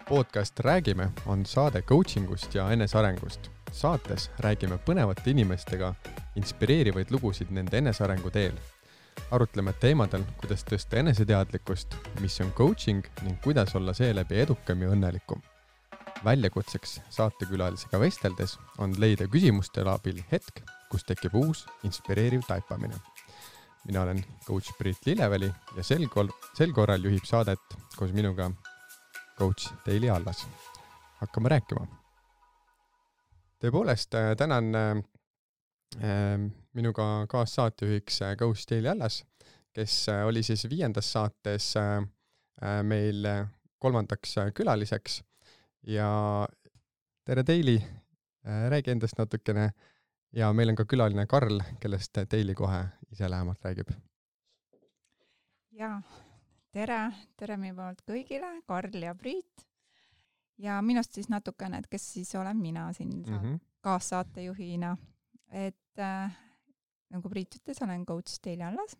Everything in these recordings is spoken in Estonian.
Podcast Räägime on saade coachingust ja enesearengust. Saates räägime põnevate inimestega inspireerivaid lugusid nende enesearengu teel. Arutleme teemadel, kuidas tõsta eneseteadlikkust, mis on coaching ning kuidas olla seeläbi edukam ja õnnelikum. Väljakutseks saatekülalisega vesteldes on leida küsimuste abil hetk, kus tekib uus inspireeriv taipamine. Mina olen coach Priit Lilleväli ja sel korral juhib saadet koos minuga coach Teili Allas. Hakkame rääkima. Tõepoolest, tänan minuga kaassaatejuhiks coach Teili Allas, kes oli siis 5. saates meil 3. külaliseks. Ja tere Teili, räägi endast natukene ja meil on ka külaline Karl, kellest Teili kohe ise lähemalt räägib. Ja tere meie poolt kõigile, Karl ja Priit. Ja minust siis natukene, et kes siis olen mina siin kaassaatejuhina. Et nagu Priit ütles, olen coach Teili Allas.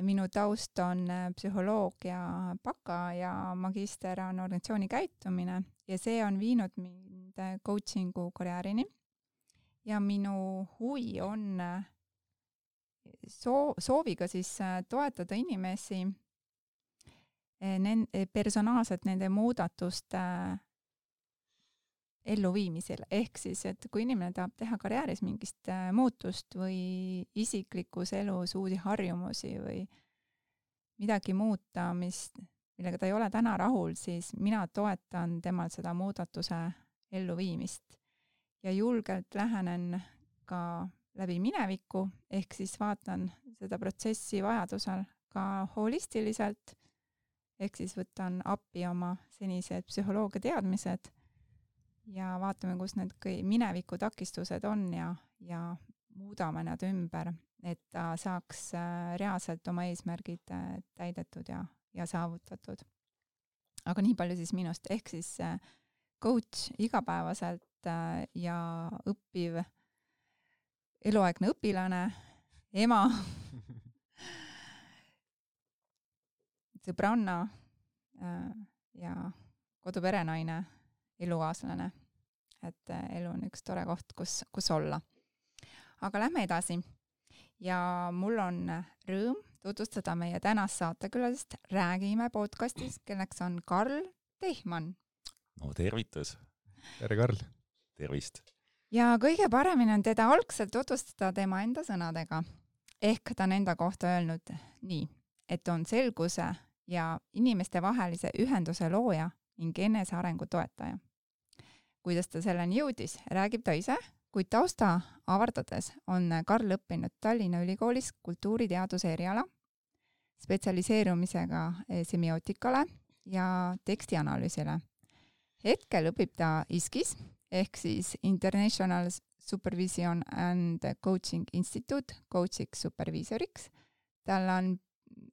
Minu taust on psühholoogia baka ja magister on organisatsiooni käitumine ja see on viinud mind coachingu karjäärini. Ja minu huvi on sooviga siis toetada inimesi personaalselt nende muudatuste elluviimisel. Ehk siis, et kui inimene tahab teha karjääris mingist muutust või isiklikus elus uusi harjumusi või midagi muuta, millega ta ei ole täna rahul, siis mina toetan temal seda muudatuse elluviimist. Ja julgelt lähenen ka läbi mineviku, ehk siis vaatan seda protsessi vajadusel ka holistiliselt, ehk siis võtan appi oma senised psühholoogia teadmised ja vaatame, kus need mineviku takistused on ja muudame nad ümber, et ta saaks reaalselt oma eesmärgid täidetud ja saavutatud. Aga nii palju siis minust, ehk siis coach igapäevaselt ja õppiv eluaegne õpilane, ema, sõbranna ja koduperenaine, elukaaslane. Et elu on üks tore koht, kus olla. Aga lähme edasi. Ja mul on rõõm tutvustada meie tänast saatekülalist Räägime podcastis, kelleks on Karl Tehman. No tervitus. Tere Karl. Tervist. Ja kõige paremini on teda algselt tutvustada tema enda sõnadega. Ehk ta on enda kohta öelnud nii, et on selguse ja inimeste vahelise ühenduse looja ning enesearengu toetaja. Kuidas ta selleni jõudis, räägib ta ise, kuid tausta avardades on Karl õppinud Tallinna Ülikoolis kultuuriteaduse eriala, spetsialiseerumisega semiootikale ja tekstianalüüsile. Hetkel õpib ta ISKis, ehk siis International Supervision and Coaching Institute coachiks superviisoriks. Tal on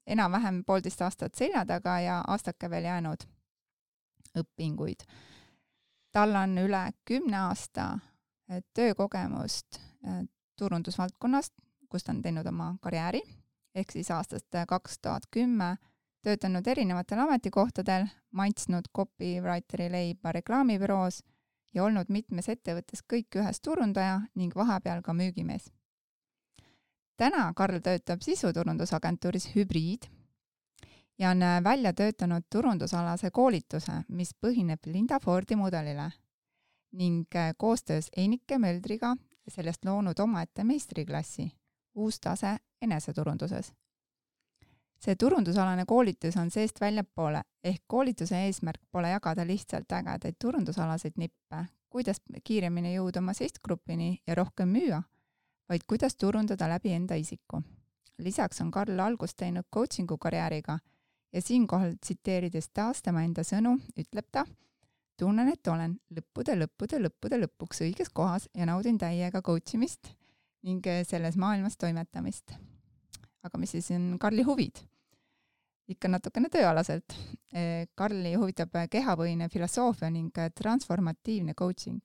enam-vähem 1,5 aastat selja taga ja aastake veel jäänud õpinguid. Tal on üle 10 aasta töökogemust turundusvaldkonnast, kus ta on teinud oma karjääri, ehk siis aastast 2010 töötanud erinevatel ametikohtadel, maitsnud copywriteri leiba reklaamibüroos ja olnud mitmes ettevõttes kõik ühes turundaja ning vahepeal ka müügimees. Täna Karl töötab sisuturundusagentuuris Hübriid ja on välja töötanud turundusalase koolituse, mis põhineb Linda Fordi mudelile ning koostöös Einike Möldriga sellest loonud omaette meistriklassi uus tase eneseturunduses. See turundusalane koolitus on seest väljapoole, ehk koolituse eesmärk pole jagada lihtsalt ägedaid turundusalaseid nippe, kuidas kiiremini jõuda oma sihtgrupini ja rohkem müüa, vaid kuidas turundada läbi enda isiku. Lisaks on Karl algust teinud coachingu karjääriga ja siinkohal tsiteerides taas tema enda sõnu, ütleb ta, tunnen, et olen lõppude lõpuks õiges kohas ja naudin täiega coachimist ning selles maailmas toimetamist. Aga mis siis on Karli huvid? Ikka natukene tööalaselt. Karli huvitab kehapõhine filosoofia ning transformatiivne coaching.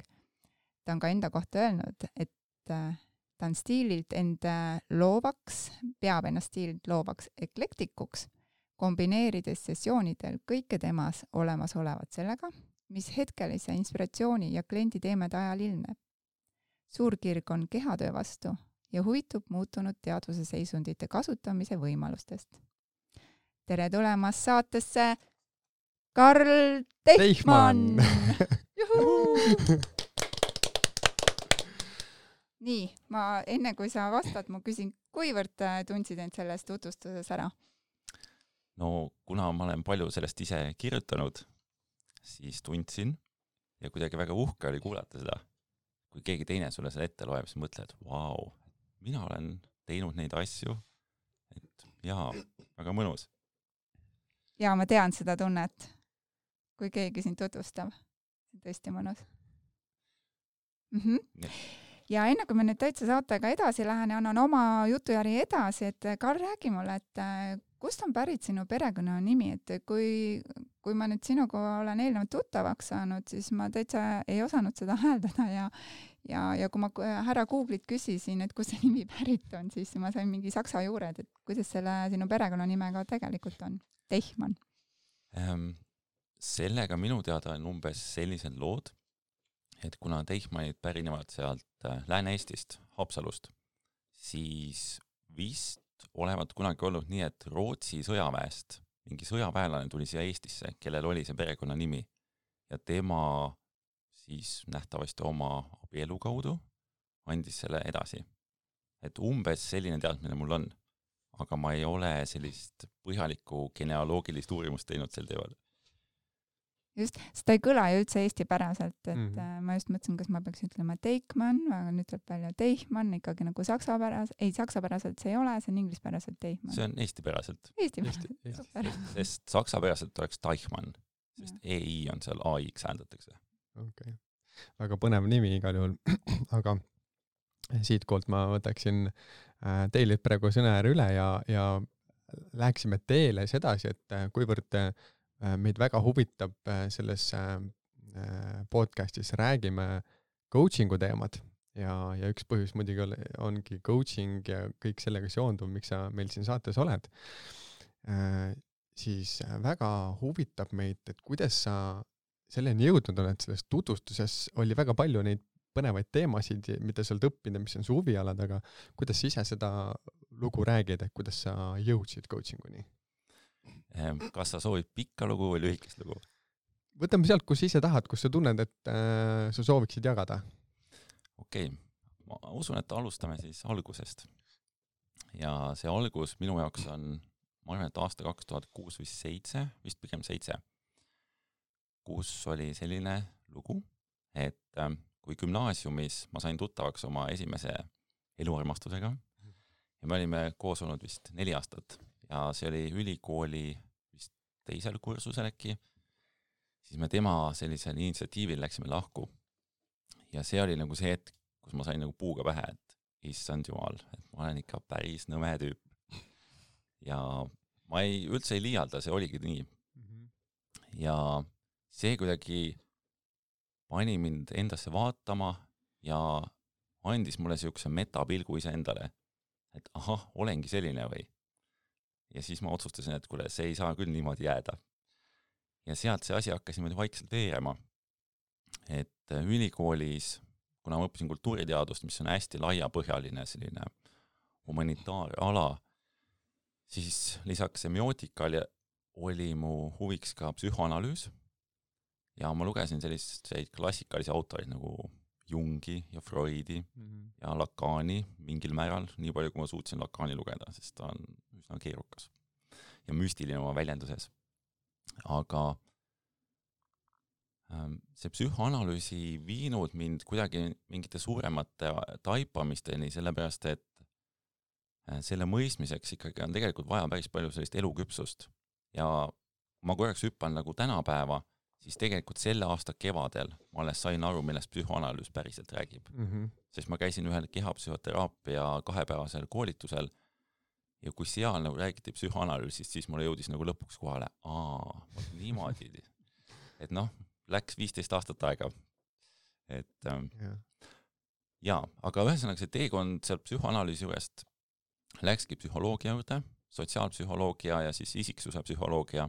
Ta on ka enda kohta öelnud, et ta on stiililt enda loovaks, peab ennast stiililt loovaks eklektikuks, kombineerides sessioonidel kõike temas olemas olevat sellega, mis hetkelise inspiratsiooni ja kliendi teemede ajal ilmneb. Suur kirg on kehatöö vastu ja huvitub muutunud teadvuse seisundite kasutamise võimalustest. Tere tulemast saatesse, Karl Teichmann! Nii, ma enne kui sa vastad, ma küsin, kuivõrd tundsid end selles tutvustuses ära? No kuna ma olen palju sellest ise kirjutanud, siis tundsin ja kuidagi väga uhke oli kuulata seda. Kui keegi teine sulle selle ette loeb, siis mõtled, vau, mina olen teinud neid asju, et jaa, väga mõnus. Ja ma tean seda tunnet, kui keegi sind tutvustab. Tõesti mõnus. Ja enne kui me nüüd täitsa saatega edasi lähen ja annan oma jutujärgi edasi, et Karl, räägi mulle, et kust on pärit sinu perekonna nimi, et kui ma nüüd sinuga olen eelnevalt tuttavaks saanud, siis ma täitsa ei osanud seda hääldada ja kui ma härra Google'it küsisin, et kus see nimi pärit on, siis ma sain mingi saksa juured, et kuidas selle sinu perekonna nimega tegelikult on? Teichmann. Sellega minu teada on umbes sellised lood, et kuna Teichmannid pärinevad sealt Lääne-Eestist, Haapsalust, siis vist olevat kunagi olnud nii, et Rootsi sõjaväest mingi sõjaväelane tuli siia Eestisse, kellel oli see perekonna nimi ja tema siis nähtavasti oma abielu kaudu andis selle edasi. Et umbes selline teadmine mul on, aga ma ei ole sellist põhjalikku genealoogilist uurimust teinud sel teemal. Just, seda ei kõla ju üldse eestipäraselt, et ma just mõtlesin, kas ma peaks ütlema Teichmann, aga nüüd tuleb välja Teichmann, ikkagi nagu saksapäraselt see ei ole, see on inglispäraselt Teichmann. See on eestipäraselt. Eestipäraselt. Sest saksapäraselt oleks Teichmann, sest EI on seal AX hääldatakse. Okay. Väga põnev nimi igal juhul, aga siitkolt ma võtaksin teile praegu sõnajärg üle ja läheksime teele sedasi, et kuivõrd meid väga huvitab selles podcastis räägime coachingu teemad ja üks põhjus muidugi ongi coaching ja kõik sellega seonduv, miks sa meil siin saates oled, siis väga huvitab meid, et kuidas sa selleni jõudnud oled, selles tutvustuses oli väga palju neid põnevaid teemasid, mida sa oled õppinud, mis on su huvialad, aga kuidas sa ise seda lugu räägid, et kuidas sa jõudsid coachinguni? Kas sa soovid pikka lugu või lühikest lugu? Võtame sealt, kus ise tahad, kus sa tunned, et sa sooviksid jagada. Okei, ma usun, et alustame siis algusest. Ja see algus minu jaoks on, ma arvan, et aasta 2006 või 7, vist pigem 7, kus oli selline lugu, et kui gümnaasiumis ma sain tuttavaks oma esimese eluarmastusega ja me olime koos olnud vist 4 aastat ja see oli ülikooli vist 2. kursusel äkki, siis me tema sellisel initsiatiivil läksime lahku. Ja see oli nagu see hetk, kus ma sain nagu puuga pähe, et issand jumal, et ma olen ikka päris nõme tüüp. Ja ma üldse ei liialda, see oligi nii. Ja see kuidagi pani mind endasse vaatama ja andis mulle siukse metapilgu ise endale, et ahah, olengi selline või. Ja siis ma otsustasin, et kuule, see ei saa küll niimoodi jääda. Ja sealt see asi hakkas niimoodi vaikselt veerema. Et ülikoolis, kuna ma õppisin kultuuriteadust, mis on hästi laiapõhjaline selline humanitaarala, siis lisaks semiootikale oli mu huviks ka psühhoanalüüs. Ja ma lugesin selliseid klassikalisi autoreid nagu Jungi ja Freudi ja Lacani mingil määral, nii palju kui ma suutsin Lacani lugeda, sest ta on üsna keerukas ja müstiline oma väljenduses. Aga see psühhoanalüüsi viinud mind kuidagi mingite suuremate taipamisteni, sellepärast et selle mõistmiseks ikkagi on tegelikult vaja päris palju sellist eluküpsust. Ja ma korraks hüppan nagu tänapäeva, siis tegelikult selle aasta kevadel ma alles sain aru, millest psühhoanalüüs päriselt räägib. Sest ma käisin ühel kehapsühhoteraapia 2-päevasel koolitusel ja kui seal nagu räägiti psühhoanalüüsist, siis mulle jõudis nagu lõpuks kohale, niimoodi. Et läks 15 aastat aega. Et aga ühesõnaga see teekond seal psühhoanalüüsi juurest läkski psühholoogia juurde, sotsiaalpsühholoogia ja siis isiksuse psühholoogia.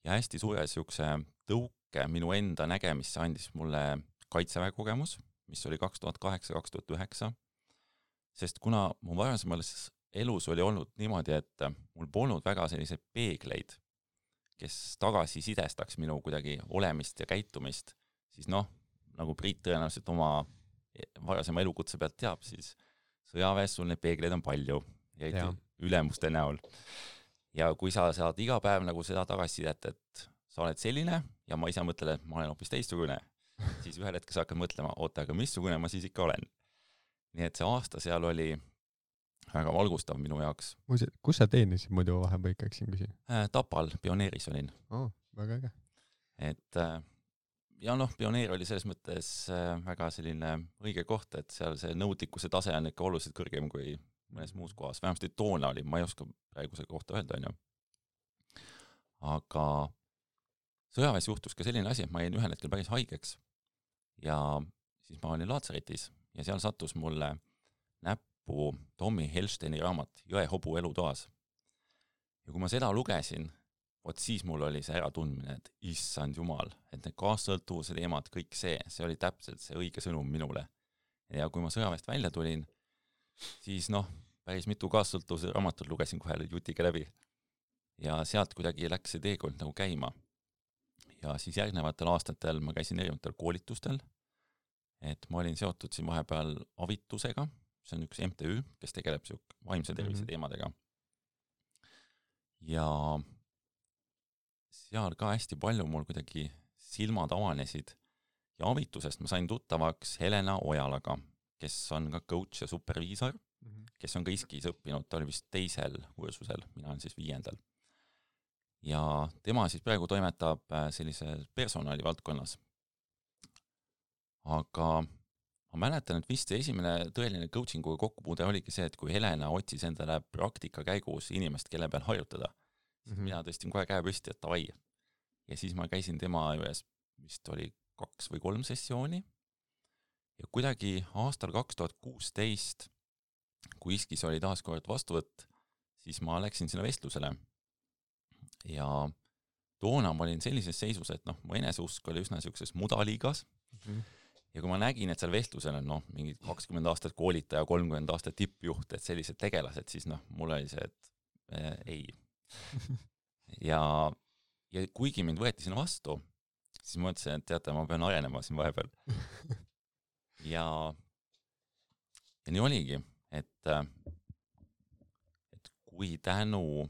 Ja hästi suure niisuguse tõuke minu enda nägemisse andis mulle Kaitseväe kogemus, mis oli 2008-2009, sest kuna mu varasemas elus oli olnud niimoodi, et mul polnud väga selliseid peegleid, kes tagasisidestaks minu kuidagi olemist ja käitumist, siis nagu Priit tõenäoliselt oma varasema elukutse pealt teab, siis sõjaväes sul neid peegleid on palju ja ülemuste näol. Ja kui sa saad iga päev nagu seda tagasisidet, et sa oled selline ja ma ise mõtlen, et ma olen hoopis teistsugune, siis ühel hetkel sa hakkad mõtlema, oota, aga missugune ma siis ikka olen. Nii et see aasta seal oli väga valgustav minu jaoks. Kus sa teenisid muidu vahepeal ikka, siin küsin? Tapal, Pioneeris olin. Väga äge. Et ja Pioneer oli selles mõttes väga selline õige koht, et seal see nõudlikkuse tase on ikka oluliselt kõrgem kui mõnes muus kohas. Vähemasti toona oli, ma ei oska praeguse kohta öelda, Aga sõjaväes juhtus ka selline asi, et ma jäin ühel hetkel päris haigeks ja siis ma olin laatsaretis ja seal sattus mulle näppu Tommy Helsteini raamat Jõehobu elutoas. Ja kui ma seda lugesin, siis mul oli see äratundmine, et issand jumal, et need kaassõltuvuse teemad, kõik see oli täpselt see õige sõnum minule. Ja kui ma sõjaväest välja tulin, siis päris mitu kaassõltuvuse raamatut lugesin kohe jutiga läbi. Ja sealt kuidagi läks see teekond nagu käima. Ja siis järgnevatel aastatel ma käisin erinevatel koolitustel, et ma olin seotud siin vahepeal Avitusega, see on üks MTÜ, kes tegeleb vaimse tervise teemadega. Ja seal ka hästi palju mul kuidagi silmad avanesid ja Avitusest ma sain tuttavaks Helena Ojalaga, kes on ka coach ja superviisor, kes on ka ISKis õppinud, ta oli vist 2. kursusel, mina olen siis 5. Ja tema siis praegu toimetab sellise personali valdkonnas. Aga ma mäletan, et vist esimene tõeline coachinguga kokkupuude oligi see, et kui Helena otsis endale praktika käigus inimest, kelle peal harjutada, siis mina tõstin kohe käe püsti, et davai. Ja siis ma käisin tema juures, vist oli 2 või 3 sessiooni. Ja kuidagi aastal 2016, kui ISKis oli taas kord vastuvõtt, siis ma läksin sinna vestlusele. Ja toona ma olin sellises seisus, et mu eneseusk oli üsna sellises mudaliigas. Ja kui ma nägin, et seal vestlusel on mingi 20 aastat koolitaja, 30 aastat tippjuht, et sellised tegelased, siis mul oli see, et ei. Ja kuigi mind võeti sinna vastu, siis ma mõtlesin, et teate, ma pean arenema siin vahepeal. Ja nii oligi, et kui tänu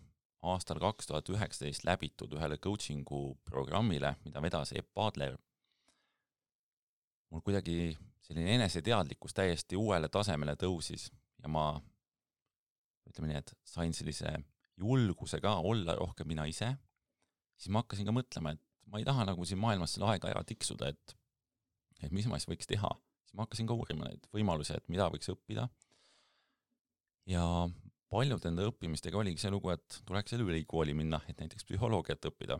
aastal 2019 läbitud ühele coachingu programmile, mida vedas Epp Adler, mul kuidagi selline eneseteadlikkus täiesti uuele tasemele tõusis ja ma ütleme nii, et sain sellise julguse ka olla rohkem mina ise, siis ma hakkasin ka mõtlema, et ma ei taha nagu siin maailmas selle aega ära tiksuda, et mis ma siis võiks teha. Siis ma hakkasin ka uurima neid võimalusi, et mida võiks õppida. Ja paljud enda õppimistega oligi see lugu, et tuleks ülikooli minna, et näiteks psühholoogiat õppida.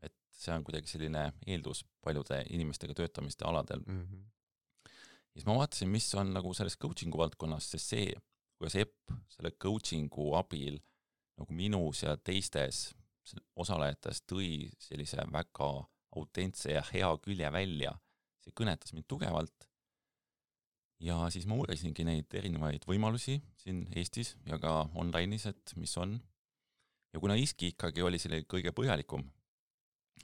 Et see on kuidagi selline eeldus paljude inimestega töötamiste aladel. Ja siis ma vaatasin, mis on nagu selles coachingu valdkonnas, sest see, kuidas Epp selle coachingu abil nagu minus ja teistes osalejates tõi sellise väga autentse ja hea külje välja, see kõnetas mind tugevalt. Ja siis ma uurisingi neid erinevaid võimalusi siin Eestis ja ka online'is, et mis on. Ja kuna ISKI ikkagi oli selle kõige põhjalikum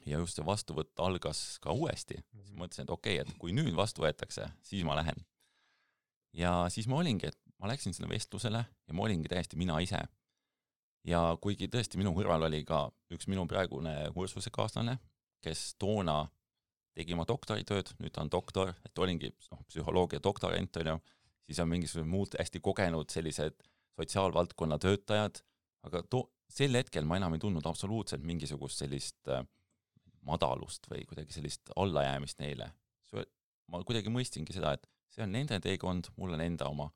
ja just see vastuvõtt algas ka uuesti, siis mõtlesin, et okei, et kui nüüd vastu võetakse, siis ma lähen. Ja siis ma olingi, et ma läksin sinna vestlusele ja ma olingi täiesti mina ise. Ja kuigi tõesti minu kõrval oli ka üks minu praegune kursusekaaslane, kes toona tegi oma doktoritööd, nüüd ta on doktor, et olingi psühholoogia doktorant, siis on mingisugused muud hästi kogenud sellised sotsiaalvaldkonna töötajad, aga sel hetkel ma enam ei tundnud absoluutselt mingisugust sellist madalust või kuidagi sellist allajäämist neile. Ma kuidagi mõistingi seda, et see on nende teekond, mul on enda oma.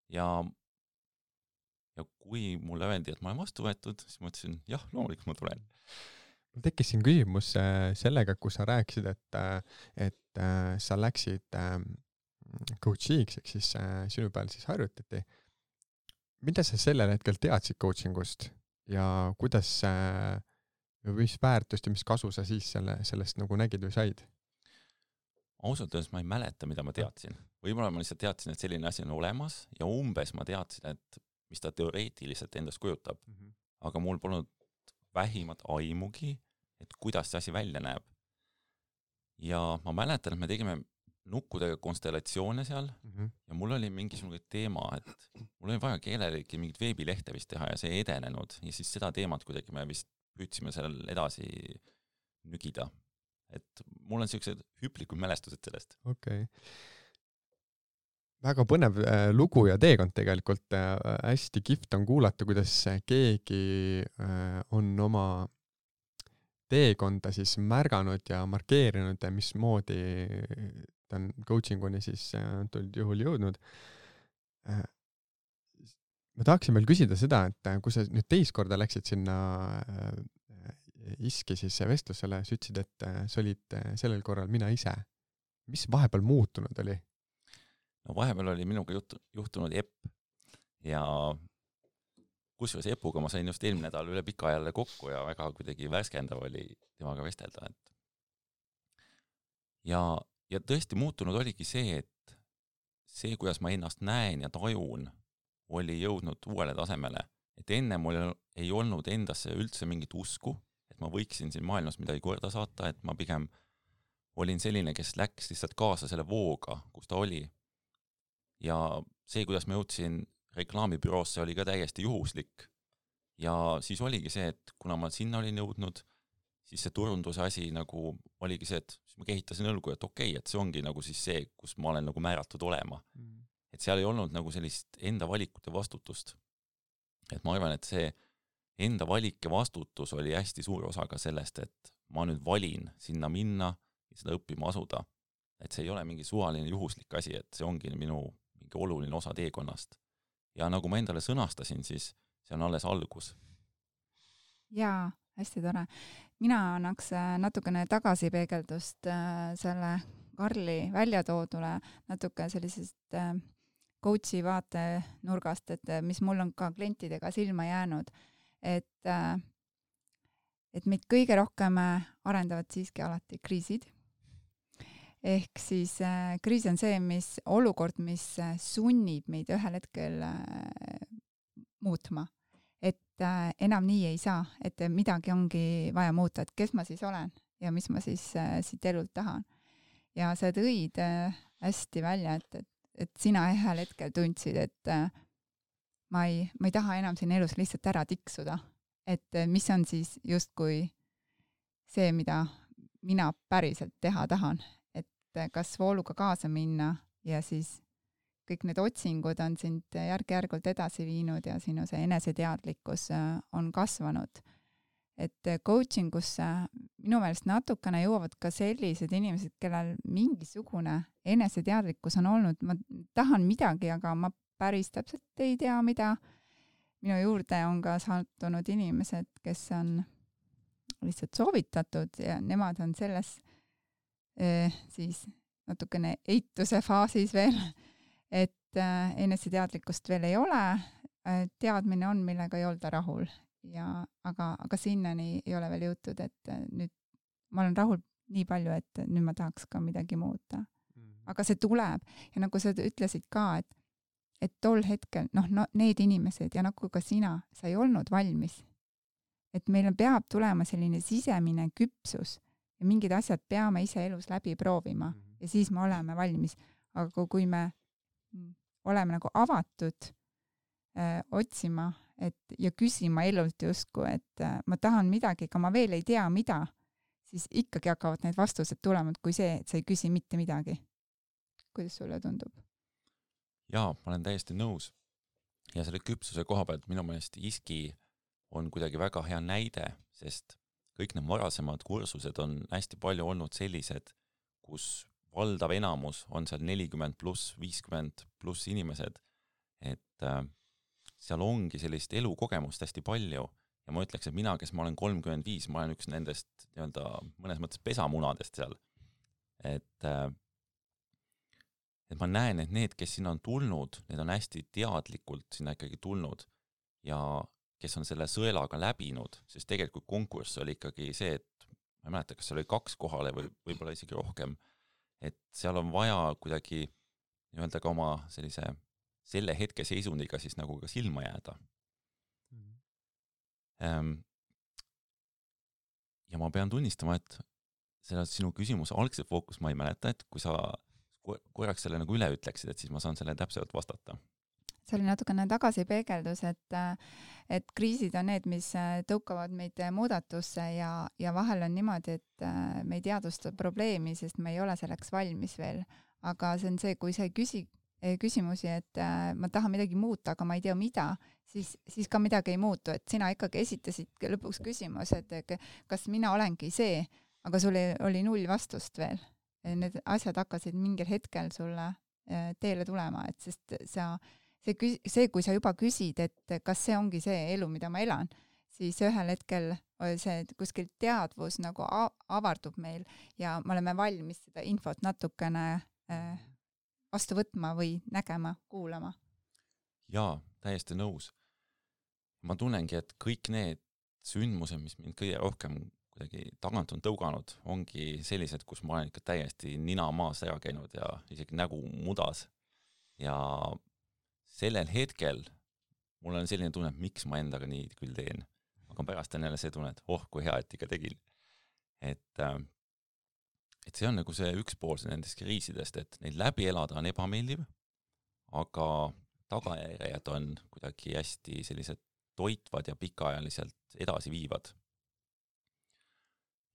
Ja kui mulle öeldi, et ma olen vastu võetud, siis ma ütlesin, jah, loomulikult ma tulen. Tekkis siin küsimus sellega, kus sa rääkisid, et sa läksid coachiks, ehk siis sinu peal siis harjutati. mida sa sellel hetkel teadsid coachingust ja kuidas mis väärtust ja mis kasu sa siis sellest nagu nägid või said? Ausalt öeldes ma ei mäleta, mida ma teadsin. Võib-olla ma lihtsalt teadsin, et selline asi on olemas ja umbes ma teadsin, et mis ta teoreetiliselt endast kujutab. Aga mul polnud vähimat aimugi, et kuidas see asi välja näeb. Ja ma mäletan, et me tegime nukkudega konstellatsioone seal ja mul oli mingisugune teema, et mul oli vaja keelelegi mingit veebilehte vist teha ja see ei edenenud ja siis seda teemat kuidagi me vist püüdsime seal edasi nügida. Et mul on sellised hüplikud mälestused sellest. Okei. Väga põnev lugu ja teekond tegelikult. Hästi kihvt on kuulata, kuidas keegi on oma teekonda siis märganud ja markeerinud ja mismoodi ta on coachinguni siis antud juhul jõudnud. Ma tahaksin veel küsida seda, et kui sa nüüd teist korda läksid sinna ISK-i siis vestlusele, sa ütlesid, et sa olid sellel korral mina ise. Mis vahepeal muutunud oli? No vahepeal oli minuga juhtunud Epp ja kusjuures Epuga ma sain just eelmine nädal üle pika jälle kokku ja väga kuidagi värskendav oli temaga vestelda. Ja tõesti muutunud oligi see, et see, kuidas ma ennast näen ja tajun, oli jõudnud uuele tasemele. Et enne mul ei olnud endasse üldse mingit usku, et ma võiksin siin maailmas midagi korda saata, et ma pigem olin selline, kes läks lihtsalt kaasa selle vooga, kus ta oli. Ja see, kuidas ma jõudsin reklaamibüroosse, oli ka täiesti juhuslik. Ja siis oligi see, et kuna ma sinna olin jõudnud, siis see turunduse asi nagu oligi see, et siis ma kehitasin õlgu, et okei, et see ongi nagu siis see, kus ma olen nagu määratud olema. Et seal ei olnud nagu sellist enda valikute vastutust. Et ma arvan, et see enda valik ja vastutus oli hästi suur osa ka sellest, et ma nüüd valin sinna minna ja seda õppima asuda. Et see ei ole mingi suvaline juhuslik asi, et see ongi minu mingi oluline osa teekonnast. Ja nagu ma endale sõnastasin, siis see on alles algus. Jaa, hästi tore. Mina annaks natukene tagasipeegeldust selle Karli väljatoodule natuke sellisest coachi vaate nurgast, et mis mul on ka klientidega silma jäänud, et meid kõige rohkem arendavad siiski alati kriisid. Ehk siis kriis on see, olukord, mis sunnib meid ühel hetkel muutma. Et enam nii ei saa, et midagi ongi vaja muuta, et kes ma siis olen ja mis ma siis siit elult tahan. Ja sa tõid hästi välja, et sina ühel hetkel tundsid, et ma ei taha enam siin elus lihtsalt ära tiksuda. Et mis on siis justkui see, mida mina päriselt teha tahan. Et kas vooluga kaasa minna ja siis kõik need otsingud on sind järk-järgult edasi viinud ja sinu see eneseteadlikkus on kasvanud. Et coachingusse minu meelest natukene jõuavad ka sellised inimesed, kellel mingisugune eneseteadlikkus on olnud. Ma tahan midagi, aga ma päris täpselt ei tea, mida. Minu juurde on ka sattunud inimesed, kes on lihtsalt soovitatud ja nemad on selles siis natukene eituse faasis veel, et eneseteadlikkust veel ei ole. Teadmine on, millega ei olda rahul. Aga sinnani ei ole veel jõutud, et nüüd ma olen rahul nii palju, et nüüd ma tahaks ka midagi muuta. Aga see tuleb ja nagu sa ütlesid ka, et tol hetkel, need inimesed ja nagu ka sina, sa ei olnud valmis. Et meil peab tulema selline sisemine küpsus ja mingid asjad peame ise elus läbi proovima ja siis me oleme valmis. Aga kui me oleme nagu avatud otsima ja küsima elult justkui, et ma tahan midagi, aga ma veel ei tea, mida, siis ikkagi hakkavad need vastused tulema, kui see, et sa ei küsi mitte midagi. Kuidas sulle tundub? Jaa, ma olen täiesti nõus. Ja selle küpsuse koha pealt minu meelest ISK-i on kuidagi väga hea näide, sest kõik need varasemad kursused on hästi palju olnud sellised, kus valdav enamus on seal 40+, 50+ inimesed, et seal ongi sellist elukogemust hästi palju ja ma ütleks, et mina, kes ma olen 35, ma olen üks nendest mõnes mõttes pesamunadest seal. et ma näen, et need, kes sinna on tulnud, need on hästi teadlikult sinna ikkagi tulnud ja kes on selle sõelaga läbinud, sest tegelikult konkurss oli ikkagi see, et ma ei mäleta, kas seal oli 2 kohale või võib-olla isegi rohkem, et seal on vaja kuidagi nii-öelda ka oma selle hetke seisundiga siis nagu ka silma jääda. Ja ma pean tunnistama, et selle sinu küsimuse algse fookus ma ei mäleta, et kui sa korraks selle nagu üle ütleksid, et siis ma saan selle täpselt vastata. See oli natukene tagasipeegeldus, et kriisid on need, mis tõukavad meid muudatusse ja vahel on niimoodi, et me ei teadvusta probleemi, sest me ei ole selleks valmis veel. Aga see on see, kui sa ei küsi küsimusi, et ma tahan midagi muuta, aga ma ei tea mida, siis ka midagi ei muutu, et sina ikkagi esitasid lõpuks küsimus, et kas mina olengi see, aga sul oli 0 vastust veel. Need asjad hakkasid mingil hetkel sulle teele tulema, et sest kui sa juba küsid, et kas see ongi see elu, mida ma elan, siis ühel hetkel see kuskil teadvus nagu avardub meil ja me oleme valmis seda infot natukene vastu võtma või nägema, kuulama. Jaa, täiesti nõus. Ma tunnengi, et kõik need sündmused, mis mind kõige rohkem kuidagi tagant on tõuganud, ongi sellised, kus ma olen ikka täiesti nina maas ära käinud ja isegi nägu mudas. Ja sellel hetkel mul on selline tunne, et miks ma endaga nii küll teen. Aga pärast on jälle see tunne, et kui hea, et ikka tegin. Et see on nagu see üks pool nendest kriisidest, et neid läbi elada on ebameeldiv, aga tagajärjed on kuidagi hästi sellised toitvad ja pikaajaliselt edasi viivad.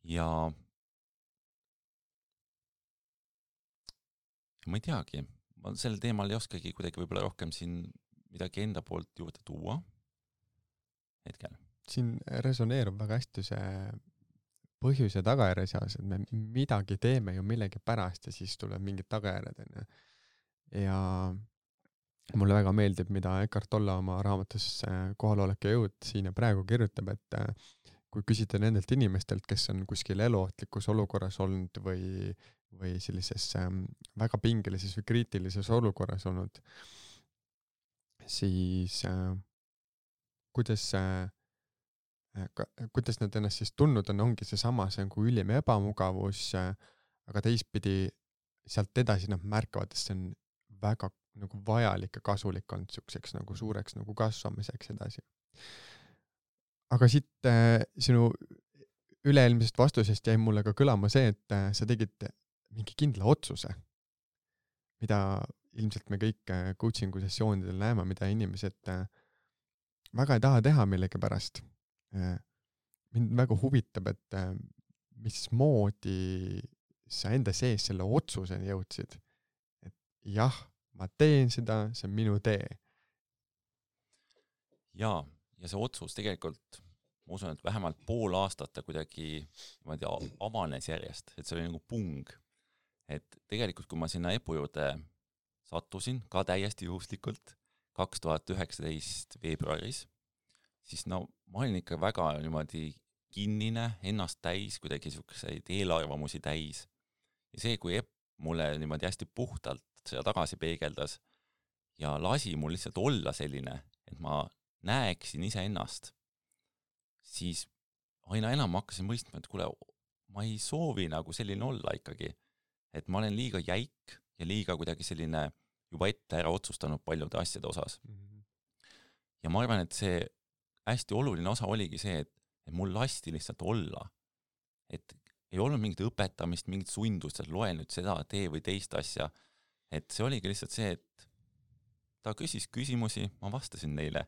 Ja ma ei teagi, ma sel teemal ei oskagi kuidagi võib-olla rohkem siin midagi enda poolt juurde tuua hetkel. Siin resoneerub väga hästi see põhjus ja tagajärje seas, et me midagi teeme ju millegi pärast ja siis tuleb mingid tagajärjed. Ja mulle väga meeldib, mida Eckhart Tolle oma raamatus Kohalolek ja jõud siin ja praegu kirjutab, et kui küsida nendelt inimestelt, kes on kuskil eluohtlikus olukorras olnud või sellises väga pingelises või kriitilises olukorras olnud, siis kuidas nad ennast siis tundnud on, ongi seesama, see on kui ülim ebamugavus, aga teistpidi sealt edasi nad märkavad, et see on väga nagu vajalik ja kasulik on selliseks nagu suureks nagu kasvamiseks edasi. Aga siit sinu üle-eelmisest vastusest jäi mulle ka kõlama see, et sa tegid mingi kindla otsuse, mida ilmselt me kõik coachingu sessioonidel näeme, mida inimesed väga ei taha teha millegi pärast. Mind väga huvitab, et mismoodi sa enda sees selle otsuseni jõudsid. Et jah, ma teen seda, see on minu tee. Jaa, ja see otsus tegelikult, ma usun, et vähemalt pool aastat ta kuidagi avanes järjest, et see oli nagu pung. Et tegelikult, kui ma sinna EPU juurde sattusin, ka täiesti juhuslikult, 2019 veebruaris, siis ma olin ikka väga niimoodi kinnine, ennast täis, kuidagi selliseid eelarvamusi täis. Ja see, kui EPU mulle niimoodi hästi puhtalt seda tagasi peegeldas ja lasi mul lihtsalt olla selline, et ma näeksin ise ennast, siis aina enam hakkasin mõistma, et kuule, ma ei soovi nagu selline olla ikkagi, et ma olen liiga jäik ja liiga kuidagi selline juba ette ära otsustanud paljude asjade osas. Ja ma arvan, et see hästi oluline osa oligi see, et mul lasti lihtsalt olla. Et ei olnud mingit õpetamist, mingit sundust, et loe nüüd seda, tee või teist asja. Et see oligi lihtsalt see, et ta küsis küsimusi, ma vastasin neile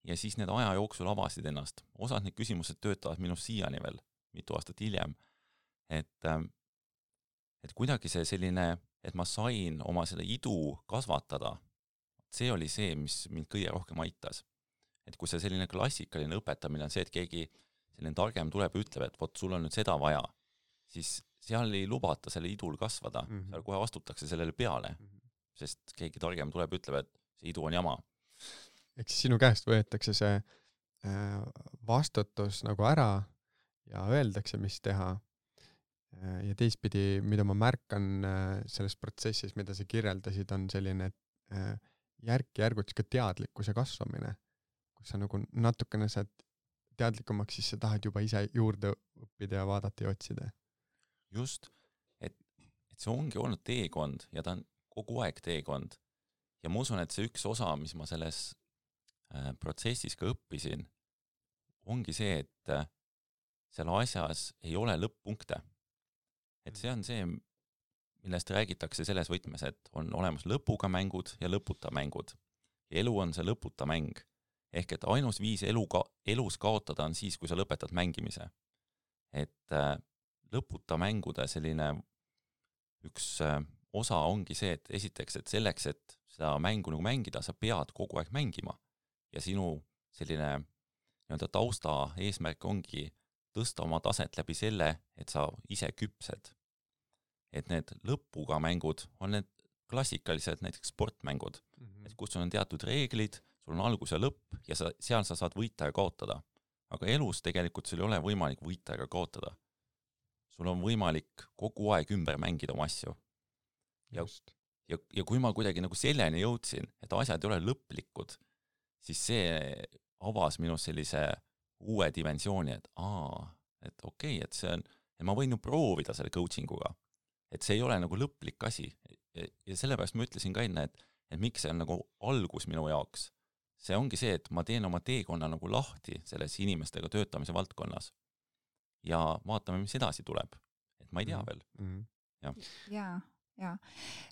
ja siis need aja jooksul avasid ennast. Osad need küsimused töötavad minust siiani veel, mitu aastat hiljem. Et kuidagi see selline, et ma sain oma selle idu kasvatada, see oli see, mis mind kõige rohkem aitas. Et kui see selline klassikaline õpetamine on see, et keegi selline targem tuleb ja ütleb, et vot sul on nüüd seda vaja, siis seal ei lubata selle idul kasvada, seal kohe astutakse sellele peale, sest keegi targem tuleb ja ütleb, et see idu on jama. Ehk siis sinu käest võetakse see vastutus nagu ära ja öeldakse, mis teha. ja teistpidi, mida ma märkan selles protsessis, mida sa kirjeldasid, on selline järk-järgult ka teadlikkuse kasvamine, kus sa nagu natukene saad teadlikumaks, siis sa tahad juba ise juurde õppida ja vaadata ja otsida. Just, et see ongi olnud teekond ja ta on kogu aeg teekond. Ja ma usun, et see üks osa, mis ma selles protsessis ka õppisin, ongi see, et seal asjas ei ole lõpp-punkte. Et see on see, millest räägitakse selles võtmes, et on olemas lõpuga mängud ja lõputa mängud. Ja elu on see lõputa mäng. Ehk et ainus viis elus kaotada on siis, kui sa lõpetad mängimise. Et lõputa mängude selline üks osa ongi see, et esiteks, et selleks, et seda mängu nagu mängida, sa pead kogu aeg mängima. Ja sinu selline tausta eesmärk ongi tõsta oma taset läbi selle, et sa ise küpsed. Et need lõpuga mängud on need klassikalised näiteks sportmängud, et kus on teatud reeglid, sul on algus ja lõpp ja seal sa saad võita ja kaotada. Aga elus tegelikult sul ei ole võimalik võita ega kaotada. Sul on võimalik kogu aeg ümber mängida oma asju. Ja kui ma kuidagi nagu selleni jõudsin, et asjad ei ole lõplikud, siis see avas minus sellise uue dimensiooni, et okei, et see on, et ma võin ju proovida selle coachinguga, et see ei ole nagu lõplik asi. Ja sellepärast ma ütlesin ka enne, et miks see on nagu algus minu jaoks. See ongi see, et ma teen oma teekonna nagu lahti selles inimestega töötamise valdkonnas ja vaatame, mis edasi tuleb. Et ma ei tea veel. Ja.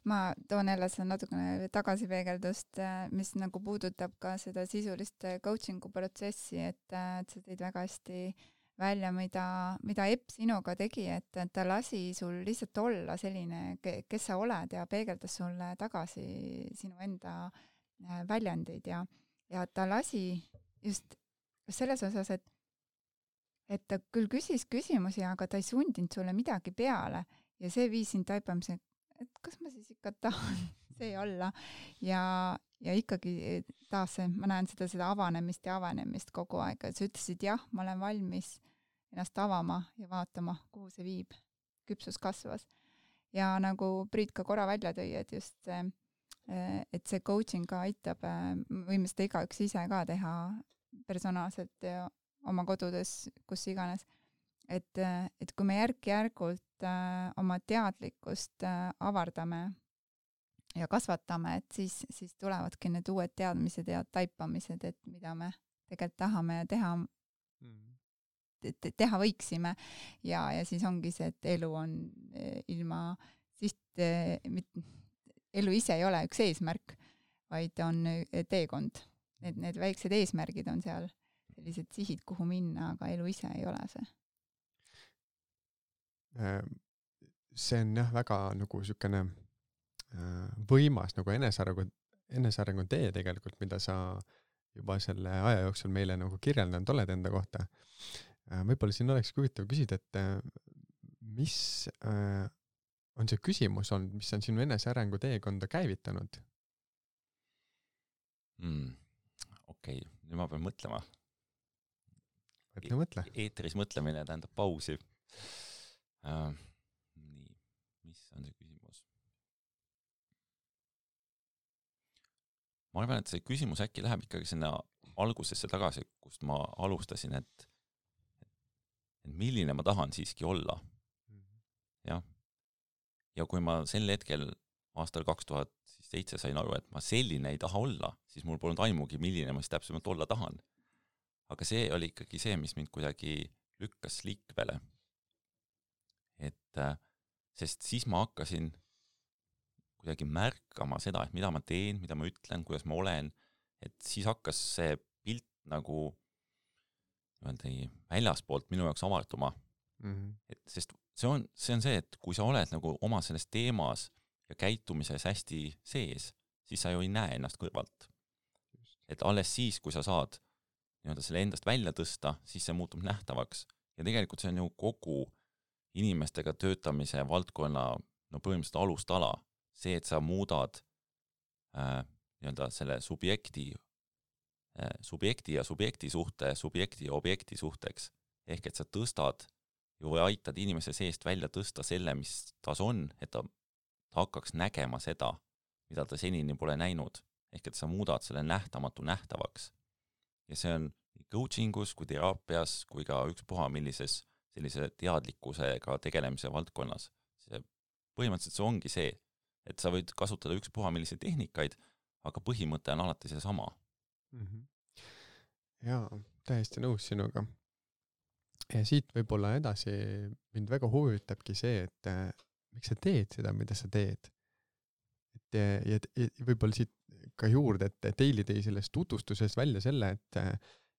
Ma toon jälle seda natukene tagasipeegeldust, mis nagu puudutab ka seda sisulist coachingu protsessi, et sa tõid väga hästi välja, mida Epp sinuga tegi, et ta lasi sul lihtsalt olla selline, kes sa oled ja peegeldas sulle tagasi sinu enda väljendid ja ta lasi just selles osas, et ta küll küsis küsimusi, aga ta ei sundinud sulle midagi peale ja see viis sind taipamise, et kas ma siis ikka tahan see olla ja ikkagi taas ma näen seda avanemist kogu aeg, et sa ütlesid jah, ma olen valmis ennast avama ja vaatama, kuhu see viib. Küpsus kasvas. Ja nagu Priit ka korra välja tõi, et just see, et see coaching ka aitab, võime seda igaüks ise ka teha personaalselt ja oma kodudes, kus iganes. Et kui me järk-järgult oma teadlikkust avardame ja kasvatame, et siis tulevadki need uued teadmised ja taipamised, et mida me tegelikult tahame ja teha võiksime ja siis ongi see, et elu on ilma elu ise ei ole üks eesmärk, vaid on teekond. Need väiksed eesmärgid on seal sellised sihid, kuhu minna, aga elu ise ei ole see. See on jah väga nagu sükene võimas nagu enesearengu tee tegelikult, mida sa juba selle aja jooksul meile nagu kirjeldanud oled enda kohta. Võib-olla siin oleks huvitav küsida, et mis on see küsimus olnud, mis on sinu enesearengu teekonda käivitanud? Okei, nüüd ma pean mõtlema. Mõtle. Eetris mõtlemine tähendab pausi. Nii, mis on see küsimus? Ma arvan, et see küsimus äkki läheb ikkagi sinna algusesse tagasi, kust ma alustasin, et milline ma tahan siiski olla. Ja kui ma sel hetkel aastal 2007 sain aru, et ma selline ei taha olla, siis mul polnud aimugi, milline ma siis täpsemalt olla tahan. Aga see oli ikkagi see, mis mind kuidagi lükkas liikvele. Sest siis ma hakkasin kuidagi märkama seda, et mida ma teen, mida ma ütlen, kuidas ma olen, et siis hakkas see pilt nagu väljaspoolt minu jaoks avartuma. Sest see on see, et kui sa oled nagu oma selles teemas ja käitumises hästi sees, siis sa ju ei näe ennast kõrvalt. Et alles siis, kui sa saad selle endast välja tõsta, siis see muutub nähtavaks. Ja tegelikult see on ju kogu inimestega töötamise valdkonna põhimõtteliselt alustala. See, et sa muudad selle subjekti ja subjekti suhte, subjekti ja objekti suhteks. Ehk et sa tõstad ju aitad inimese seest välja tõsta selle, mis tas on, et ta hakkaks nägema seda, mida ta senini pole näinud. Ehk et sa muudad selle nähtamatu nähtavaks. Ja see on nii coachingus kui teraapias kui ka ükspuha millises sellise teadlikkusega tegelemise valdkonnas. Põhimõtteliselt see ongi see, et sa võid kasutada ükspuha milliseid tehnikaid, aga põhimõte on alati see sama. Jaa, täiesti nõus sinuga. Ja siit võib-olla edasi mind väga huvitabki see, et miks sa teed seda, mida sa teed. Ja võib-olla siit ka juurde, et Teili tõi sellest tutvustuses välja selle, et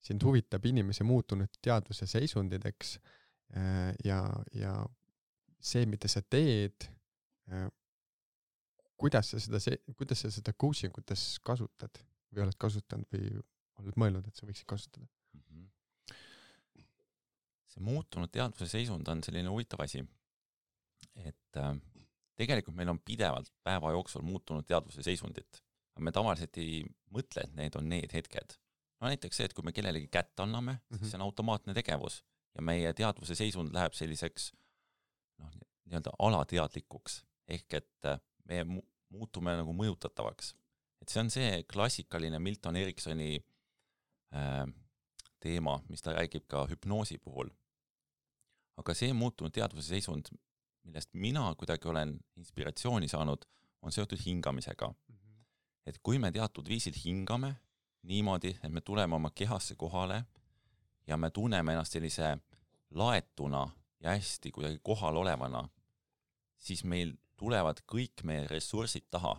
sind huvitab inimese muutunud teadvuse seisundideks ja see, mida sa teed, kuidas sa seda coachingutes kasutad või oled kasutanud või oled mõelnud, et sa võiksid kasutada? See muutunud teadvuse seisund on selline huvitav asi, et tegelikult meil on pidevalt päeva jooksul muutunud teadvuse seisundit, aga me tavaliselt ei mõtle, et need on need hetked. No näiteks see, et kui me kellelegi kätt anname, siis see on automaatne tegevus ja meie teadvuse seisund läheb selliseks nii-öelda alateadlikuks, ehk et me muutume nagu mõjutatavaks. Et see on see klassikaline Milton Eriksoni teema, mis ta räägib ka hüpnoosi puhul. Aga see muutunud teadvuse seisund, millest mina kuidagi olen inspiratsiooni saanud, on seotud hingamisega. Et kui me teatud viisil hingame niimoodi, et me tuleme oma kehasse kohale ja me tunneme ennast sellise laetuna ja hästi kuidagi kohal olevana, siis meil tulevad kõik meie ressursid taha.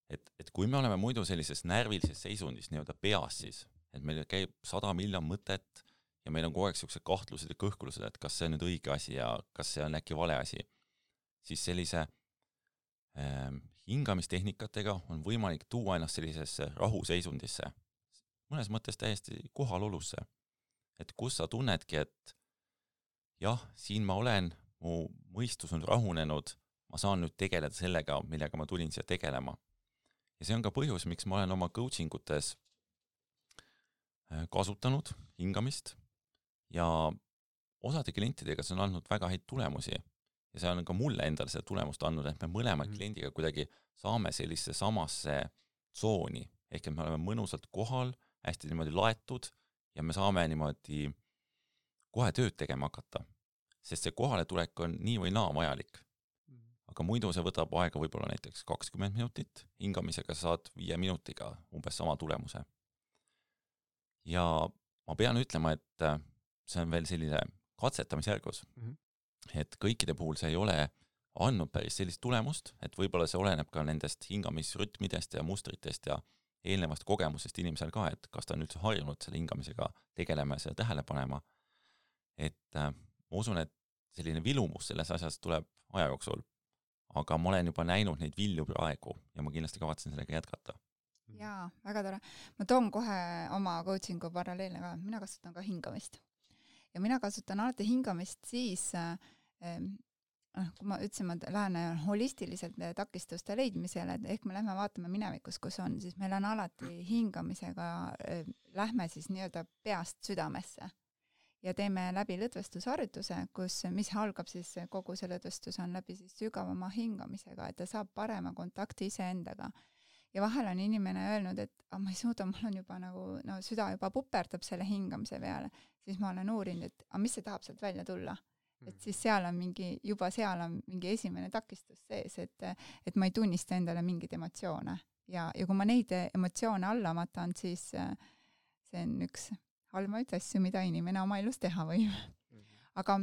Et kui me oleme muidu sellises närvilises seisundis nii-öelda peas siis, et meil käib 100 miljon mõtet ja meil on kogu aeg sellised kahtlused ja kõhkulused, et kas see on nüüd õige asi ja kas see on äkki vale asi, siis sellise hingamistehnikatega on võimalik tuua ennast sellisesse rahuseisundisse, mõnes mõttes täiesti kohalolusse. Et kus sa tunnedki, et jah, siin ma olen, mu mõistus on rahunenud, ma saan nüüd tegeleda sellega, millega ma tulin siia tegelema. Ja see on ka põhjus, miks ma olen oma coachingutes kasutanud hingamist ja osade klientidega see on andnud väga häid tulemusi ja see on ka mulle endale seda tulemust andnud, et me mõlema kliendiga kuidagi saame sellise samasse tsooni, ehk et me oleme mõnusalt kohal, hästi niimoodi laetud ja me saame niimoodi kohe tööd tegema hakata, sest see kohaletulek on nii või naa vajalik. Aga muidu see võtab aega võib-olla näiteks 20 minutit, hingamisega saad 5 minutiga umbes sama tulemuse. Ja ma pean ütlema, et see on veel selline katsetamisjärgus, et kõikide puhul see ei ole andnud päris sellist tulemust, et võib-olla see oleneb ka nendest hingamisrütmidest ja mustritest ja eelnevast kogemusest inimesel ka, et kas ta on üldse harjunud selle hingamisega tegelema ja selle tähele panema. Et ma usun, et selline vilumus selles asjas tuleb aja jooksul, aga ma olen juba näinud neid vilju praegu ja ma kindlasti kavatsen sellega jätkata. Jaa, väga tore. Ma toon kohe oma coachingu paralleelne ka. Mina kasutan ka hingamist. Ja mina kasutan alati hingamist siis, kui ma ütlesin, et lähen holistiliselt takistuste leidmisele, et ehk me lähme vaatame minevikus, kus on, siis meil on alati hingamisega, lähme siis nii-öelda peast südamesse ja teeme läbi lõdvestusharjutuse, mis algab siis kogu see lõdvestus on läbi siis sügavama hingamisega, et ta saab parema kontakti iseendaga. Ja vahel on inimene öelnud, et ma ei suuda, mul on juba nagu, süda juba puperdab selle hingamise peale, siis ma olen uurinud, et mis see tahab sealt välja tulla. Et siis seal on mingi esimene takistus sees, et ma ei tunnista endale mingid emotsioone. Ja kui ma neid emotsioone alla matan, siis see on üks halvaid asju, mida inimene oma elus teha võib. Aga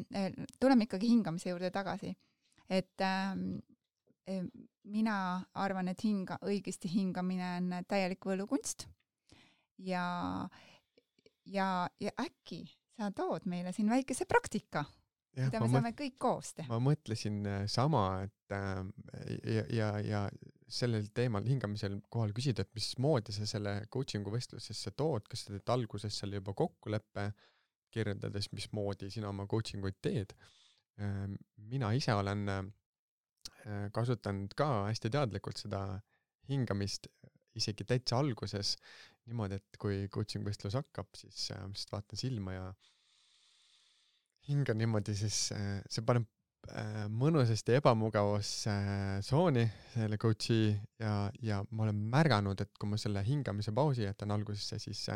tuleme ikkagi hingamise juurde tagasi. Et mina arvan, et õigesti hingamine on täielik võlukunst ja äkki sa tood meile siin väikese praktika, mida me saame kõik koos teha. Ma mõtlesin sama, et ja sellel teemal hingamisel kohal küsida, et mismoodi sa selle coachingu vestlusesse tood, kas sa teed alguses seal juba kokkuleppe, kirjeldades, mismoodi sina oma coachinguid teed. Mina ise olen kasutanud ka hästi teadlikult seda hingamist isegi täitsa alguses niimoodi, et kui coaching vestlus hakkab, siis vaatan silma hingan niimoodi, siis see paneb mõnusasti ebamugavustsooni selle coachi ja ma olen märganud, et kui ma selle hingamise pausi jätan algusesse, siis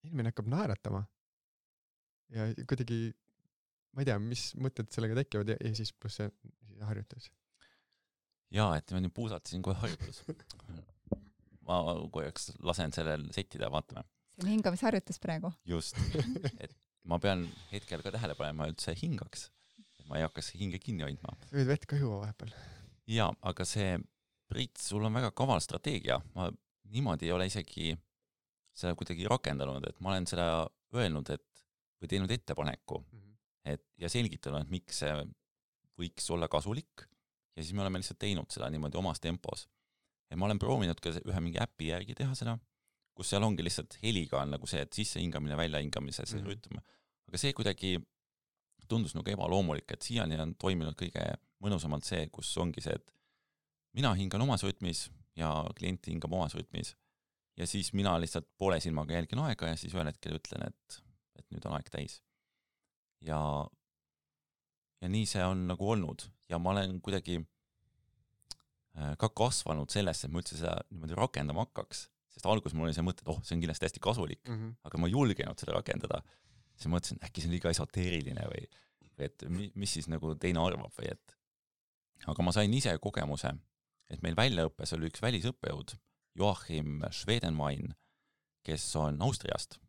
inimene hakkab naeratama. Ja kuidagi, ma ei tea, mis mõtted sellega tekivad ja siis pluss see harjutus. Jaa, et ma nüüd puusatasin kohe harjutus. Ma korraks lasen sellel settida ja vaatame. See on hingamisharjutus praegu. Just, et ma pean hetkel ka tähele panema üldse hingaks. Ma ei hakkas hinge kinni hoidma. Võid vett ka juua vahepeal. Jaa, aga see, Priit, sul on väga kaval strateegia. Ma niimoodi ei ole isegi seda kuidagi rakendanud, et ma olen seda öelnud, või teinud ettepaneku, ja selgitanud, et miks see võiks olla kasulik, ja siis me oleme lihtsalt teinud seda niimoodi omas tempos. Ja ma olen proovinud ka ühe mingi äpi järgi teha seda, kus seal ongi lihtsalt heliga on nagu see, et sisse hingamine, välja hingamise, see rütm. Aga see kuidagi tundus nagu ebaloomulik, et siiani on toiminud kõige mõnusamalt see, kus ongi see, et mina hingan omas rütmis ja klient hingab omas rütmis. Ja siis mina lihtsalt poole silmaga jälgin aega ja siis ühel hetkel ütlen, et nüüd on aeg täis. Ja nii see on nagu olnud. Ja ma olen kuidagi ka kasvanud sellesse, et ma üldse seda niimoodi rakendama hakkaks. Sest alguses mul oli see mõte, et see on kindlasti hästi kasulik, aga ma ei julgenud seda rakendada. Siis mõtlesin, äkki see on liiga esoteeriline või et mis siis nagu teine arvab või et. Aga ma sain ise kogemuse, et meil väljaõppes oli üks välisõppejõud, Joachim Schwedenwein, kes on Austriast.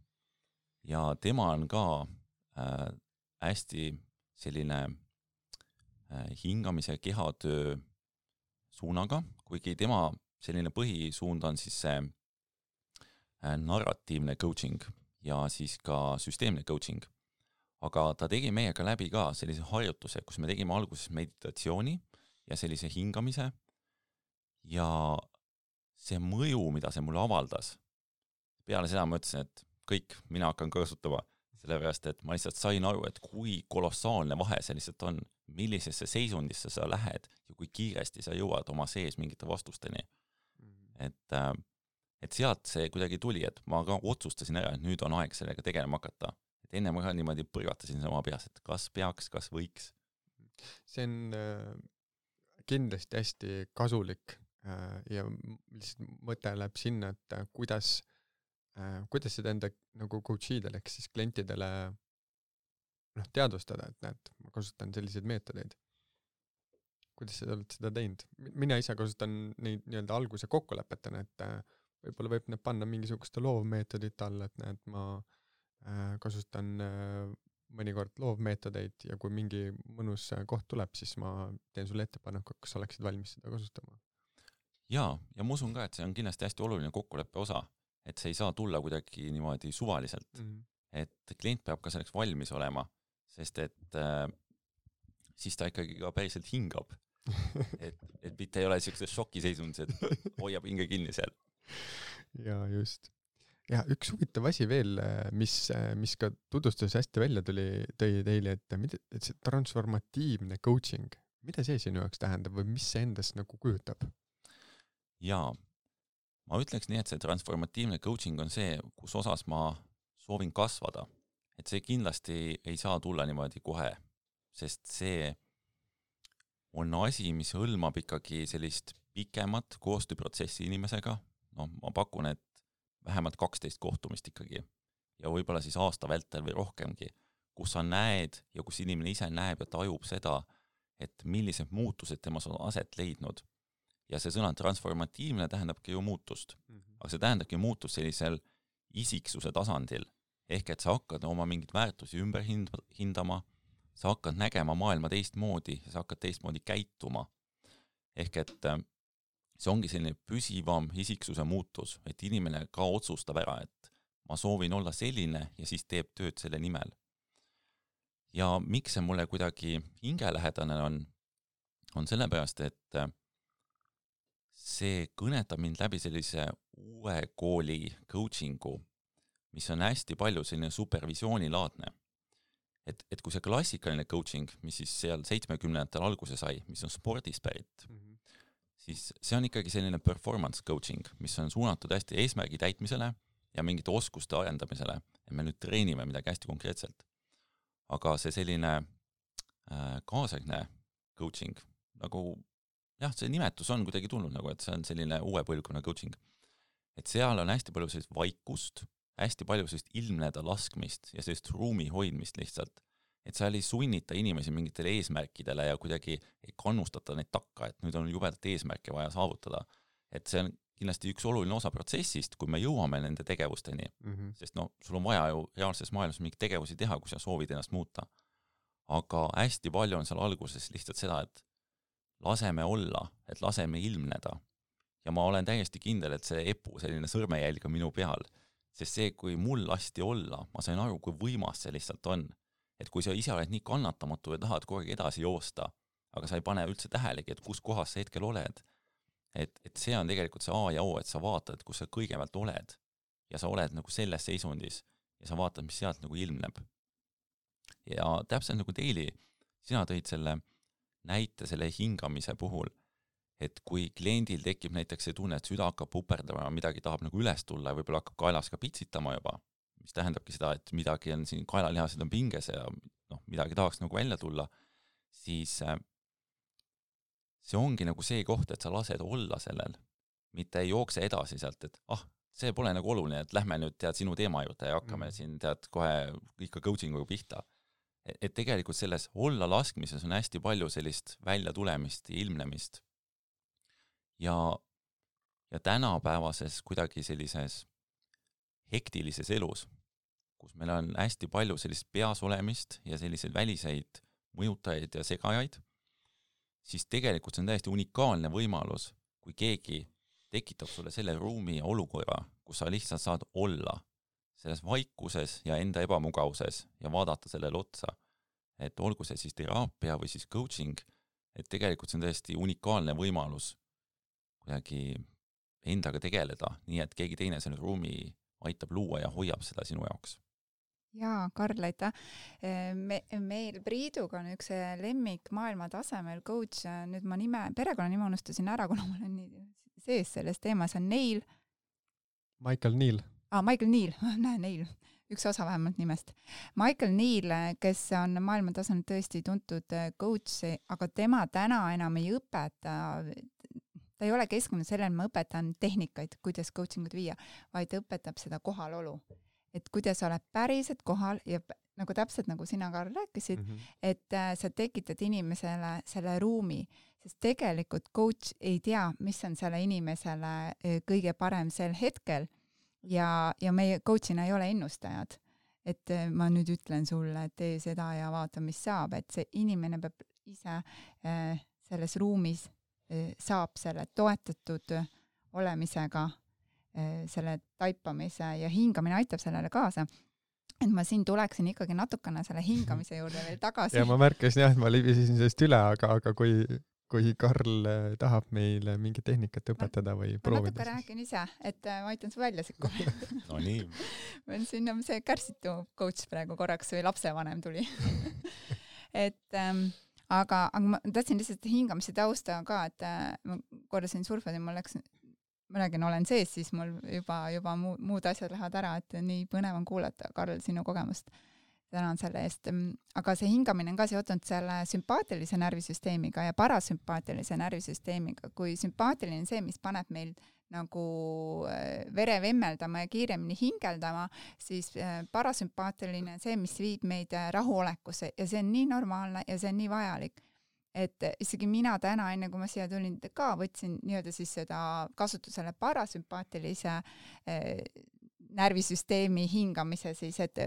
Ja tema on ka hästi selline hingamise kehatöö suunaga, kuigi tema selline põhisuund on siis see narratiivne coaching ja siis ka süsteemne coaching. Aga ta tegi meiega läbi ka sellise harjutuse, kus me tegime alguses meditatsiooni ja sellise hingamise ja see mõju, mida see mulle avaldas. Peale seda ma ütlesin, et kõik, mina hakkan kasutama, sellepärast, et ma lihtsalt sain aru, et kui kolossaalne vahe see lihtsalt on, millisesse seisundisse sa lähed ja kui kiiresti sa jõuad oma sees mingite vastusteni. Et sealt see kuidagi tuli, et ma ka otsustasin ära, et nüüd on aeg sellega tegelema hakata. Et enne ma ka niimoodi põrgatasin sama peas, et kas peaks, kas võiks. See on kindlasti hästi kasulik ja lihtsalt mõte läheb sinna, et kuidas seda enda nagu coachidele, ehk siis klientidele teadvustada, et näed, ma kasutan selliseid meetodeid. Kuidas sa oled seda teinud? Mina ise kasutan neid nii-öelda alguse kokkulepetena, et võib-olla võib need panna mingisuguste loovmeetodit alla, et näed, ma kasutan mõnikord loovmeetodeid ja kui mingi mõnus koht tuleb, siis ma teen sulle ettepaneku, kas oleksid valmis seda kasutama. Ja ma usun ka, et see on kindlasti hästi oluline kokkuleppe osa, et see ei saa tulla kuidagi niimoodi suvaliselt, et klient peab ka selleks valmis olema, sest et siis ta ikkagi ka päriselt hingab, et mitte ei ole sellises šokiseisundis, et hoiab hinge kinni seal. Ja just. Ja üks huvitav asi veel, mis ka tutvustus hästi välja tõi teile, et see transformatiivne coaching, mida see sinu jaoks tähendab või mis see endast nagu kujutab? Jaa, ma ütleks nii, et see transformatiivne coaching on see, kus osas ma soovin kasvada. Et see kindlasti ei saa tulla niimoodi kohe, sest see on asi, mis hõlmab ikkagi sellist pikemat koostööprotsessi inimesega. Ma pakun, et vähemalt 12 kohtumist ikkagi ja võib-olla siis aasta vältel või rohkemgi, kus sa näed ja kus inimene ise näeb ja tajub seda, et millised muutused temas on aset leidnud. Ja see sõna transformatiivne tähendabki ju muutust. Aga see tähendabki muutust sellisel isiksuse tasandil. Ehk et sa hakkad oma mingid väärtusi ümber hindama, sa hakkad nägema maailma teistmoodi ja sa hakkad teistmoodi käituma. Ehk et see ongi selline püsivam isiksuse muutus, et inimene ka otsustab ära, et ma soovin olla selline ja siis teeb tööd selle nimel. Ja miks see mulle kuidagi hingelähedane on sellepärast, et see kõnetab mind läbi sellise uue kooli coachingu, mis on hästi palju selline supervisioonilaadne. Et kui see klassikaline coaching, mis siis seal 70-ndatel alguse sai, mis on spordis pärit, siis see on ikkagi selline performance coaching, mis on suunatud hästi eesmärgi täitmisele ja mingite oskuste arendamisele, et me nüüd treenime midagi hästi konkreetselt. aga see selline kaasaegne coaching, nagu jah, see nimetus on kuidagi tulnud nagu, et see on selline uue põlvkonna coaching. Et seal on hästi palju sellist vaikust, hästi palju sellist ilmneda laskmist ja sellist ruumi hoidmist lihtsalt. Et seal ei sunnita inimesi mingitele eesmärkidele ja kuidagi ei kannustata neid takka, et nüüd on jubedalt eesmärke vaja saavutada. Et see on kindlasti üks oluline osa protsessist, kui me jõuame nende tegevusteni, sest sul on vaja ju reaalses maailmas mingi tegevusi teha, kui sa soovid ennast muuta. Aga hästi palju on seal alguses lihtsalt seda, et laseme olla, et laseme ilmneda. Ja ma olen täiesti kindel, et see epu selline sõrmejälg on minu peal, sest see, kui mul lasti olla, ma sain aru, kui võimas see lihtsalt on. Et kui sa ise oled nii kannatamatu ja tahad kogu aeg edasi joosta, aga sa ei pane üldse tähelegi, et kus kohas sa hetkel oled. Et see on tegelikult see A ja O, et sa vaatad, kus sa kõigepealt oled ja sa oled nagu selles seisundis ja sa vaatad, mis sealt nagu ilmneb. Ja täpselt nagu Teili, sina tõid selle näite selle hingamise puhul, et kui kliendil tekib näiteks see tunne, et süda hakkab puperdama ja midagi tahab nagu üles tulla ja võib-olla hakkab kaelas ka pitsitama juba, mis tähendabki seda, et midagi on siin kaelalihased on pinges ja midagi tahaks nagu välja tulla, siis see ongi nagu see koht, et sa lased olla sellel, mitte ei jookse edasi sealt, et see pole nagu oluline, et lähme nüüd sinu teema juurde ja hakkame siin kohe ikka coachinguga pihta. Et tegelikult selles olla laskmises on hästi palju sellist välja tulemist ja ilmnemist. Ja tänapäevases kuidagi sellises hektilises elus, kus meil on hästi palju sellist peas olemist ja selliseid väliseid mõjutajaid ja segajaid, siis tegelikult see on täiesti unikaalne võimalus, kui keegi tekitab sulle selle ruumi ja olukorra, kus sa lihtsalt saad olla selles vaikuses ja enda ebamugavuses ja vaadata sellele otsa. Et olgu see siis teraapia või siis coaching, et tegelikult see on täiesti unikaalne võimalus kuidagi endaga tegeleda, nii et keegi teine selle ruumi aitab luua ja hoiab seda sinu jaoks. Jaa, Karl, aitäh. Meil Priiduga on üks lemmik maailma tasemel coach, nüüd ma perekonnanime unustasin ära, kuna mul on nii sees selles teemas, on Neil. Michael Neil. Michael Neil, Neil, üks osa vähemalt nimest. Michael Neil, kes on maailma tasemel tõesti tuntud coach, aga tema täna enam ei õpeta, ta ei ole keskendunud sellele, ma õpetan tehnikaid, kuidas coachingut viia, vaid õpetab seda kohalolu. Et kuidas oled päriselt kohal ja nagu täpselt nagu sina, Karl, rääkisid, et sa tekitad inimesele selle ruumi, sest tegelikult coach ei tea, mis on selle inimesele kõige parem sel hetkel ja meie coachina ei ole ennustajad. Et ma nüüd ütlen sulle, et tee seda ja vaata, mis saab, et see inimene peab ise selles ruumis saab selle toetatud olemisega selle taipamise ja hingamine aitab sellele kaasa. Et ma siin tuleksin ikkagi natukene selle hingamise juurde veel tagasi. Ja ma märkasin jah, et ma libisesin sellest üle, aga kui Karl tahab meile mingi tehnikat õpetada või proovida. Ma natuke räägin ise, et ma aitan su välja sikkuma. No nii. Ma on siin see kärsitu coach praegu korraks või lapsevanem tuli. Aga ma tahtsin lihtsalt hingamise tausta ka, et ma kordasin surfad ja ma räägin, olen sees, siis mul juba muud asjad lähevad ära, et nii põnev on kuulata, Karl, sinu kogemust. Tänan selle eest. Aga see hingamine on ka seotud selle sümpaatilise närvisüsteemiga ja parasümpaatilise närvisüsteemiga. Kui sümpaatiline on see, mis paneb meil nagu vere vemmeldama ja kiiremini hingeldama, siis parasümpaatiline on see, mis viib meid rahulekusse ja see on nii normaalne ja see on nii vajalik. Et isegi mina täna, enne kui ma siia tulin ka, võtsin nii-öelda siis seda kasutusele parasümpaatilise närvisüsteemi hingamise siis, et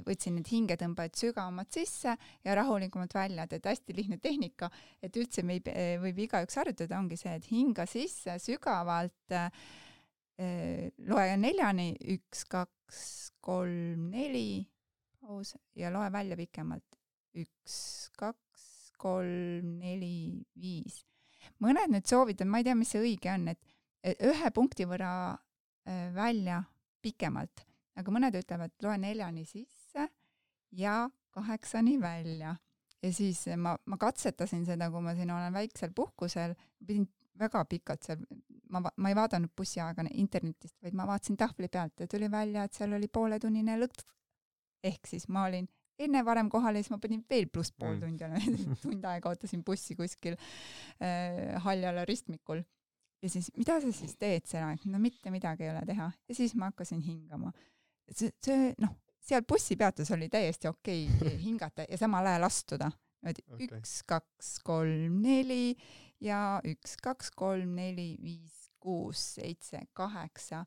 võtsin need hingetõmbajad sügavamalt sisse ja rahulikumalt välja, et hästi lihtne tehnika, et üldse võib igaüks harjutada, ongi see, et hinga sisse sügavalt, loe 4-ni, 1, 2, 3, 4, paus ja loe välja pikemalt, 1, 2, 3, 4, 5. Mõned nüüd soovivad, ma ei tea, mis see õige on, et ühe punkti võrra välja pikemalt, aga mõned ütlevad, loe 4-ni sisse ja 8-ni välja. Ja siis ma katsetasin seda, kui ma siin olen väiksel puhkusel, pidin väga pikalt seal, ma ei vaadanud bussiaega internetist, vaid ma vaatasin tahvli pealt ja tuli välja, et seal oli pooletunnine lõkt. Ehk siis ma olin enne varem kohale, siis ma panin veel pluss pool tundi, tund aega ootasin bussi kuskil Haljala ristmikul. Ja siis, mida sa siis teed seal? No mitte midagi ei ole teha. Ja siis ma hakkasin hingama. Seal bussipeatus oli täiesti okei hingata ja samal ajal astuda. 1, 2, 3, 4 ja 1, 2, 3, 4, 5, 6, 7, 8.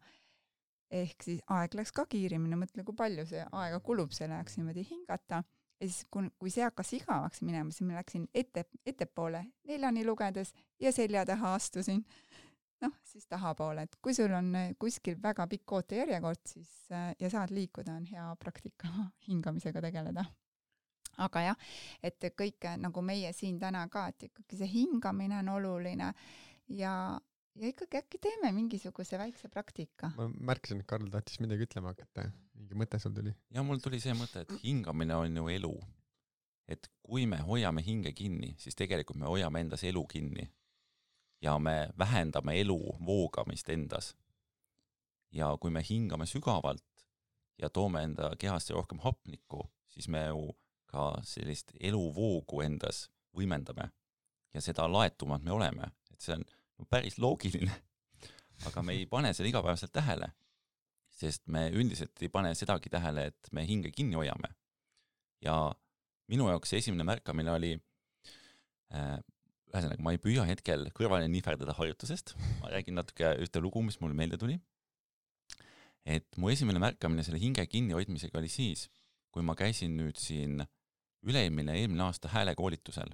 Ehk siis aeg läks ka kiirimine, mõtle, kui palju see aega kulub, see läheks niimoodi hingata. Ja siis, kui see hakkas igavaks minema, siis ma läksin ettepoole 4 lugedes ja selja taha astusin. Siis tahapoole, et kui sul on kuskil väga pikk ootejärjekord, siis ja saad liikuda, on hea praktika hingamisega tegeleda. Aga jah, et kõik nagu meie siin täna ka, et ikkagi see hingamine on oluline ja ikkagi äkki teeme mingisuguse väikse praktika. Ma märkasin, et Karl tahtis midagi ütlema hakata. Mingi mõte sul tuli? Ja mul tuli see mõte, et hingamine on ju elu. Et kui me hoiame hinge kinni, siis tegelikult me hoiame endas elu kinni. Ja me vähendame elu voogamist endas. Ja kui me hingame sügavalt ja toome enda kehasse rohkem hapnikku, siis me ju ka sellist eluvoogu endas võimendame. Ja seda laetumad me oleme. Et see on päris loogiline, aga me ei pane seda igapäevaselt tähele, sest me üldiselt ei pane sedagi tähele, et me hinge kinni hoiame. Ja minu jaoks see esimene märkamine oli ühesõnaga, ma ei püüa hetkel kõrvale nihverdada harjutusest. Ma räägin natuke ühte lugu, mis mulle meelde tuli. Et mu esimene märkamine selle hinge kinni hoidmisega oli siis, kui ma käisin nüüd siin eelmine aasta häälekoolitusel.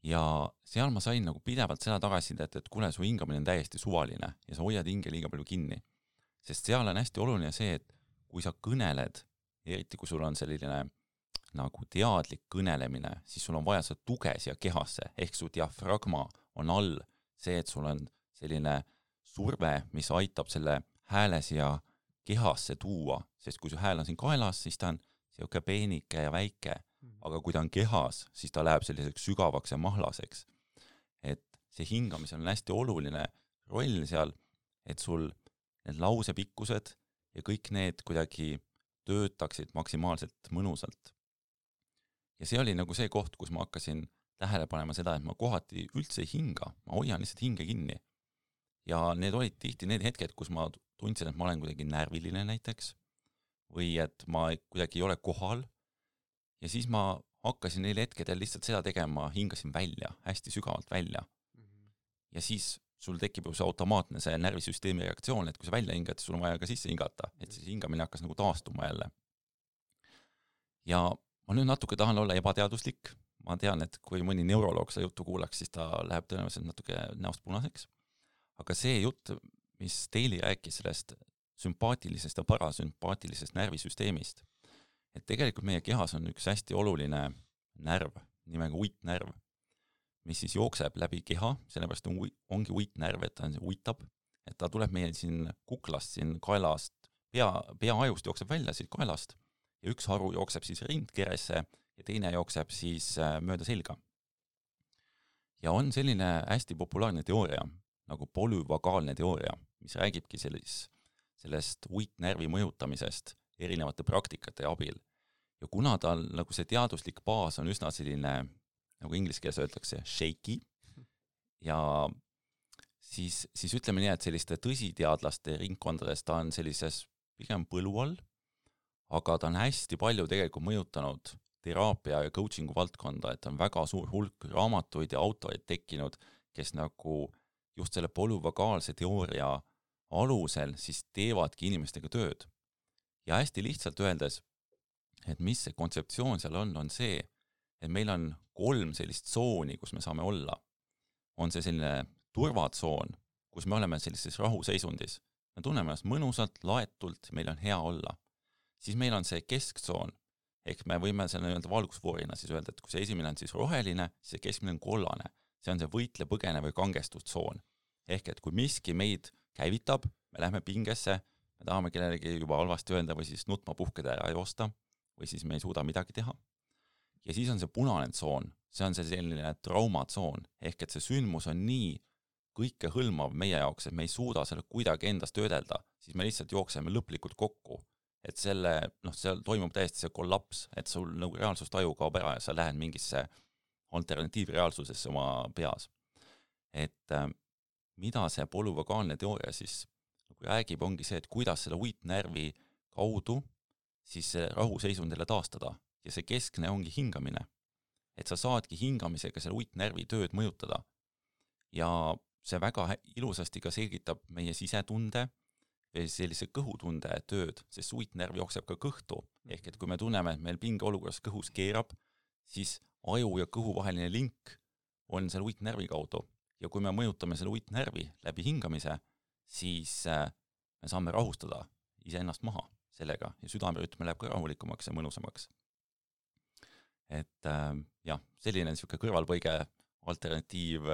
Ja seal ma sain nagu pidevalt seda tagasisidet, et kuule, su hingamine on täiesti suvaline ja sa hoiad hinge liiga palju kinni. Sest seal on hästi oluline see, et kui sa kõneled, eriti kui sul on selline nagu teadlik kõnelemine, siis sul on vaja seda tuge siia kehasse, ehk su diafragma on all see, et sul on selline surve, mis aitab selle hääle siia kehasse tuua, sest kui su hääl on siin kaelas, siis ta on siuke peenike ja väike, aga kui ta on kehas, siis ta läheb selliseks sügavaks ja mahlaseks. Et see hingamisel on hästi oluline roll seal, et sul need lausepikkused ja kõik need kuidagi töötaksid maksimaalselt mõnusalt. Ja see oli nagu see koht, kus ma hakkasin tähele panema seda, et ma kohati üldse ei hinga, ma hoian lihtsalt hinge kinni. Ja need olid tihti need hetked, kus ma tundsin, et ma olen kuidagi närviline näiteks, või et ma kuidagi ei ole kohal. Ja siis ma hakkasin neil hetkedel lihtsalt seda tegema, hingasin välja, hästi sügavalt välja. Ja siis sul tekib ju see automaatne see närvisüsteemi reaktsioon, et kui sa välja hingad, sul on vaja ka sisse hingata, et siis hingamine hakkas nagu taastuma jälle. Ja ma nüüd natuke tahan olla ebateaduslik. Ma tean, et kui mõni neuroloog seda juttu kuulaks, siis ta läheb tõenäoliselt natuke näost punaseks. Aga see jutt, mis Teili rääkis sellest sümpaatilisest ja parasümpaatilisest närvisüsteemist, et tegelikult meie kehas on üks hästi oluline närv, nimega uitnärv, mis siis jookseb läbi keha, sellepärast ongi uitnärv, et ta uitab, et ta tuleb meie siin kuklast, siin kaelast, peaajust jookseb välja siit kaelast, ja üks haru jookseb siis rindkeresse ja teine jookseb siis mööda selga. Ja on selline hästi populaarne teooria, nagu polyvagaalne teooria, mis räägibki sellest uitnärvi mõjutamisest erinevate praktikate abil. Ja kuna tal nagu see teaduslik baas on üsna selline, nagu inglise keeles öeldakse, shaky, ja siis ütleme nii, et selliste tõsiteadlaste ringkondades ta on sellises pigem põlu all, aga ta on hästi palju tegelikult mõjutanud teraapia ja coachingu valdkonda, et on väga suur hulk raamatuid ja autorid tekkinud, kes nagu just selle polyvagaalse teooria alusel siis teevadki inimestega tööd. Ja hästi lihtsalt öeldes, et mis see kontseptsioon seal on see, et meil on 3 sellist tsooni, kus me saame olla. On see selline turvatsoon, kus me oleme sellises rahuseisundis. Me tunneme ennast mõnusalt, laetult, meil on hea olla. Siis meil on see kesktsoon, ehk me võime selle valgusfoorina siis öelda, et kui see esimene on siis roheline, siis see keskmine on kollane. See on see võitle, põgene või kangestustsoon. Ehk et kui miski meid käivitab, me lähme pingesse, me tahame kellelegi juba halvasti öelda või siis nutma puhkeda ära joosta, või siis me ei suuda midagi teha. Ja siis on see punane tsoon, see on see selline traumatsoon, ehk et see sündmus on nii kõike hõlmav meie jaoks, et me ei suuda selle kuidagi endast töödelda, siis me lihtsalt jookseme lõplikult kokku. et seal toimub täiesti see kollaps, et sul nagu reaalsustaju kaob ära ja sa lähed mingisse alternatiivreaalsusesse oma peas. Et mida see polüvagaalne teooria siis nagu räägib, ongi see, et kuidas selle uitnärvi kaudu siis see rahuseisundile taastada ja see keskne ongi hingamine. Et sa saadki hingamisega selle uitnärvi tööd mõjutada. Ja see väga ilusasti ka selgitab meie sisetunde või sellise kõhutunde tööd, sest uitnärv jookseb ka kõhtu. Ehk et kui me tunneme, et meil pingeolukorras kõhus keerab, siis aju ja kõhu vaheline link on selle uitnärvi kaudu. Ja kui me mõjutame selle uitnärvi läbi hingamise, siis me saame rahustada iseennast maha sellega ja südamerütm läheb ka rahulikumaks ja mõnusamaks. Et jah, selline niisugune kõrvalpõige alternatiiv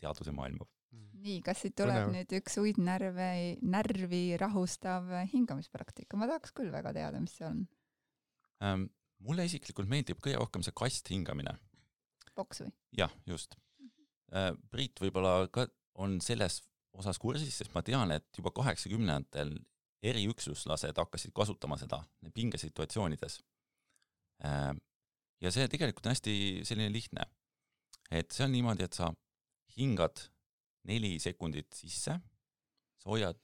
teaduse maailma. Nii, kas siit tuleb nüüd üks uitnärvi rahustav hingamispraktika? Ma tahaks küll väga teada, mis see on. Mulle isiklikult meeldib kõige rohkem see kast hingamine. Boks või? Jah, just. Priit võib-olla ka on selles osas kursis, sest ma tean, et juba 80-ndatel eriüksuslased hakkasid kasutama seda pingesituatsioonides. Ja see tegelikult on hästi selline lihtne. Et see on niimoodi, et sa hingad 4 sekundit sisse, sa hoiad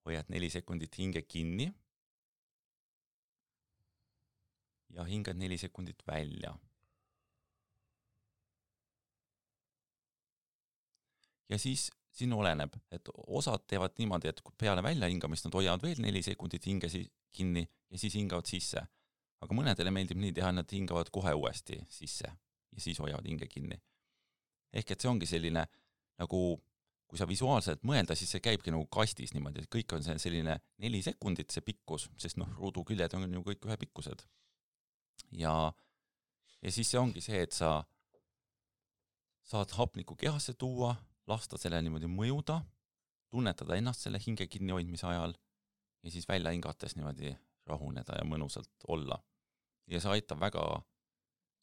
4 sekundit hinge kinni ja hingad 4 sekundit välja. Ja siis siin oleneb, et osad teevad niimoodi, et peale välja hingamist nad hoiavad veel 4 sekundit hinge kinni ja siis hingavad sisse. Aga mõnedele meeldib nii teha, nad hingavad kohe uuesti sisse ja siis hoiavad hinge kinni. Ehk et see ongi selline, nagu kui sa visuaalselt mõelda, siis see käibki nagu kastis niimoodi, et kõik on selline 4 sekundit see pikkus, sest ruudu küljed on ju kõik ühe pikkused. Ja siis see ongi see, et sa saad hapniku kehasse tuua, lasta selle niimoodi mõjuda, tunnetada ennast selle hinge kinnihoidmise ajal ja siis välja hingates niimoodi rahuneda ja mõnusalt olla. Ja see aitab väga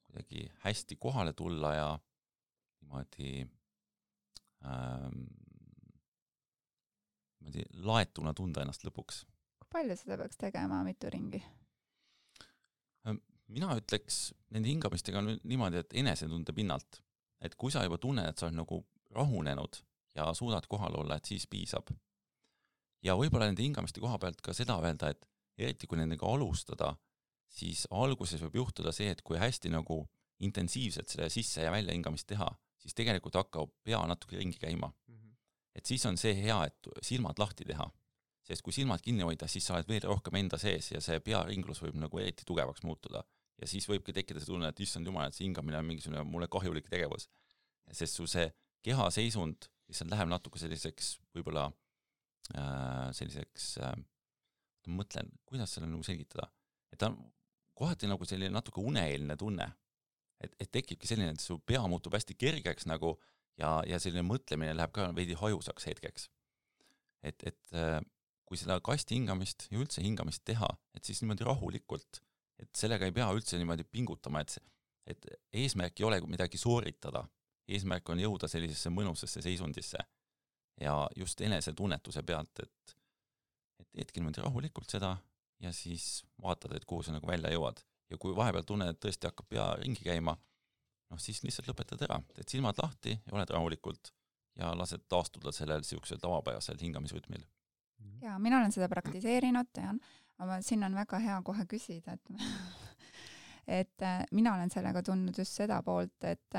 kuidagi hästi kohale tulla ja niimoodi laetuna tunda ennast lõpuks. Kui palju seda peaks tegema, mitu ringi? Mina ütleks nende hingamistega niimoodi, et enesetunde pinnalt. Et kui sa juba tunned, et sa oled nagu rahunenud ja suudad kohal olla, et siis piisab. Ja võib-olla nende hingamiste koha pealt ka seda öelda, et eriti kui nendega alustada, siis alguses võib juhtuda see, et kui hästi nagu intensiivselt selle sisse ja välja hingamist teha, siis tegelikult hakkab pea natuke ringi käima. Et siis on see hea, et silmad lahti teha. Sest kui silmad kinni hoida, siis sa oled veel rohkem enda sees ja see pearinglus võib nagu eriti tugevaks muutuda. Ja siis võibki tekkida see tunne, et issand jumal, et see hingamine on mingisugune mulle kahjulik tegevus. Sest su see keha seisund lihtsalt läheb natuke selliseks võib-olla mõtlen, kuidas selle nagu selgitada. Et ta on kohati nagu selline natuke uneeelne tunne. Et tekibki selline, et su pea muutub hästi kergeks nagu ja selline mõtlemine läheb ka veidi hajusaks hetkeks. Et kui seda kasti hingamist ja üldse hingamist teha, et siis niimoodi rahulikult, et sellega ei pea üldse niimoodi pingutama, et eesmärk ei ole midagi sooritada. Eesmärk on jõuda sellisesse mõnusesse seisundisse ja just enesetunnetuse pealt, et teedki niimoodi rahulikult seda ja siis vaatad, et kuhu sa nagu välja jõuad. Ja kui vahepeal tunned, et tõesti hakkab pea ringi käima, siis lihtsalt lõpetad ära. Teed silmad lahti ja oled rahulikult ja lased taastuda sellel siuksel tavapärasel hingamisrütmil. Ja mina olen seda praktiseerinud, tean, aga siin on väga hea kohe küsida, et mina olen sellega tundnud just seda poolt, et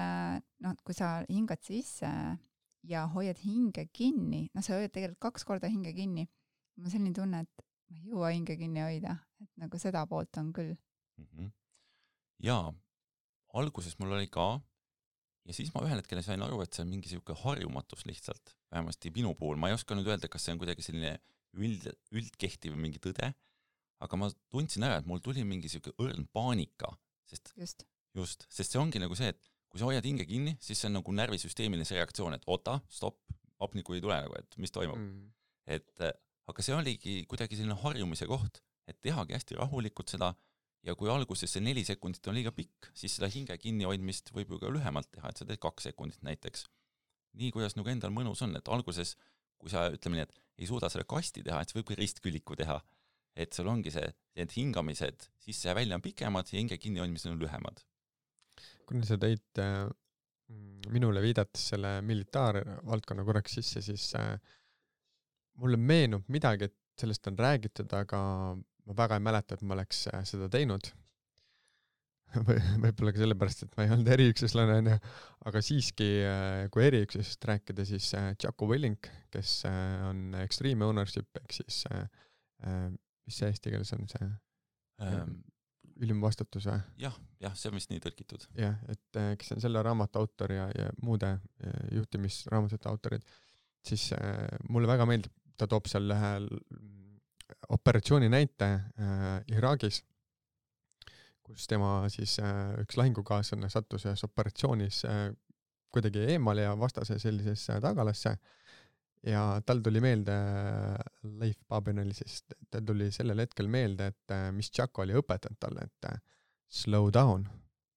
kui sa hingad sisse ja hoiad hinge kinni, sa hoiad tegelikult 2 korda hinge kinni, ma selline tunne, et ma ei jõua hinge kinni hoida, et nagu seda poolt on küll. Jaa, alguses mul oli ka ja siis ma ühel hetkel sain aru, et see on mingi siuke harjumatus lihtsalt, vähemasti minu puhul. Ma ei oska nüüd öelda, kas see on kuidagi selline üldkehtiv mingi tõde, aga ma tundsin ära, et mul tuli mingi siuke õrn paanika, sest see ongi nagu see, et kui sa hoiad hinge kinni, siis see on nagu närvisüsteemiline see reaktsioon, et oota, stopp, hapniku ei tule nagu, et mis toimub. Aga see oligi kuidagi selline harjumise koht, et tehagi hästi rahulikult seda ja kui alguses see 4 sekundit on liiga pikk, siis seda hinge kinni hoidmist võib ju ka lühemalt teha, et sa teed 2 sekundit näiteks. Nii, kuidas nagu endal mõnus on, et alguses, kui sa ütleme nii, et ei suuda selle kasti teha, et see võib ka ristküliku teha. Et sul ongi see, et hingamised sisse ja välja on pikemad ja hinge kinni hoidmised on lühemad. Kuna sa tõid minule viidates selle militaarvaldkonna korraks sisse, siis mulle meenub midagi, et sellest on räägitud, aga ma väga ei mäleta, et ma oleks seda teinud. Võib-olla ka sellepärast, et ma ei olnud eriüksuslane, aga siiski, kui eriüksusest rääkida, siis Jocko Willink, kes on Extreme Ownership, ehk siis mis see eesti keeles on see ülimvastutus või? Jah, see on vist nii tõlkitud. Jah, et kes on selle raamatu autor ja muude juhtimisraamatute autorid, siis mulle väga meeldib, ta toob seal ühe operatsiooni näite Iraagis, kus tema siis üks lahingukaaslane sattus ühes operatsioonis kuidagi eemale ja vastase sellisesse tagalasse ja tal tuli meelde, Leif Babinali siis, tal tuli sellel hetkel meelde, et mis Jocko oli õpetanud talle, et slow down,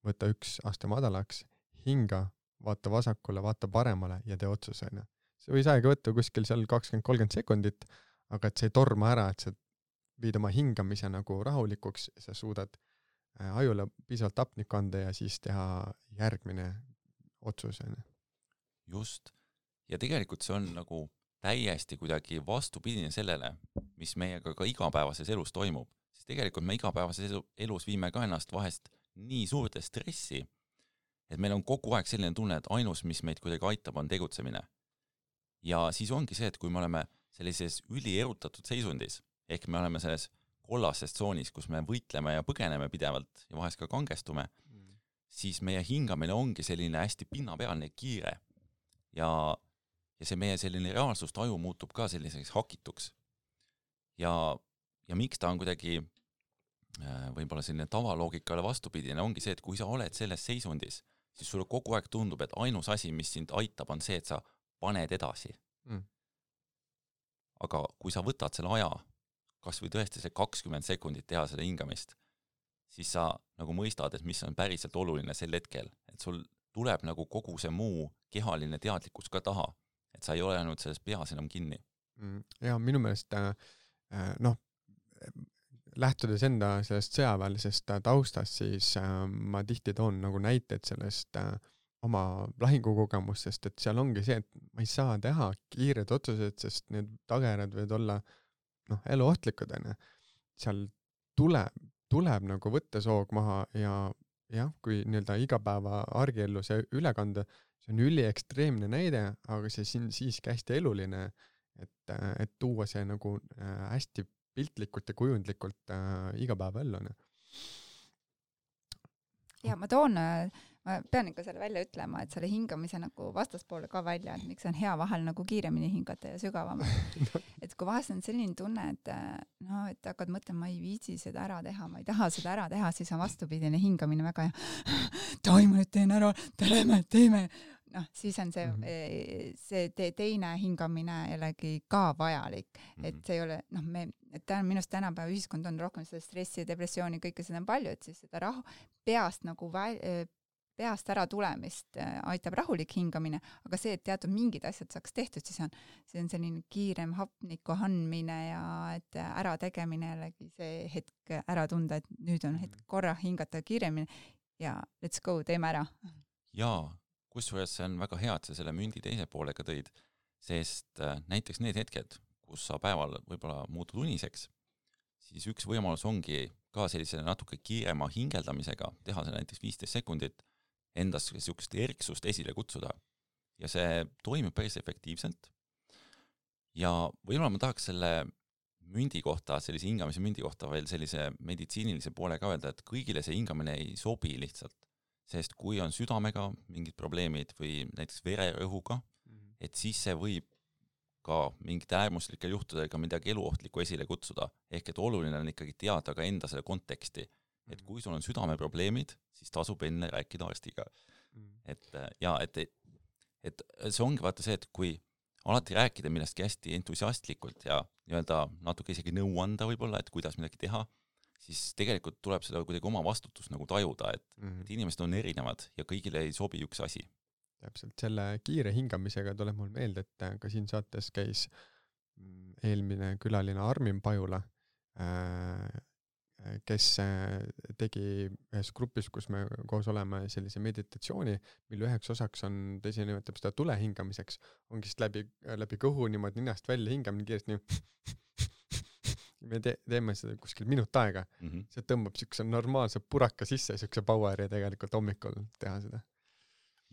võta 1 aste madalaks, hinga, vaata vasakule, vaata paremale ja tee otsusena. See võis aega võtta kuskil seal 20-30 sekundit, aga et see ei torma ära, et sa viid oma hingamise nagu rahulikuks, sa suudad ajule piisavalt hapnikku anda ja siis teha järgmine otsus. Just. Ja tegelikult see on nagu täiesti kuidagi vastupidine sellele, mis meiega ka igapäevases elus toimub. Sest tegelikult me igapäevases elus viime ka ennast vahest nii suurde stressi, et meil on kogu aeg selline tunne, et ainus, mis meid kuidagi aitab, on tegutsemine. Ja siis ongi see, et kui me oleme sellises ülierutatud seisundis, ehk me oleme selles kollases tsoonis, kus me võitleme ja põgeneme pidevalt ja vahest ka kangestume, siis meie hingamine ongi selline hästi pinnapealne kiire ja see meie selline reaalsust aju muutub ka selliseks hakituks. Ja miks ta on kuidagi võib-olla selline tavaloogikale vastupidine, ongi see, et kui sa oled selles seisundis, siis sulle kogu aeg tundub, et ainus asi, mis sind aitab, on see, et sa paned edasi. Aga kui sa võtad selle aja, kas või tõesti see 20 sekundit teha seda hingamist, siis sa nagu mõistad, et mis on päriselt oluline sel hetkel, et sul tuleb nagu kogu see muu kehaline teadlikkus ka taha, et sa ei ole ainult selles peas enam kinni. Ja minu meelest lähtudes enda sellest sõjaväelisest taustast, siis ma tihti toon nagu näiteid sellest oma lahingukogemustest, et seal ongi see, et ma ei saa teha kiired otsused, sest need tagajärjed võivad olla eluohtlikud. Seal tuleb nagu võtta soog maha ja kui nii-öelda igapäeva argiellu see üle kanda, see on üliekstreemne näide, aga see siin siiski hästi eluline, et tuua see nagu hästi piltlikult ja kujundlikult igapäeva ellu. Ja ma pean ikka selle välja ütlema, et selle hingamise nagu vastaspoole ka välja, et miks on hea vahel nagu kiiremini hingata ja sügavamalt. Et kui vahest on selline tunne, et hakkad mõtlema, ma ei viitsi seda ära teha, ma ei taha seda ära teha, siis on vastupidine hingamine väga taima nüüd teen ära, teeme. Siis on see teine hingamine jällegi ka vajalik, et see ei ole, minust tänapäeva ühiskond on rohkem seda stressi ja depressiooni, kõike seda on palju, et siis seda rahu peast nagu peast ära tulemist aitab rahulik hingamine, aga see, et teatud mingid asjad saaks tehtud, siis on selline kiirem hapniku andmine ja et ära tegemine jällegi see hetk ära tunda, et nüüd on hetk korra hingata kiiremini ja let's go, teeme ära. Jaa, kusjuures see on väga hea, et sa selle mündi teise poolega tõid, sest näiteks need hetked, kus sa päeval võib-olla muutud uniseks, siis üks võimalus ongi ka sellise natuke kiirema hingeldamisega teha see näiteks 15 sekundit endas sellist erksust esile kutsuda. Ja see toimib päris efektiivselt. Ja võib-olla ma tahaks selle mündi kohta, sellise hingamise mündi kohta veel sellise meditsiinilise poole ka öelda, et kõigile see hingamine ei sobi lihtsalt. Sest kui on südamega mingid probleemid või näiteks vererõhuga, et siis see võib ka mingite äärmuslikel juhtudega midagi eluohtlikku esile kutsuda. Ehk et oluline on ikkagi teada ka enda selle konteksti. Et kui sul on südameprobleemid, siis tasub enne rääkida arstiga. Et see ongi vaata see, et kui alati rääkida millestki hästi entusiastlikult ja nii-öelda natuke isegi nõu anda võib-olla, et kuidas midagi teha, siis tegelikult tuleb seda kuidagi oma vastutust nagu tajuda, et inimesed on erinevad ja kõigile ei sobi üks asi. Täpselt, selle kiire hingamisega tuleb mul meelde, et ka siin saates käis eelmine külaline Armin Pajula, kes tegi ühes grupis, kus me koos oleme sellise meditatsiooni, mille üheks osaks on, ta ise nimetab seda tule hingamiseks, ongi siis läbi kõhu niimoodi ninast välja hingam nii kiiresti nii. Me teeme seda kuskil minut aega. See tõmbab siukse normaalse puraka sisse, siukse poweri tegelikult hommikul teha seda.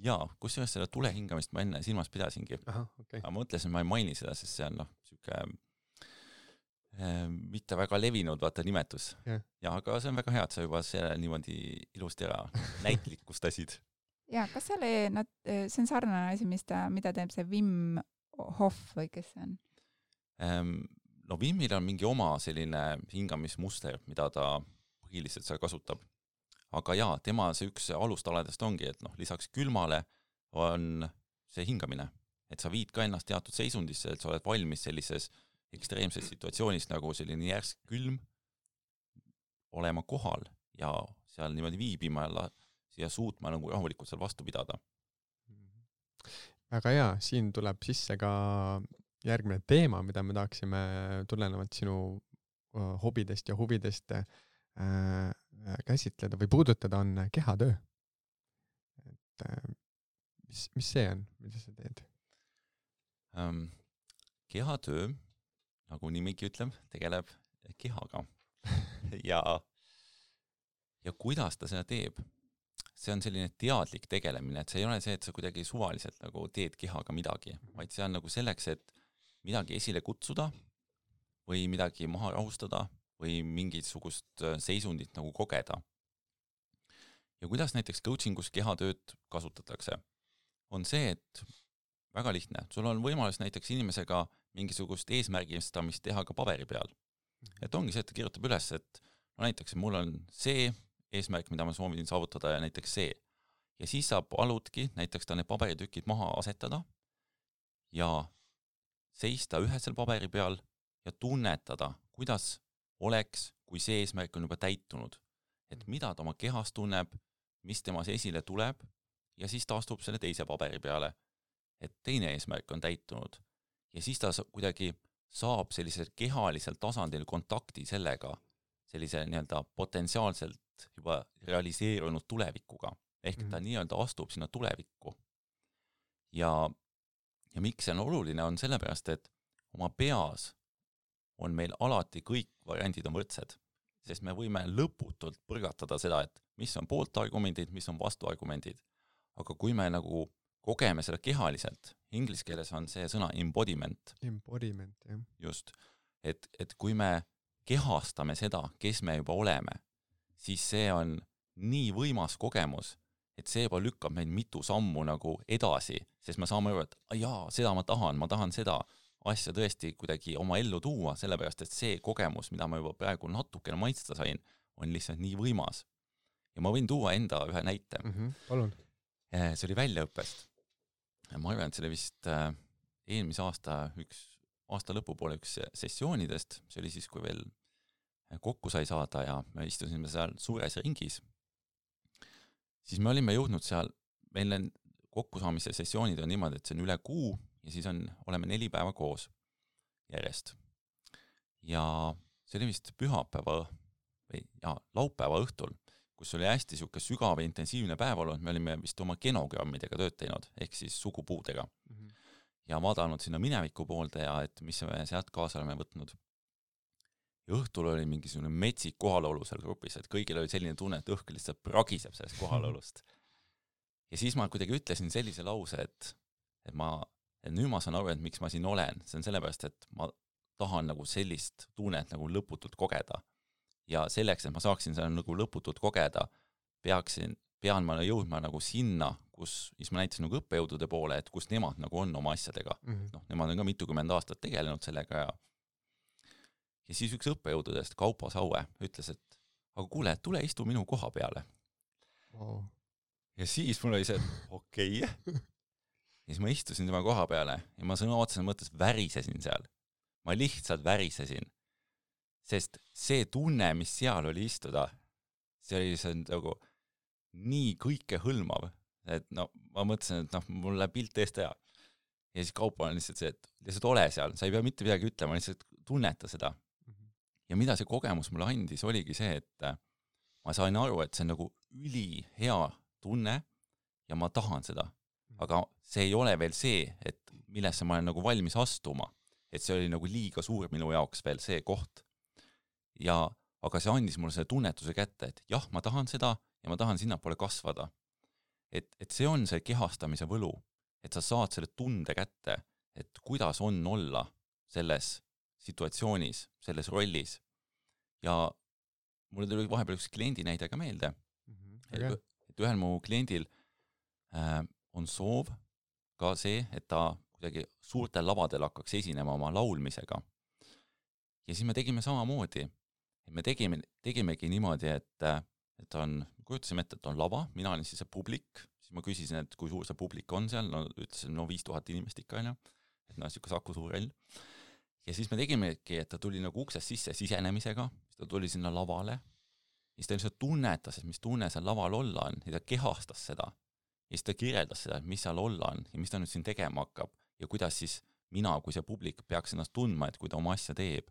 Jaa, kusjuures seda tule hingamist ma enne silmas pidasingi. Aha, okay. Aga ma mõtlesin, ma ei maini seda, sest see on siuke mitte väga levinud nimetus. Ja aga see on väga hea, et sa juba selle niimoodi ilusti ära näitlikustasid. Ja, kas see on sarnane asi, mida teeb see Wim Hof või kes see on? No Wimil on mingi oma selline hingamismuster, mida ta põhiliselt seal kasutab. Aga jaa, tema see üks alustaladest ongi, et lisaks külmale on see hingamine. Et sa viid ka ennast teatud seisundisse, et sa oled valmis sellises ekstreemses situatsioonis nagu selline järsk külm olema kohal ja seal niimoodi viibima ja suutma nagu rahulikult seal vastu pidada. Väga hea, siin tuleb sisse ka järgmine teema, mida me tahaksime tulenevalt sinu hobidest ja huvidest käsitleda või puudutada, on kehatöö. Et, mis see on, mida sa teed? Kehatöö, nagu nimigi ütleb, tegeleb kehaga. ja kuidas ta seda teeb? See on selline teadlik tegelemine, et see ei ole see, et sa kuidagi suvaliselt nagu teed kehaga midagi, vaid see on nagu selleks, et midagi esile kutsuda või midagi maha rahustada või mingisugust seisundit nagu kogeda. Ja kuidas näiteks coachingus kehatööd kasutatakse? On see, et väga lihtne. Sul on võimalus näiteks inimesega mingisugust eesmärgistamist teha ka paberi peal. Et ongi see, et ta kirjutab üles, et no näiteks mul on see eesmärk, mida ma soovin saavutada ja näiteks see. Ja siis sa paludki näiteks ta need paberitükid maha asetada ja seista ühesel paberi peal ja tunnetada, kuidas oleks, kui see eesmärk on juba täitunud. Et mida ta oma kehas tunneb, mis temas esile tuleb ja siis ta astub selle teise paberi peale, et teine eesmärk on täitunud. Ja siis ta kuidagi saab sellisel kehalisel tasandil kontakti sellega, sellise nii-öelda potentsiaalselt juba realiseerunud tulevikuga. Ehk ta nii-öelda astub sinna tulevikku. Ja miks see on oluline, on sellepärast, et oma peas on meil alati kõik variandid on võrdsed, sest me võime lõputult põrgatada seda, et mis on pooltargumendid, mis on vastuargumendid. Aga kui me nagu kogeme seda kehaliselt, inglise keeles on see sõna embodiment. Embodiment, jah. Just. Et kui me kehastame seda, kes me juba oleme, siis see on nii võimas kogemus, et see juba lükkab meid mitu sammu nagu edasi, sest me saame aru, et jaa, seda ma tahan seda asja tõesti kuidagi oma ellu tuua, sellepärast, et see kogemus, mida ma juba praegu natukene maitsta sain, on lihtsalt nii võimas. Ja ma võin tuua enda ühe näite. Palun. See oli väljaõppest. Ma arvan, et see oli vist eelmise aasta lõpupoole üks sessioonidest, see oli siis, kui veel kokku sai saada ja me istusime seal suures ringis, siis me olime jõudnud seal, meil kokkusaamise sessioonid on niimoodi, et see on üle kuu ja siis oleme 4 päeva koos järjest. Ja see oli vist laupäeva õhtul, kus oli hästi siuke sügav ja intensiivne päev olnud, me olime vist oma genogrammidega tööd teinud, ehk siis sugupuudega. Ja vaadanud sinna mineviku poolde ja et mis me sealt kaasa oleme võtnud. Ja õhtul oli mingisugune metsik kohalolu seal grupis, et kõigil oli selline tunne, et õhk lihtsalt pragiseb sellest kohalolust. Ja siis ma kuidagi ütlesin sellise lause, et nüüd ma saan aru, et miks ma siin olen. See on sellepärast, et ma tahan nagu sellist tunnet nagu lõputult kogeda. Ja selleks, et ma saaksin seda nagu lõputult kogeda, pean ma jõudma nagu sinna, siis ma näitasin nagu õppejõudude poole, et kus nemad nagu on oma asjadega. Nemad on ka mitukümmend aastat tegelenud sellega ja siis üks õppejõududest, Kaupo Saue, ütles, et aga kuule, tule istu minu koha peale. Wow. Ja siis mul oli see, et okei. Ja siis ma istusin tema koha peale ja ma sõna otseses mõttes värisesin seal. Ma lihtsalt värisesin. Sest see tunne, mis seal oli istuda, see oli nagu nii kõike hõlmav, et ma mõtlesin, et mul läheb pilt eest hea. ja siis kaupa on lihtsalt see, et lihtsalt ole seal, sa ei pea mitte midagi ütlema, lihtsalt tunneta seda. Ja mida see kogemus mulle andis, oligi see, et ma sain aru, et see on nagu ülihea tunne ja ma tahan seda. Aga see ei ole veel see, et millesse ma olen nagu valmis astuma. Et see oli nagu liiga suur minu jaoks veel see koht. Aga see andis mulle selle tunnetuse kätte, et jah, ma tahan seda ja ma tahan sinnapoole kasvada. Et see on see kehastamise võlu, et sa saad selle tunde kätte, et kuidas on olla selles situatsioonis, selles rollis. Ja mulle tuli vahepeal üks kliendi näide ka meelde, et ühel mu kliendil on soov ka see, et ta kuidagi suurtel lavadel hakkaks esinema oma laulmisega. Ja siis me tegime samamoodi. Me tegimegi niimoodi, et kujutasime ette, et on lava, mina olin siis see publik, siis ma küsisin, et kui suur see publik on seal, ütlesin, 5000 inimest ikka, et siuke Saku Suurel. Ja siis me tegimegi, et ta tuli nagu uksest sisse sisenemisega, siis ta tuli sinna lavale, siis ta lihtsalt tunnetas, et mis tunne seal laval olla on, ja ta kehastas seda, ja siis ta kirjeldas seda, et mis seal olla on, ja mis ta nüüd siin tegema hakkab, ja kuidas siis mina, kui see publik peaks ennast tundma, et kui ta oma asja teeb.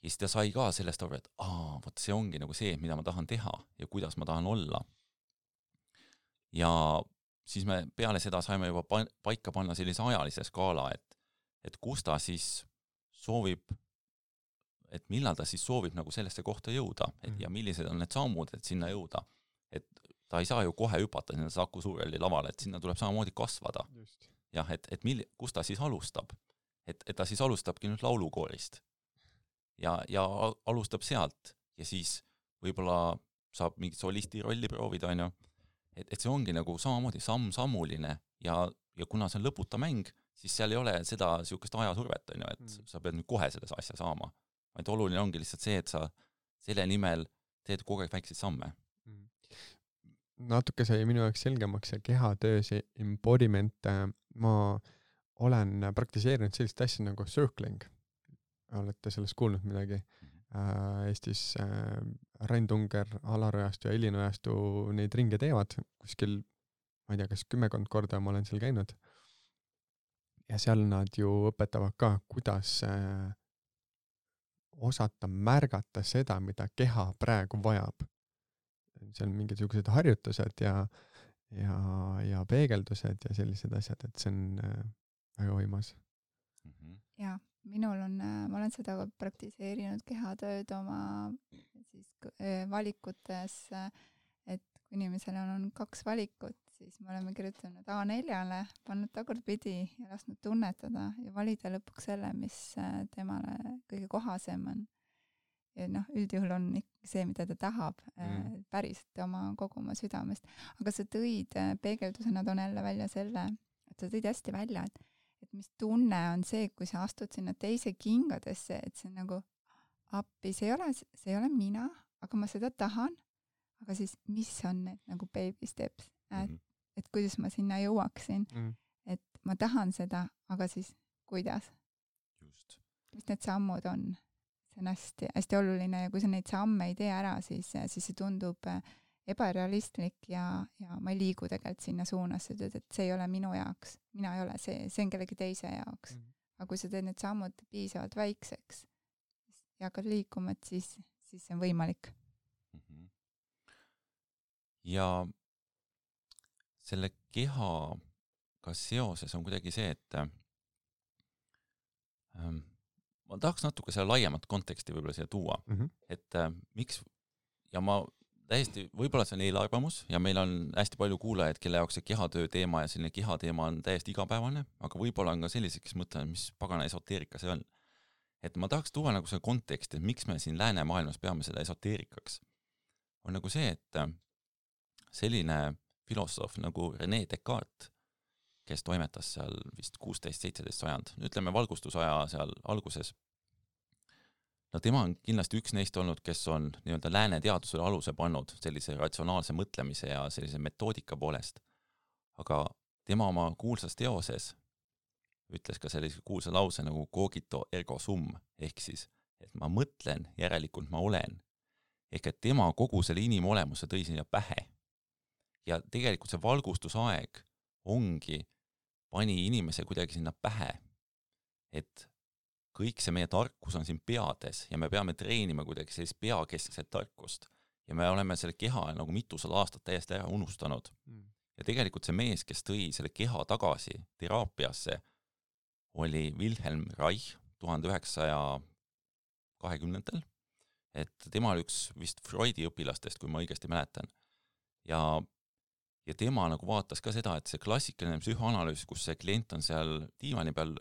Ja siis ta sai ka sellest aru, et vot see ongi nagu see, mida ma tahan teha ja kuidas ma tahan olla. Ja siis me peale seda saime juba paika panna sellise ajalise skaala, et kus ta siis soovib, et millal ta siis soovib nagu sellesse kohta jõuda ja millised on need sammud, et sinna jõuda. Et ta ei saa ju kohe hüpata sinna Saku Suureli lavale, et sinna tuleb samamoodi kasvada. Just. Jah, et kus ta siis alustab? Et ta siis alustabki nüüd laulukoorist. Ja alustab sealt ja siis võib-olla saab mingit solisti rolli proovida, et see ongi nagu samamoodi sammuline ja kuna see on lõputa mäng, siis seal ei ole seda siukest ajasurvet, et sa pead nüüd kohe selles asja saama. Vaid oluline ongi lihtsalt see, et sa selle nimel teed kogu aeg väikseid samme. Natuke sai minu jaoks selgemaks see kehatöö, see embodiment. Ma olen praktiseerinud sellist asja nagu circling. Olete sellest kuulnud midagi? Eestis Rain Tunger, Alarojastu ja Elinojastu neid ringe teevad kuskil, ma ei tea, kas 10 korda ma olen seal käinud. Ja seal nad ju õpetavad ka, kuidas osata märgata seda, mida keha praegu vajab. Seal on mingisugused harjutused ja peegeldused ja sellised asjad, et see on väga võimas. Jaa. Minul ma olen seda praktiseerinud kehatööd oma siis valikutes, et kui inimesel on 2 valikut, siis me oleme kirjutanud A4-le, pannud tagurpidi ja lasknud tunnetada ja valida lõpuks selle, mis temale kõige kohasem on. Ja üldjuhul on see, mida ta tahab, päriselt kogu oma südamest. Aga sa tõid peegeldusena toon jälle välja selle, et sa tõid hästi välja, et mis tunne on see, kui sa astud sinna teise kingadesse, et see on nagu appi, see ei ole mina, aga ma seda tahan, aga siis mis on need nagu baby steps, et kuidas ma sinna jõuaksin, et ma tahan seda, aga siis kuidas? Just. Mis need sammud on? See on hästi, hästi oluline ja kui sa neid samme ei tee ära, siis see tundub ebarealistlik ja ma ei liigu tegelikult sinna suunas, et see ei ole minu jaoks, mina ei ole see on kellegi teise jaoks. Aga kui sa teed need sammud piisavalt väikseks ja hakkad liikuma, et siis see on võimalik. Ja selle kehaga seoses on kuidagi see, et ma tahaks natuke selle laiemat konteksti võib-olla siia tuua, et miks, ja ma täiesti, võib-olla see on eelarvamus ja meil on hästi palju kuulajaid, kelle jaoks see kehatöö teema ja selline kehateema on täiesti igapäevane, aga võib-olla on ka sellised, kes mõtlevad, mis pagana esoteerika see on. Et ma tahaks tuua nagu see kontekst, et miks me siin läänemaailmas peame seda esoteerikaks. On nagu see, et selline filosoof nagu René Descartes, kes toimetas seal vist 16-17 sajand, ütleme valgustusaja seal alguses, no tema on kindlasti üks neist olnud, kes on nii-öelda lääne teadusele aluse pannud sellise ratsionaalse mõtlemise ja sellise metoodika poolest. Aga tema oma kuulsas teoses ütles ka sellise kuulsa lause nagu cogito ergo sum, ehk siis, et ma mõtlen, järelikult ma olen. Ehk et tema kogu selle inimolemuse tõi sinna pähe. Ja tegelikult see valgustusaeg ongi pani inimese kuidagi sinna pähe, et kõik see meie tarkus on siin peades ja me peame treenima kuidagi sellist peakeskset tarkust ja me oleme selle keha nagu mitusada aastat täiesti ära unustanud. Ja tegelikult see mees, kes tõi selle keha tagasi teraapiasse, oli Wilhelm Reich 1920-ndatel, et tema oli üks vist Freudi õpilastest, kui ma õigesti mäletan. Ja tema nagu vaatas ka seda, et see klassikaline psühhoanalüüs, kus see klient on seal diivani peal,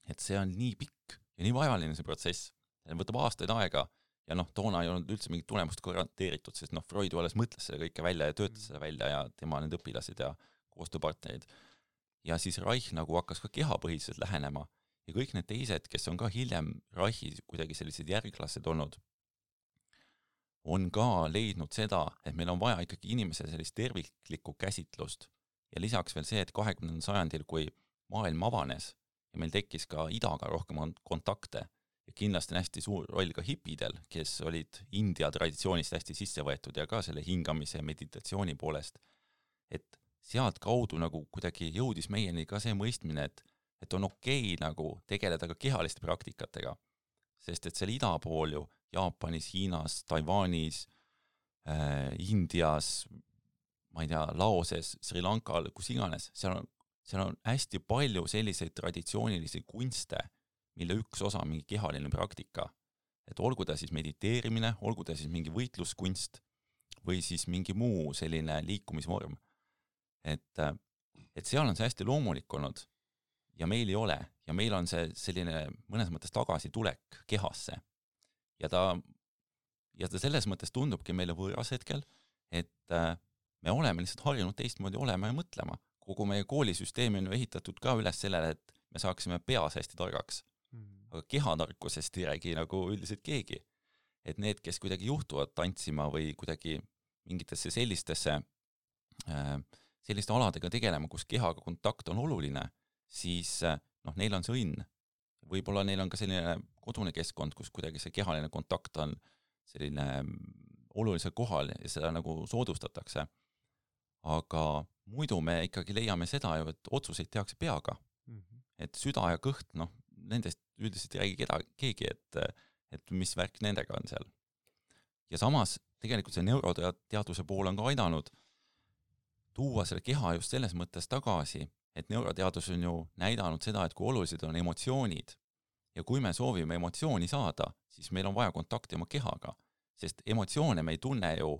et see on nii pikk ja nii vajaline see protsess. See võtab aastaid aega ja toona ei olnud üldse mingit tulemust garanteeritud, sest Freud alles mõtles selle kõike välja ja töötas selle välja ja tema need õpilased ja koostööpartnerid. Ja siis Reich nagu hakkas ka kehapõhiselt lähenema ja kõik need teised, kes on ka hiljem Reichi kuidagi sellised järglased olnud, on ka leidnud seda, et meil on vaja ikkagi inimese sellist terviklikku käsitlust. Ja lisaks veel see, et 20. sajandil, kui maailm avanes ja meil tekkis ka idaga rohkem kontakte ja kindlasti on hästi suur roll ka hipidel, kes olid India traditsioonist hästi sisse võetud ja ka selle hingamise ja meditatsiooni poolest, et sealt kaudu nagu kuidagi jõudis meieni ka see mõistmine, et on okei nagu tegeleda ka kehaliste praktikatega, sest et seal ida pool ju Jaapanis, Hiinas, Taiwanis, Indias, ma ei tea, Laoses, Sri Lankal, kus iganes, seal on hästi palju selliseid traditsioonilisi kunste, mille üks osa on mingi kehaline praktika. Et olgu ta siis mediteerimine, olgu ta siis mingi võitluskunst või siis mingi muu selline liikumisvorm. Et seal on see hästi loomulik olnud ja meil ei ole ja meil on see selline mõnes mõttes tagasitulek kehasse. Ja ta selles mõttes tundubki meile võõras hetkel, et me oleme lihtsalt harjunud teistmoodi olema ja mõtlema. Kogu meie koolisüsteemi on ju ehitatud ka üles sellele, et me saaksime peas hästi targaks. Aga kehatarkusest ei räägi nagu üldiselt keegi. Et need, kes kuidagi juhtuvad tantsima või kuidagi mingitesse selliste aladega tegelema, kus kehaga kontakt on oluline, siis neil on see õnn. Võib-olla neil on ka selline kodune keskkond, kus kuidagi see kehaline kontakt on selline olulisel kohal ja seda nagu soodustatakse. Aga muidu me ikkagi leiame seda ju, et otsuseid tehakse peaga. Et süda ja kõht, nendest üldiselt ei räägi keegi, et mis värk nendega on seal. Ja samas tegelikult see neuroteaduse pool on ka aidanud tuua selle keha just selles mõttes tagasi, et neuroteadus on ju näidanud seda, et kui olulised on emotsioonid ja kui me soovime emotsiooni saada, siis meil on vaja kontakti oma kehaga, sest emotsioone me ei tunne ju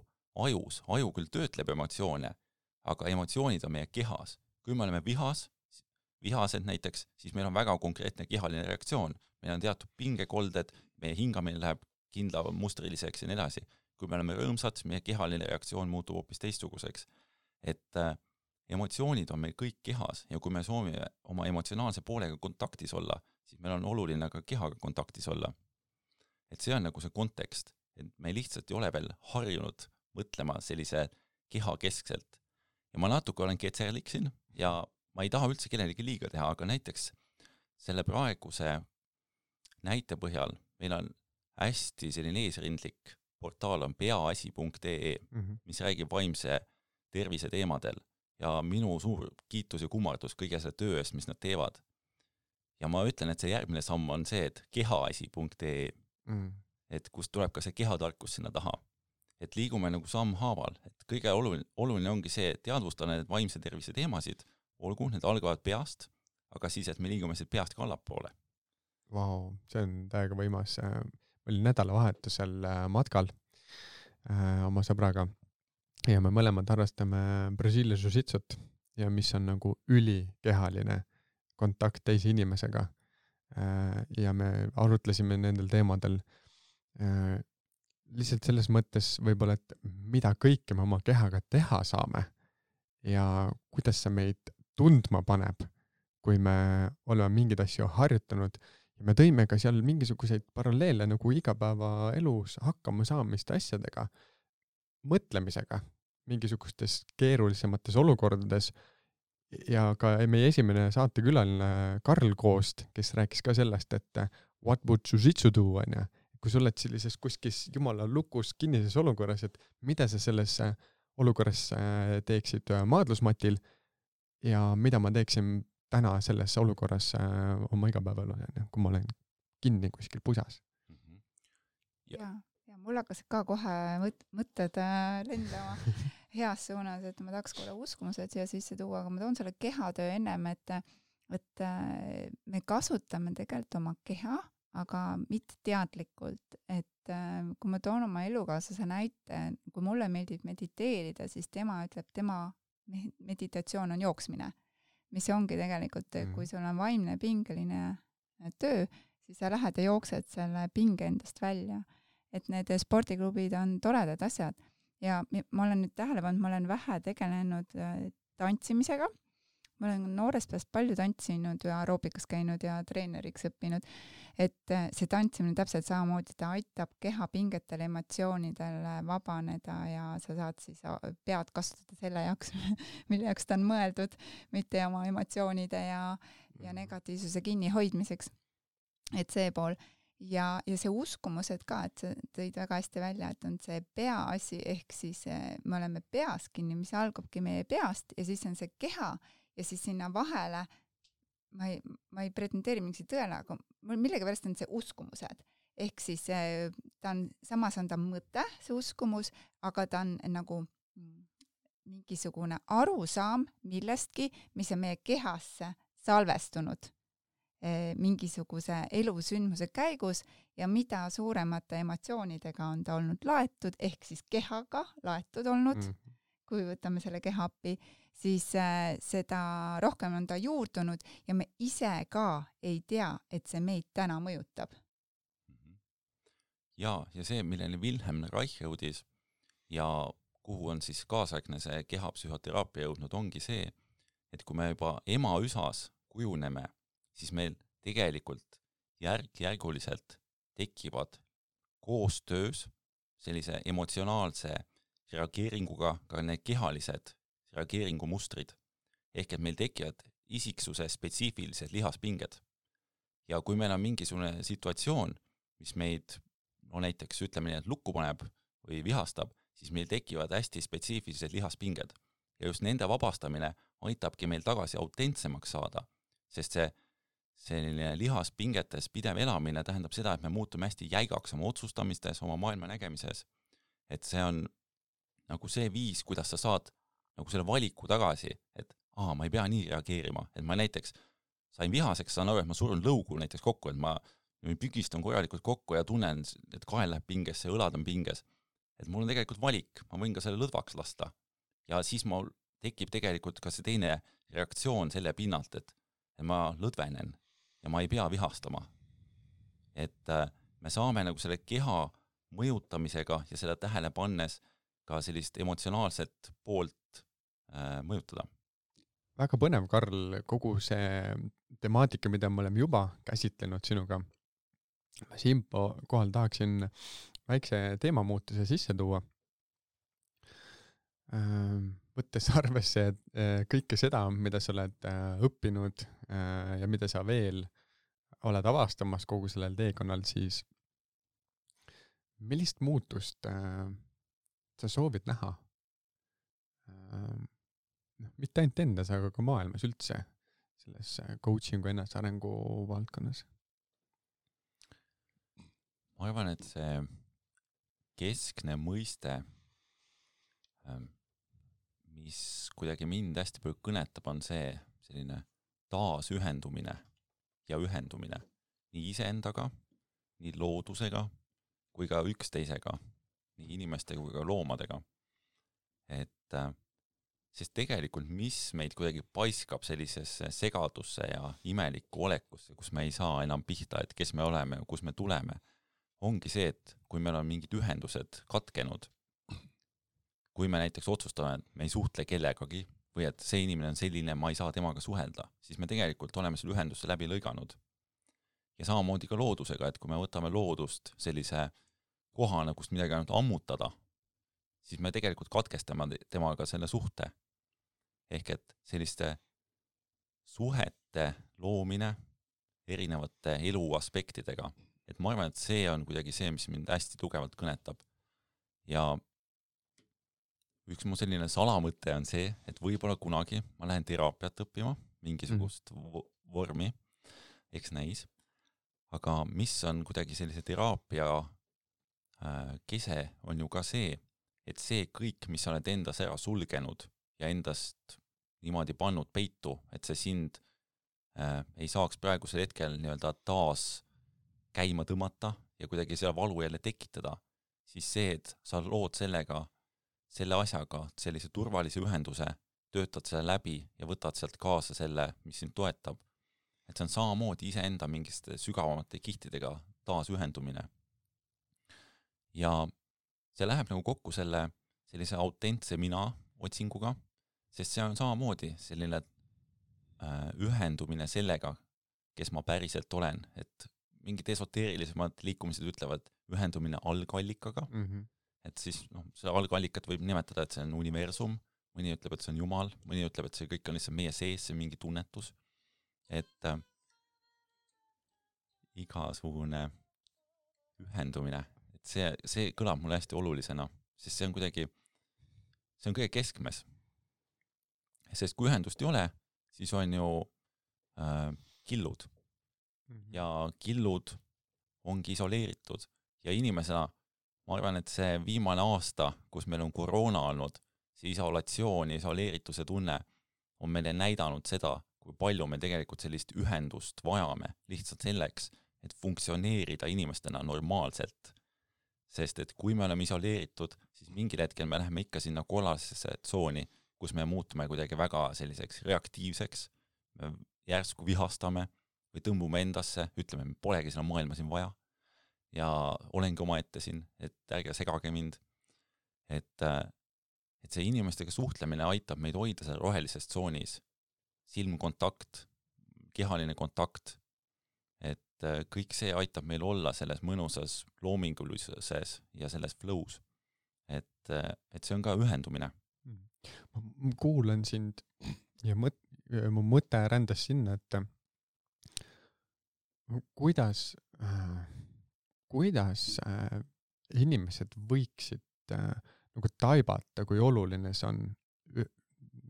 ajus. Aju küll töötleb emotsioone, aga emotsioonid on meie kehas. Kui me oleme vihased näiteks, siis meil on väga konkreetne kehaline reaktsioon. Meil on teatud pingekolded, meie hingamine läheb kindla mustriliseks ja nii edasi. Kui me oleme rõõmsad, meie kehaline reaktsioon muutub hoopis teistsuguseks. Et emotsioonid on meil kõik kehas ja kui me soovime oma emotsionaalse poolega kontaktis olla, siis meil on oluline ka kehaga kontaktis olla. Et see on nagu see kontekst, et me lihtsalt ei ole veel harjunud mõtlema sellise keha keskselt. Ja ma natuke olen ketserlik siin ja ma ei taha üldse kellelegi liiga teha, aga näiteks selle praeguse näite põhjal meil on hästi selline eesrindlik portaal on peaasi.ee, mis räägib vaimse tervise teemadel ja minu suur kiitus ja kummardus kõige selle töö eest, mis nad teevad. Ja ma ütlen, et see järgmine samm on see, et kehaasi.ee, et kust tuleb ka see kehatarkus sinna taha. Et liigume nagu samm haaval, et kõige oluline ongi see, et teadvustada need vaimse tervise teemasid, olgu, need algavad peast, aga siis, et me liigume siit peast ka allapoole. Vau, see on täiega võimas. Ma olin nädalavahetusel matkal oma sõbraga ja me mõlemad harrastame Brasiilia jiu-jitsut ja mis on nagu ülikehaline kontakt teise inimesega. Ja me arutlesime nendel teemadel lihtsalt selles mõttes võib-olla, et mida kõike me oma kehaga teha saame ja kuidas see meid tundma paneb, kui me oleme mingid asju harjutanud ja me tõime ka seal mingisuguseid paralleele nagu igapäeva elus hakkama saamiste asjadega, mõtlemisega mingisugustes keerulisemates olukordades ja ka meie esimene saatekülaline Karl Koost, kes rääkis ka sellest, et what would jiu-jitsu do, on ja kui sa oled sellises kuskis jumala lukus kinnises olukorras, et mida sa selles olukorras teeksid maadlusmatil ja mida ma teeksin täna selles olukorras oma igapäeval, kui ma olen kinni kuskil pusas. Ja mul hakkas ka kohe mõtted lendama heas suunas, et ma tahaks korra uskumused siia sisse tuua, aga ma toon selle kehatöö ennem, et me kasutame tegelikult oma keha, aga mitte teadlikult, et kui ma toon oma elukaaslase näite, kui mulle meeldib mediteerida, siis tema ütleb, tema meditatsioon on jooksmine, mis ongi tegelikult, kui sul on vaimne pingeline töö, siis sa lähed ja jooksed selle pinge endast välja. Et need spordiklubid on toredad asjad ja ma olen nüüd tähele pannud, ma olen vähe tegelenud tantsimisega. Ma olen noorest peast palju tantsinud ja aeroobikas käinud ja treeneriks õppinud, et see tantsimine täpselt samamoodi, ta aitab kehapingetel, emotsioonidel vabaneda ja sa saad siis pead kasutada selle jaoks, mille jaoks ta on mõeldud, mitte oma emotsioonide ja negatiivsuse kinnihoidmiseks. Et see pool. Ja see uskumused ka, et sa tõid väga hästi välja, et on see peaasi, ehk siis me oleme peas kinni, mis algabki meie peast ja siis on see keha ja siis sinna vahele, ma ei pretendeeri mingisi tõele, aga millega pärast on see uskumused. Ehk siis samas on ta mõte, see uskumus, aga ta on nagu mingisugune arusaam millestki, mis on meie kehasse salvestunud mingisuguse elusündmuse käigus ja mida suuremate emotsioonidega on ta olnud laetud, ehk siis kehaga laetud olnud, kui võtame selle keha appi, siis seda rohkem on ta juurdunud ja me ise ka ei tea, et see meid täna mõjutab. Ja see, milleni Wilhelm Reich jõudis ja kuhu on siis kaasaegne see kehapsühhoteraapia jõudnud, ongi see, et kui me juba ema üsas kujuneme, siis meil tegelikult järk-järguliselt tekivad koostöös sellise emotsionaalse reageeringuga ka need kehalised reageeringumustrid. Ehk et meil tekivad isiksuse spetsiifilised lihaspinged. Ja kui meil on mingisugune situatsioon, mis meid, näiteks ütleme nii, et lukku paneb või vihastab, siis meil tekivad hästi spetsiifilised lihaspinged. Ja just nende vabastamine aitabki meil tagasi autentsemaks saada, sest selline lihaspingetes pidev elamine tähendab seda, et me muutume hästi jäigaks oma otsustamistes, oma maailma nägemises. Et see on nagu see viis, kuidas sa saad nagu selle valiku tagasi, et ma ei pea nii reageerima. Et ma näiteks sain vihaseks, saan aru, et ma surun lõugu näiteks kokku, et ma pügistan korralikult kokku ja tunnen, et kael läheb pingesse, õlad on pinges. Et mul on tegelikult valik, ma võin ka selle lõdvaks lasta. Ja siis mul tekib tegelikult ka see teine reaktsioon selle pinnalt, et ma lõdvenen ja ma ei pea vihastama. Et me saame nagu selle keha mõjutamisega ja seda tähele pannes ka sellist emotsionaalset poolt mõjutada. Väga põnev, Karl, kogu see temaatika, mida me oleme juba käsitlenud sinuga. Ma siin kohal tahaksin väikse teemamuutuse sisse tuua. Võttes arvesse kõike seda, mida sa oled õppinud ja mida sa veel oled avastamas kogu sellel teekonnal, siis millist muutust sa soovid näha? Mitte ainult endas, aga ka maailmas üldse selles coachingu ennesarengu valdkonnas? Ma arvan, et see keskne mõiste, mis kuidagi mind hästi palju kõnetab, on see selline taasühendumine ja ühendumine nii iseendaga, nii loodusega kui ka üksteisega, nii inimestega kui ka loomadega. Et sest tegelikult mis meid kuidagi paiskab sellisesse segadusse ja imelikku olekusse, kus me ei saa enam pihta, et kes me oleme ja kus me tuleme, ongi see, et kui meil on mingid ühendused katkenud, kui me näiteks otsustame, et me ei suhtle kellegagi või et see inimene on selline, ma ei saa temaga suhelda, siis me tegelikult oleme selle ühenduse läbi lõiganud. Ja samamoodi ka loodusega, et kui me võtame loodust sellise kohana, kust midagi ainult ammutada, siis me tegelikult katkestame temaga selle suhte. Ehk et selliste suhete loomine erinevate elu aspektidega. Et ma arvan, et see on kuidagi see, mis mind hästi tugevalt kõnetab. Ja üks mu selline salamõte on see, et võib-olla kunagi ma lähen teraapiat õppima mingisugust vormi, eks näis. Aga mis on kuidagi sellise teraapia kese on ju ka see, et see kõik, mis sa oled endas ära sulgenud ja endast niimoodi pannud peitu, et see sind ei saaks praegusel hetkel nii-öelda taas käima tõmmata ja kuidagi seda valu jälle tekitada, siis see, et sa lood sellega, selle asjaga sellise turvalise ühenduse, töötad selle läbi ja võtad sealt kaasa selle, mis sind toetab. Et see on samamoodi iseenda mingiste sügavamate kihtidega taas ühendumine. Ja see läheb nagu kokku sellise autentse mina otsinguga, sest see on samamoodi selline ühendumine sellega, kes ma päriselt olen, et mingid esoteerilisemad liikumised ütlevad ühendumine algallikaga, et siis selle algallikat võib nimetada, et see on universum, mõni ütleb, et see on Jumal, mõni ütleb, et see kõik on lihtsalt meie sees, see mingi tunnetus, et igasugune ühendumine, et see kõlab mulle hästi olulisena, sest see on kõige keskmes. Sest kui ühendust ei ole, siis on ju killud. Ja killud ongi isoleeritud. Ja inimesena, ma arvan, et see viimane aasta, kus meil on koroona olnud, see isolatsioon ja isoleerituse tunne on meile näidanud seda, kui palju me tegelikult sellist ühendust vajame lihtsalt selleks, et funktsioneerida inimestena normaalselt. Sest et kui me oleme isoleeritud, siis mingil hetkel me läheme ikka sinna kollasesse tsooni, kus me muutume kuidagi väga selliseks reaktiivseks, me järsku vihastame või tõmbume endasse, ütleme, me polegi seda maailma siin vaja ja olengi oma ette siin, et ärge segage mind. Et see inimestega suhtlemine aitab meid hoida seal rohelises tsoonis. Silmkontakt, kehaline kontakt, et kõik see aitab meil olla selles mõnusas loomingulises ja selles flows. Et see on ka ühendumine. Ma kuulan sind ja mu mõte rändas sinna, et kuidas inimesed võiksid nagu taibata, kui oluline see on,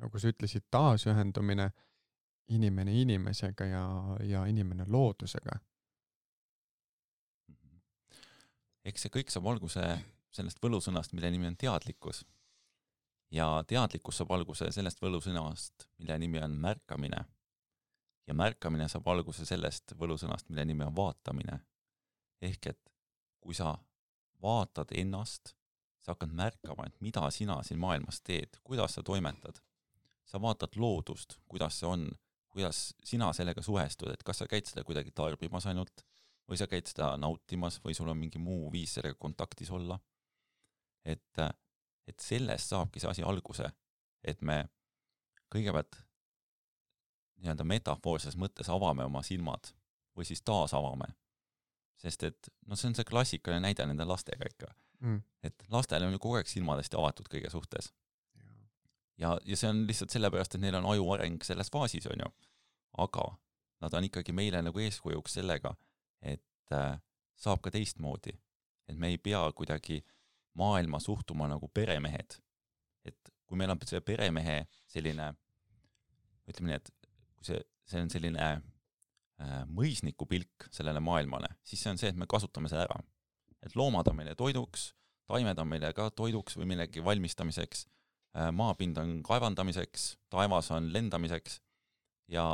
nagu sa ütlesid, taasühendumine inimene inimesega ja inimene loodusega. Eks see kõik saab alguse sellest võlusõnast, mille nimi on teadlikkus. Ja teadlikkus saab alguse sellest võlusõnast, mille nimi on märkamine. Ja märkamine saab alguse sellest võlusõnast, mille nimi on vaatamine. Ehk et kui sa vaatad ennast, sa hakkad märkama, et mida sina siin maailmas teed, kuidas sa toimetad. Sa vaatad loodust, kuidas see on, kuidas sina sellega suhestud, et kas sa käid seda kuidagi tarbimas ainult, või sa käid seda nautimas, või sul on mingi muu viis sellega kontaktis olla. Et sellest saabki see asi alguse, et me kõigepealt nii-öelda metafoorses mõttes avame oma silmad või siis taas avame. Sest et see on see klassikaline näide nende lastega ikka. Et lastele on ju kogu aeg silmadest avatud kõige suhtes. Ja see on lihtsalt sellepärast, et neil on aju areng selles faasis on ju. Aga nad on ikkagi meile nagu eeskujuks sellega, et saab ka teistmoodi. Et me ei pea kuidagi maailma suhtuma nagu peremehed. Et kui meil on see peremehe selline, ütleme nii, et kui see on selline mõisniku pilk sellele maailmale, siis see on see, et me kasutame seda ära. Et loomad on meile toiduks, taimed on meile ka toiduks või millegi valmistamiseks, maapind on kaevandamiseks, taevas on lendamiseks ja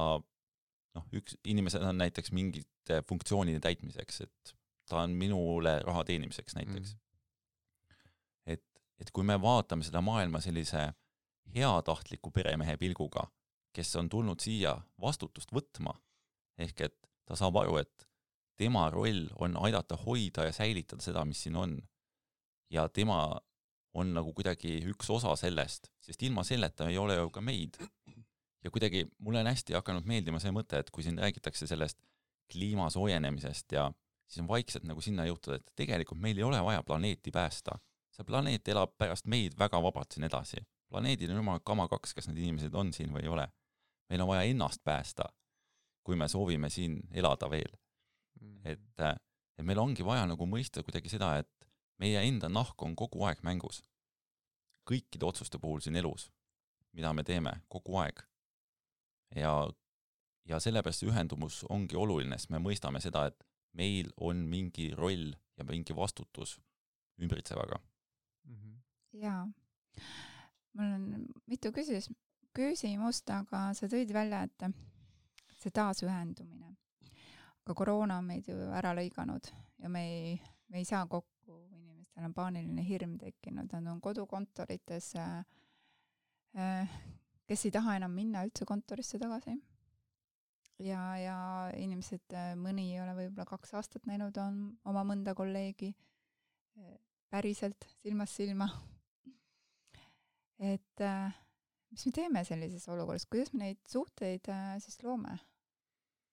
inimesed on näiteks mingite funktsioonide täitmiseks, et ta on minule raha teenimiseks näiteks. Et kui me vaatame seda maailma sellise heatahtliku peremehe pilguga, kes on tulnud siia vastutust võtma, ehk et ta saab aru, et tema roll on aidata hoida ja säilitada seda, mis siin on. Ja tema on nagu kuidagi üks osa sellest, sest ilma selleta ei ole ju ka meid. Ja kuidagi mulle on hästi hakanud meeldima see mõte, et kui siin räägitakse sellest kliima soojenemisest ja siis on vaikselt nagu sinna juhtud, et tegelikult meil ei ole vaja planeeti päästa. See planeet elab pärast meid väga vabalt siin edasi. Planeedil on jumal kama kaks, kas need inimesed on siin või ei ole. Meil on vaja ennast päästa, kui me soovime siin elada veel. Et meil ongi vaja nagu mõista kuidagi seda, et meie enda nahk on kogu aeg mängus. Kõikide otsuste puhul siin elus, mida me teeme kogu aeg. Ja ja sellepärast see ühendumus ongi oluline, sest me mõistame seda, et meil on mingi roll ja mingi vastutus ümbritsevaga. Jaa, mul on mitu küsimust, aga sa tõid välja, et see taasühendumine. Aga koroona on meid ju ära lõiganud ja me ei saa kokku, inimestel on paaniline hirm tekkinud, nad on kodukontorites, kes ei taha enam minna üldse kontorisse tagasi. Ja inimesed, mõni ei ole võib-olla 2 aastat näinud on oma mõnda kolleegi päriselt silmast silma. Et mis me teeme sellises olukorras, kuidas me neid suhteid siis loome,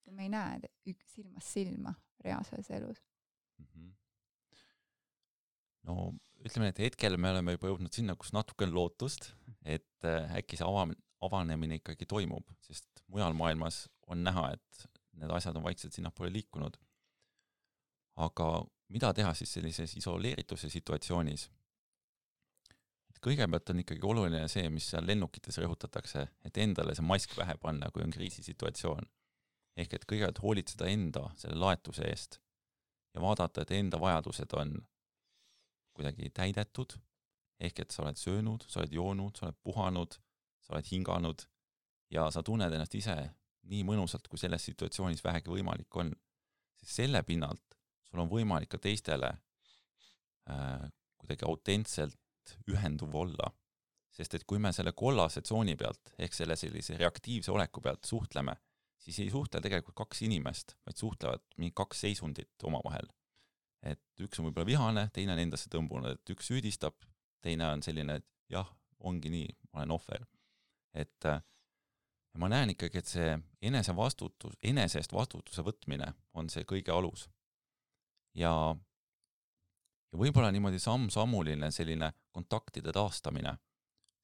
kui me ei näe silmast silma reaalses elus? No ütleme, et hetkel me oleme juba jõudnud sinna, kus natuke on lootust, et äkki see avanemine ikkagi toimub, sest mujal maailmas on näha, et need asjad on vaikselt sinnapoole liikunud. Aga mida teha siis sellises isoleerituse situatsioonis? Kõigepealt on ikkagi oluline see, mis seal lennukites rõhutatakse, et endale see mask pähe panna, kui on kriisisituatsioon. Ehk et kõigepealt hoolitseda enda selle laetuse eest ja vaadata, et enda vajadused on kuidagi täidetud, ehk et sa oled söönud, sa oled joonud, sa oled puhanud, sa oled hinganud ja sa tunned ennast ise nii mõnusalt, kui selles situatsioonis vähegi võimalik on. Sest selle pinnalt sul on võimalik ka teistele kuidagi autentselt ühenduv olla. Sest et kui me selle kollase tsooni pealt, ehk selle sellise reaktiivse oleku pealt suhtleme, siis ei suhtle tegelikult 2 inimest, vaid suhtlevad mingi 2 seisundit omavahel. Et üks on võib-olla vihane, teine on endasse tõmbunud, et üks süüdistab, teine on selline, et jah, ongi nii, ma olen ohver. Et ma näen ikkagi, et see enesest vastutuse võtmine on see kõige alus. Ja võib-olla niimoodi samm-sammuline selline kontaktide taastamine,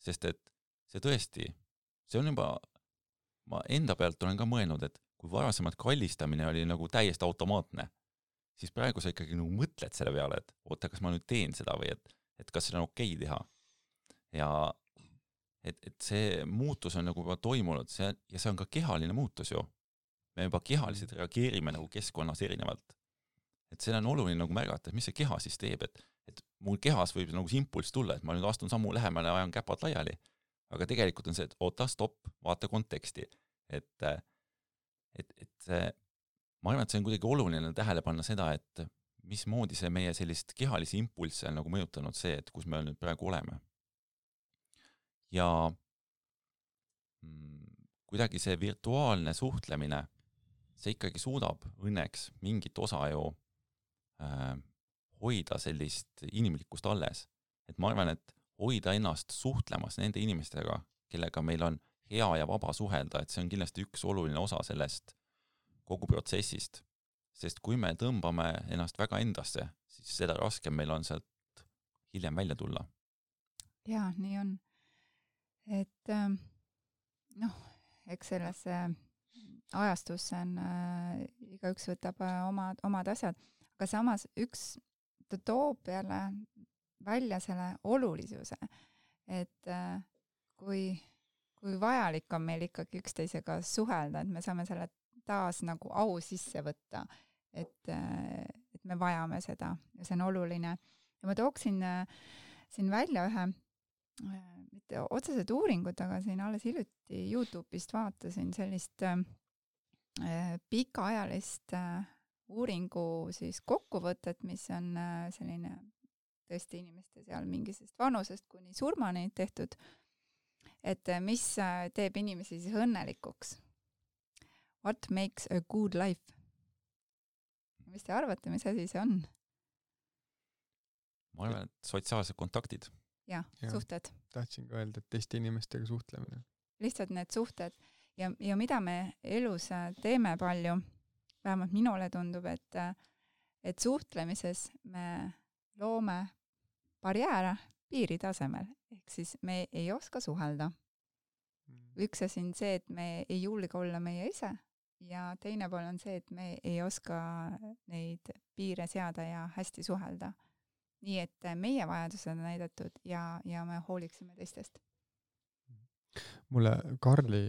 sest et see tõesti, see on juba, ma enda pealt olen ka mõelnud, et kui varasemalt kallistamine oli nagu täiesti automaatne, siis praegu sa ikkagi nagu mõtled selle peale, et oota, kas ma nüüd teen seda või et kas seda on okei teha. Ja et see muutus on nagu juba toimunud ja see on ka kehaline muutus ju. Me juba kehaliselt reageerime nagu keskkonnas erinevalt. Et see on oluline nagu märgata, et mis see keha siis teeb, et mul kehas võib nagu see impulss tulla, et ma nüüd astun sammu lähemale ja ajan käpad laiali. Aga tegelikult on see, et oota, stopp, vaata konteksti. Et ma arvan, et see on kuidagi oluline tähele panna seda, et mismoodi see meie sellist kehalisi impulsse on nagu mõjutanud see, et kus me nüüd praegu oleme. Ja kuidagi see virtuaalne suhtlemine, see ikkagi suudab õnneks mingit osa ju hoida sellist inimlikkust alles. Et ma arvan, et hoida ennast suhtlemas nende inimestega, kellega meil on hea ja vaba suhelda, et see on kindlasti üks oluline osa sellest kogu protsessist. Sest kui me tõmbame ennast väga endasse, siis seda raskem meil on sealt hiljem välja tulla. Jaa, nii on. Et eks selles ajastusse on, igaüks võtab omad asjad, aga samas ta toob jälle välja selle olulisuse, et kui vajalik on meil ikkagi üksteisega suhelda, et me saame selle taas nagu au sisse võtta, et me vajame seda ja see on oluline. Ja ma tooksin siin välja ühe, mitte otsesed uuringud, aga siin alles hiljuti YouTube'ist vaatasin sellist pikaajalist uuringu siis kokkuvõtet, mis on selline tõesti inimeste seal mingisest vanusest kuni surmani tehtud, et mis teeb inimesi siis õnnelikuks. What makes a good life? Mis te arvate, mis asi see on? Ma arvan, et sotsiaalsed kontaktid. Ja, suhted. Tahtsin ka öelda, et teiste inimestega suhtlemine. Lihtsalt need suhted. Ja mida me elus teeme palju, vähemalt minule tundub, et suhtlemises me loome barjääre piiri tasemel. Ehk siis me ei oska suhelda. Üks asi on see, et me ei julge olla meie ise ja teine pool on see, et me ei oska neid piire seada ja hästi suhelda. Nii et meie vajadused on näidatud ja me hooliksime teistest. Mulle Karli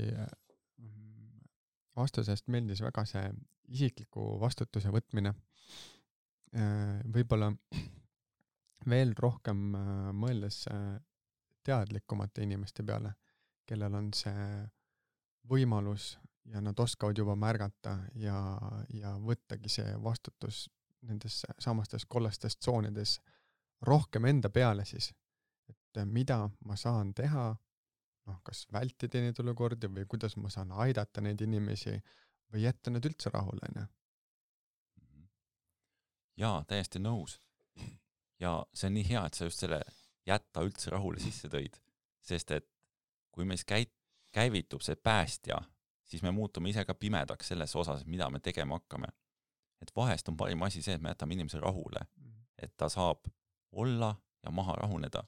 vastusest meeldis väga see isikliku vastutuse võtmine. Võib-olla veel rohkem mõeldes teadlikumate inimeste peale, kellel on see võimalus ja nad oskavad juba märgata ja võttagi see vastutus nendes samastes kollastes tsoonides rohkem enda peale siis, et mida ma saan teha, kas vältida neid olukordi või kuidas ma saan aidata neid inimesi või jätta need üldse rahule. Jaa, täiesti nõus. Ja see on nii hea, et sa just selle jätta üldse rahule sisse tõid, sest et kui meis käivitub see päästja, siis me muutume ise ka pimedaks selles osas, mida me tegema hakkame. Et vahest on parim asi see, et me jätame inimese rahule, et ta saab olla ja maha rahuneda.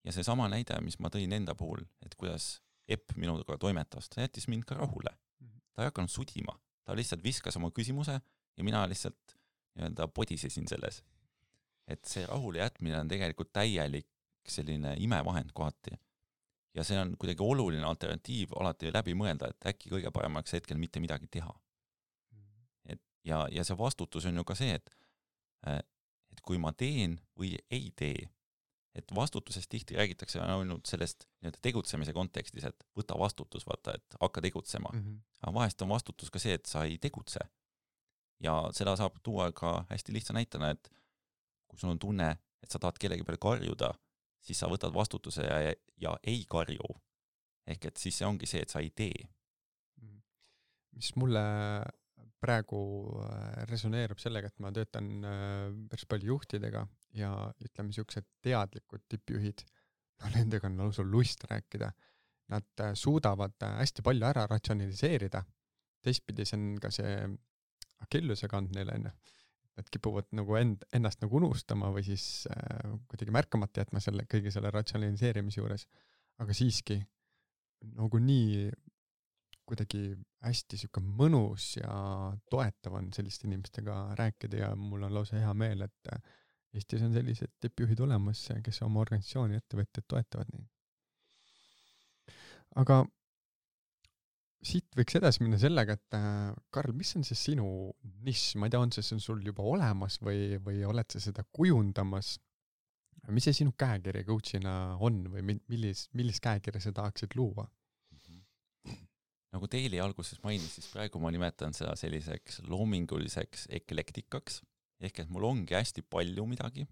Ja see sama näide, mis ma tõin enda puhul, et kuidas Epp minuga toimetas, ta jättis mind ka rahule. Ta ei hakanud sudima, ta lihtsalt viskas oma küsimuse ja mina lihtsalt podisesin selles. Et see rahule jätmine on tegelikult täielik selline imevahend kohati. Ja see on kuidagi oluline alternatiiv alati läbi mõelda, et äkki kõige paremaks hetkel mitte midagi teha. Ja see vastutus on ju ka see, et kui ma teen või ei tee, et vastutusest tihti räägitakse ainult sellest tegutsemise kontekstis, et võta vastutus, vaata, et hakka tegutsema. Aga vahest on vastutus ka see, et sa ei tegutse. Ja seda saab tuua ka hästi lihtsa näitena, et kui sul on tunne, et sa tahad kellegi peale karjuda, siis sa võtad vastutuse ja ei karju. Ehk et siis see ongi see, et sa ei tee. Mis mulle praegu resoneerub sellega, et ma töötan päris palju juhtidega ja ütleme niisugused teadlikud tippjuhid, nendega on lausa lust rääkida. Nad suudavad hästi palju ära ratsionaliseerida. Teistpidi see on ka see akilluse kand neile enne. Nad kipuvad nagu ennast nagu unustama või siis kuidagi märkamata jätma kõige selle ratsionaliseerimise juures. Aga siiski nagu nii kuidagi hästi siuke mõnus ja toetav on selliste inimestega rääkida ja mul on lausa hea meel, et Eestis on sellised tippjuhid olemas, kes oma organisatsiooni ettevõtted toetavad neid. Aga siit võiks edasi minna sellega, et Karl, mis on see sinu nišš? Ma ei tea, on see sul juba olemas või oled sa seda kujundamas? Mis see sinu käekirja coachina on või millist käekirja sa tahaksid luua? Nagu Teili alguses mainis, siis praegu ma nimetan seda selliseks loominguliseks eklektikaks, ehk et mul ongi hästi palju midagi,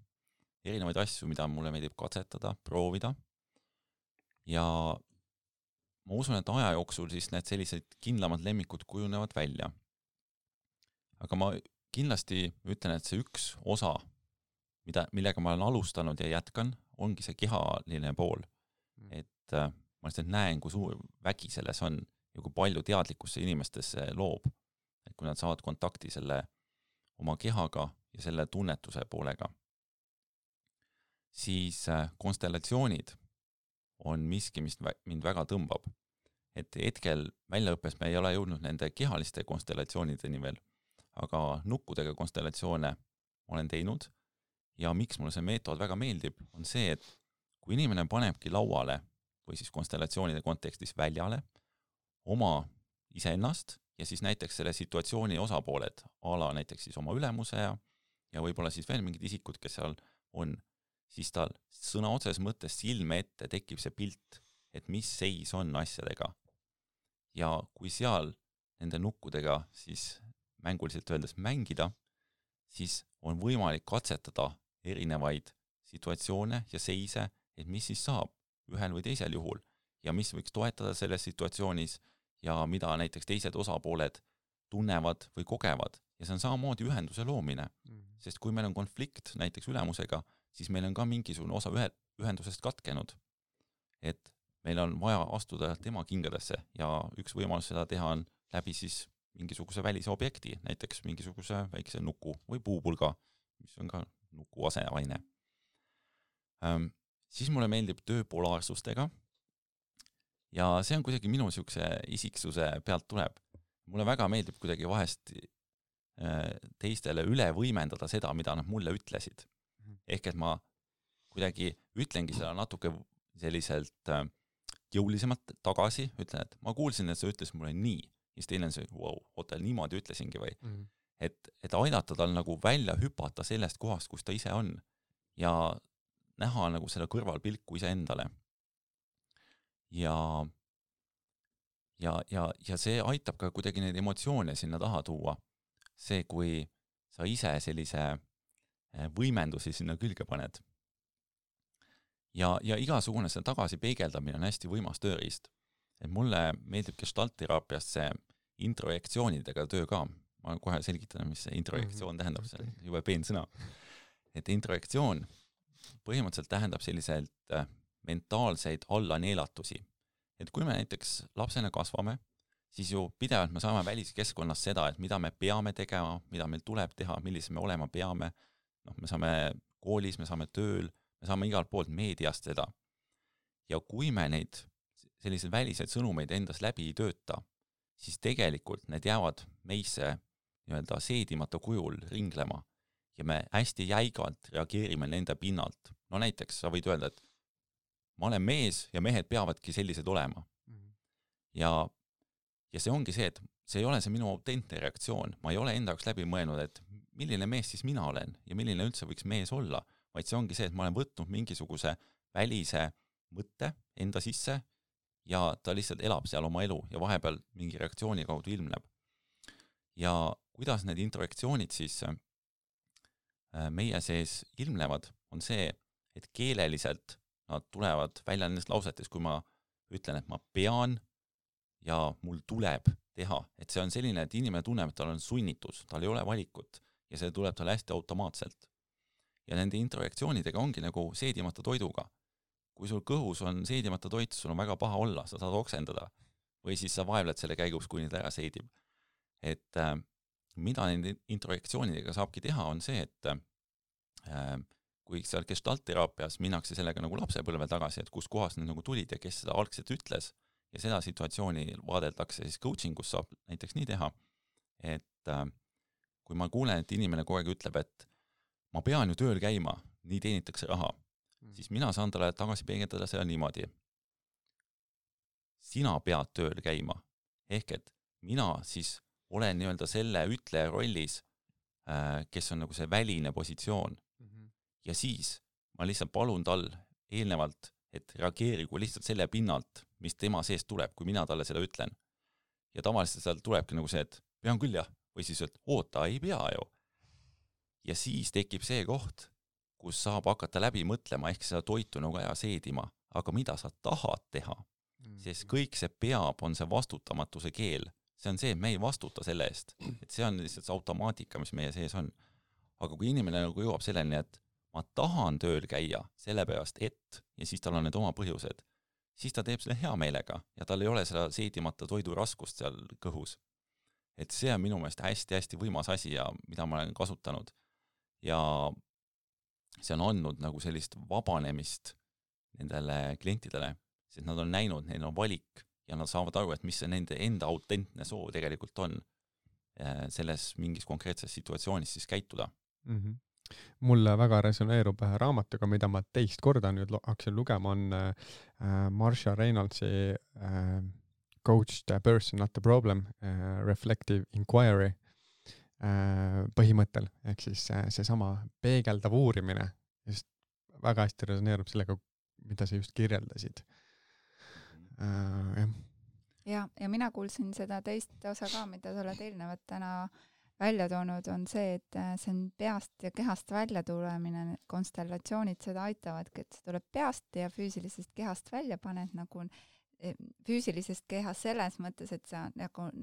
erinevaid asju, mida mulle meeldib katsetada, proovida. Ja ma usun, et aja jooksul siis need sellised kindlamad lemmikud kujunevad välja. Aga ma kindlasti ütlen, et see üks osa, millega ma olen alustanud ja jätkan, ongi see kehaline pool. Et ma lihtsalt näen, kui suur vägi selles on ja kui palju teadlikkusse inimestesse loob. Et kui nad saavad kontakti selle oma kehaga ja selle tunnetuse poolega. Siis konstellatsioonid on miski, mis mind väga tõmbab. Et hetkel väljaõppes me ei ole jõudnud nende kehaliste konstellatsioonideni veel, aga nukkudega konstellatsioone olen teinud ja miks mulle see meetod väga meeldib, on see, et kui inimene panebki lauale või siis konstellatsioonide kontekstis väljale oma iseennast ja siis näiteks selle situatsiooni osapooled, ala näiteks siis oma ülemuse ja võib-olla siis veel mingid isikud, kes seal on, siis tal sõna otses mõttes silme ette tekib see pilt, et mis seis on asjadega. Ja kui seal nende nukkudega siis mänguliselt öeldes mängida, siis on võimalik katsetada erinevaid situatsioone ja seise, et mis siis saab ühel või teisel juhul ja mis võiks toetada selles situatsioonis ja mida näiteks teised osapooled tunnevad või kogevad. Ja see on samamoodi ühenduse loomine, sest kui meil on konflikt näiteks ülemusega, siis meil on ka mingisugune osa ühendusest katkenud. Et meil on vaja astuda tema kingadesse ja üks võimalus seda teha on läbi siis mingisuguse välise objekti, näiteks mingisuguse väikse nuku või puupulga, mis on ka nuku aseaine. Siis mulle meeldib töö polaarsustega ja see on kuidagi minu siukse isiksuse pealt tuleb. Mulle väga meeldib kuidagi vahest teistele üle võimendada seda, mida nad mulle ütlesid. Ehk et ma kuidagi ütlengi seda natuke selliselt jõulisemalt tagasi, ütlen, et ma kuulsin, et sa ütles mulle nii siis teine on see, oota, niimoodi ütlesingi või. Et aidata tal nagu välja hüpata sellest kohast, kus ta ise on ja näha nagu selle kõrvalpilku iseendale. Ja see aitab ka kuidagi neid emotsioone sinna taha tuua. See, kui sa ise sellise võimendusi sinna külge paned. Ja igasugune see tagasi peegeldamine on hästi võimas tööriist. Et mulle meeldib gestaltteraapiast see introjektsioonidega töö ka. Ma kohe selgitan, mis see introjektsioon tähendab, see on jube peensõna. Et introjektsioon põhimõtteliselt tähendab selliselt mentaalseid allaneelatusi. Et kui me näiteks lapsena kasvame, siis ju pidevalt me saame väliskeskkonnas seda, et mida me peame tegema, mida meil tuleb teha, millise me olema peame. Me saame koolis, me saame tööl, me saame igalt poolt meediast seda. Ja kui me neid selliseid väliseid sõnumeid endas läbi ei tööta, siis tegelikult need jäävad meisse nii-öelda seedimata kujul ringlema ja me hästi jäigalt reageerime nende pinnalt. No näiteks sa võid öelda, et ma olen mees ja mehed peavadki sellised olema. Ja see ongi see, et see ei ole see minu autentne reaktsioon. Ma ei ole enda jaoks läbi mõelnud, et milline mees siis mina olen ja milline üldse võiks mees olla, vaid see ongi see, et ma olen võtnud mingisuguse välise mõtte enda sisse ja ta lihtsalt elab seal oma elu ja vahepeal mingi reaktsiooni kaudu ilmneb. Ja kuidas need introjektsioonid siis meie sees ilmnevad, on see, et keeleliselt nad tulevad välja nendest lausetes, kui ma ütlen, et ma pean ja mul tuleb teha. Et see on selline, et inimene tunneb, et tal on sunnitus, tal ei ole valikut ja see tuleb tal hästi automaatselt. Ja nende introjektsioonidega ongi nagu seedimata toiduga. Kui sul kõhus on seedimata toit, sul on väga paha olla, sa saad oksendada või siis sa vaevled selle käigus, kui neid ära seedib. Et mida nende introjektsioonidega saabki teha, on see, et kui seal gestaltteraapias minnakse sellega nagu lapsepõlve tagasi, et kus kohas need nagu tulid ja kes seda algselt ütles ja seda situatsiooni vaadeldakse, siis coachingus saab näiteks nii teha, et kui ma kuulen, et inimene kogu aeg ütleb, et ma pean ju tööl käima, nii teenitakse raha, siis mina saan talle tagasi peegeldada seda niimoodi. Sina pead tööl käima, ehk et mina siis olen nii-öelda selle ütleja rollis, kes on nagu see väline positsioon. Ja siis ma lihtsalt palun tal eelnevalt, et reageerigu lihtsalt selle pinnalt, mis tema seest tuleb, kui mina talle seda ütlen. Ja tavaliselt seal tulebki nagu see, et pean küll jah, või siis, et oota, ei pea ju. Ja siis tekib see koht, kus saab hakata läbi mõtlema, ehk seda toitu nagu aja seedima, aga mida sa tahad teha, sest kõik see peab on see vastutamatuse keel. See on see, et me ei vastuta selle eest, et see on lihtsalt see automaatika, mis meie sees on. Aga kui inimene nagu jõuab selleni, et ma tahan tööl käia sellepärast, et, ja siis tal on need oma põhjused, siis ta teeb selle hea meelega ja tal ei ole seda seedimata toidu raskust seal kõhus. Et see on minu meelest hästi-hästi võimas asi ja mida ma olen kasutanud. Ja see on andnud nagu sellist vabanemist nendele klientidele, sest nad on näinud, neil on valik ja nad saavad aru, et mis see nende enda autentne soov tegelikult on selles mingis konkreetses situatsioonis siis käituda. Mulle väga resoneerub raamatuga, mida ma teist korda nüüd hakkasin lugema, on Marsha Reynoldsi Coach the Person, Not the Problem, Reflective Inquiry põhimõttel, ehk siis see sama peegeldav uurimine just väga hästi resoneerub sellega, mida sa just kirjeldasid. Ja mina kuulsin seda teist osa ka, mida sa oled eelnevat täna välja toonud, on see, et see on peast ja kehast välja tulemine, konstellatsioonid seda aitavadki, et see tuleb peast ja füüsilisest kehast välja paned nagu füüsilisest kehast selles mõttes, et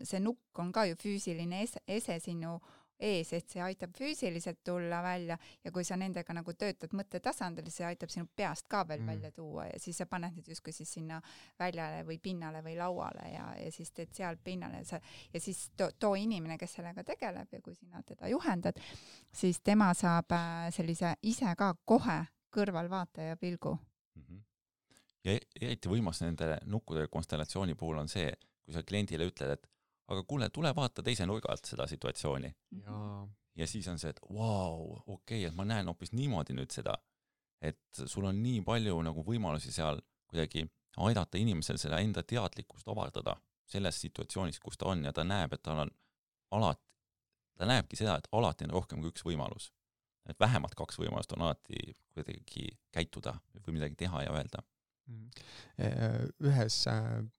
see nukk on ka ju füüsiline ese sinu ees, et see aitab füüsiliselt tulla välja ja kui sa nendega nagu töötad mõttetasandil, see aitab sinu peast ka veel välja tuua ja siis sa paned need justkui siis sinna väljale või pinnale või lauale ja siis teed seal pinnale ja siis too inimene, kes sellega tegeleb ja kui sina teda juhendad, siis tema saab sellise ise ka kohe kõrvalvaataja pilgu. Ja eriti võimas nende nukkude konstellatsiooni puhul on see, kui sa kliendile ütled, et aga kuule, tule vaata teise nurga alt seda situatsiooni. Ja siis on see, et okei, et ma näen hoopis niimoodi nüüd seda, et sul on nii palju nagu võimalusi seal kuidagi aidata inimesel seda enda teadlikkust avardada selles situatsioonis, kus ta on ja ta näeb, et tal on ta näebki seda, et alati on rohkem kui üks võimalus. Et vähemalt 2 võimalust on alati kuidagi käituda või midagi teha ja öelda. Ühes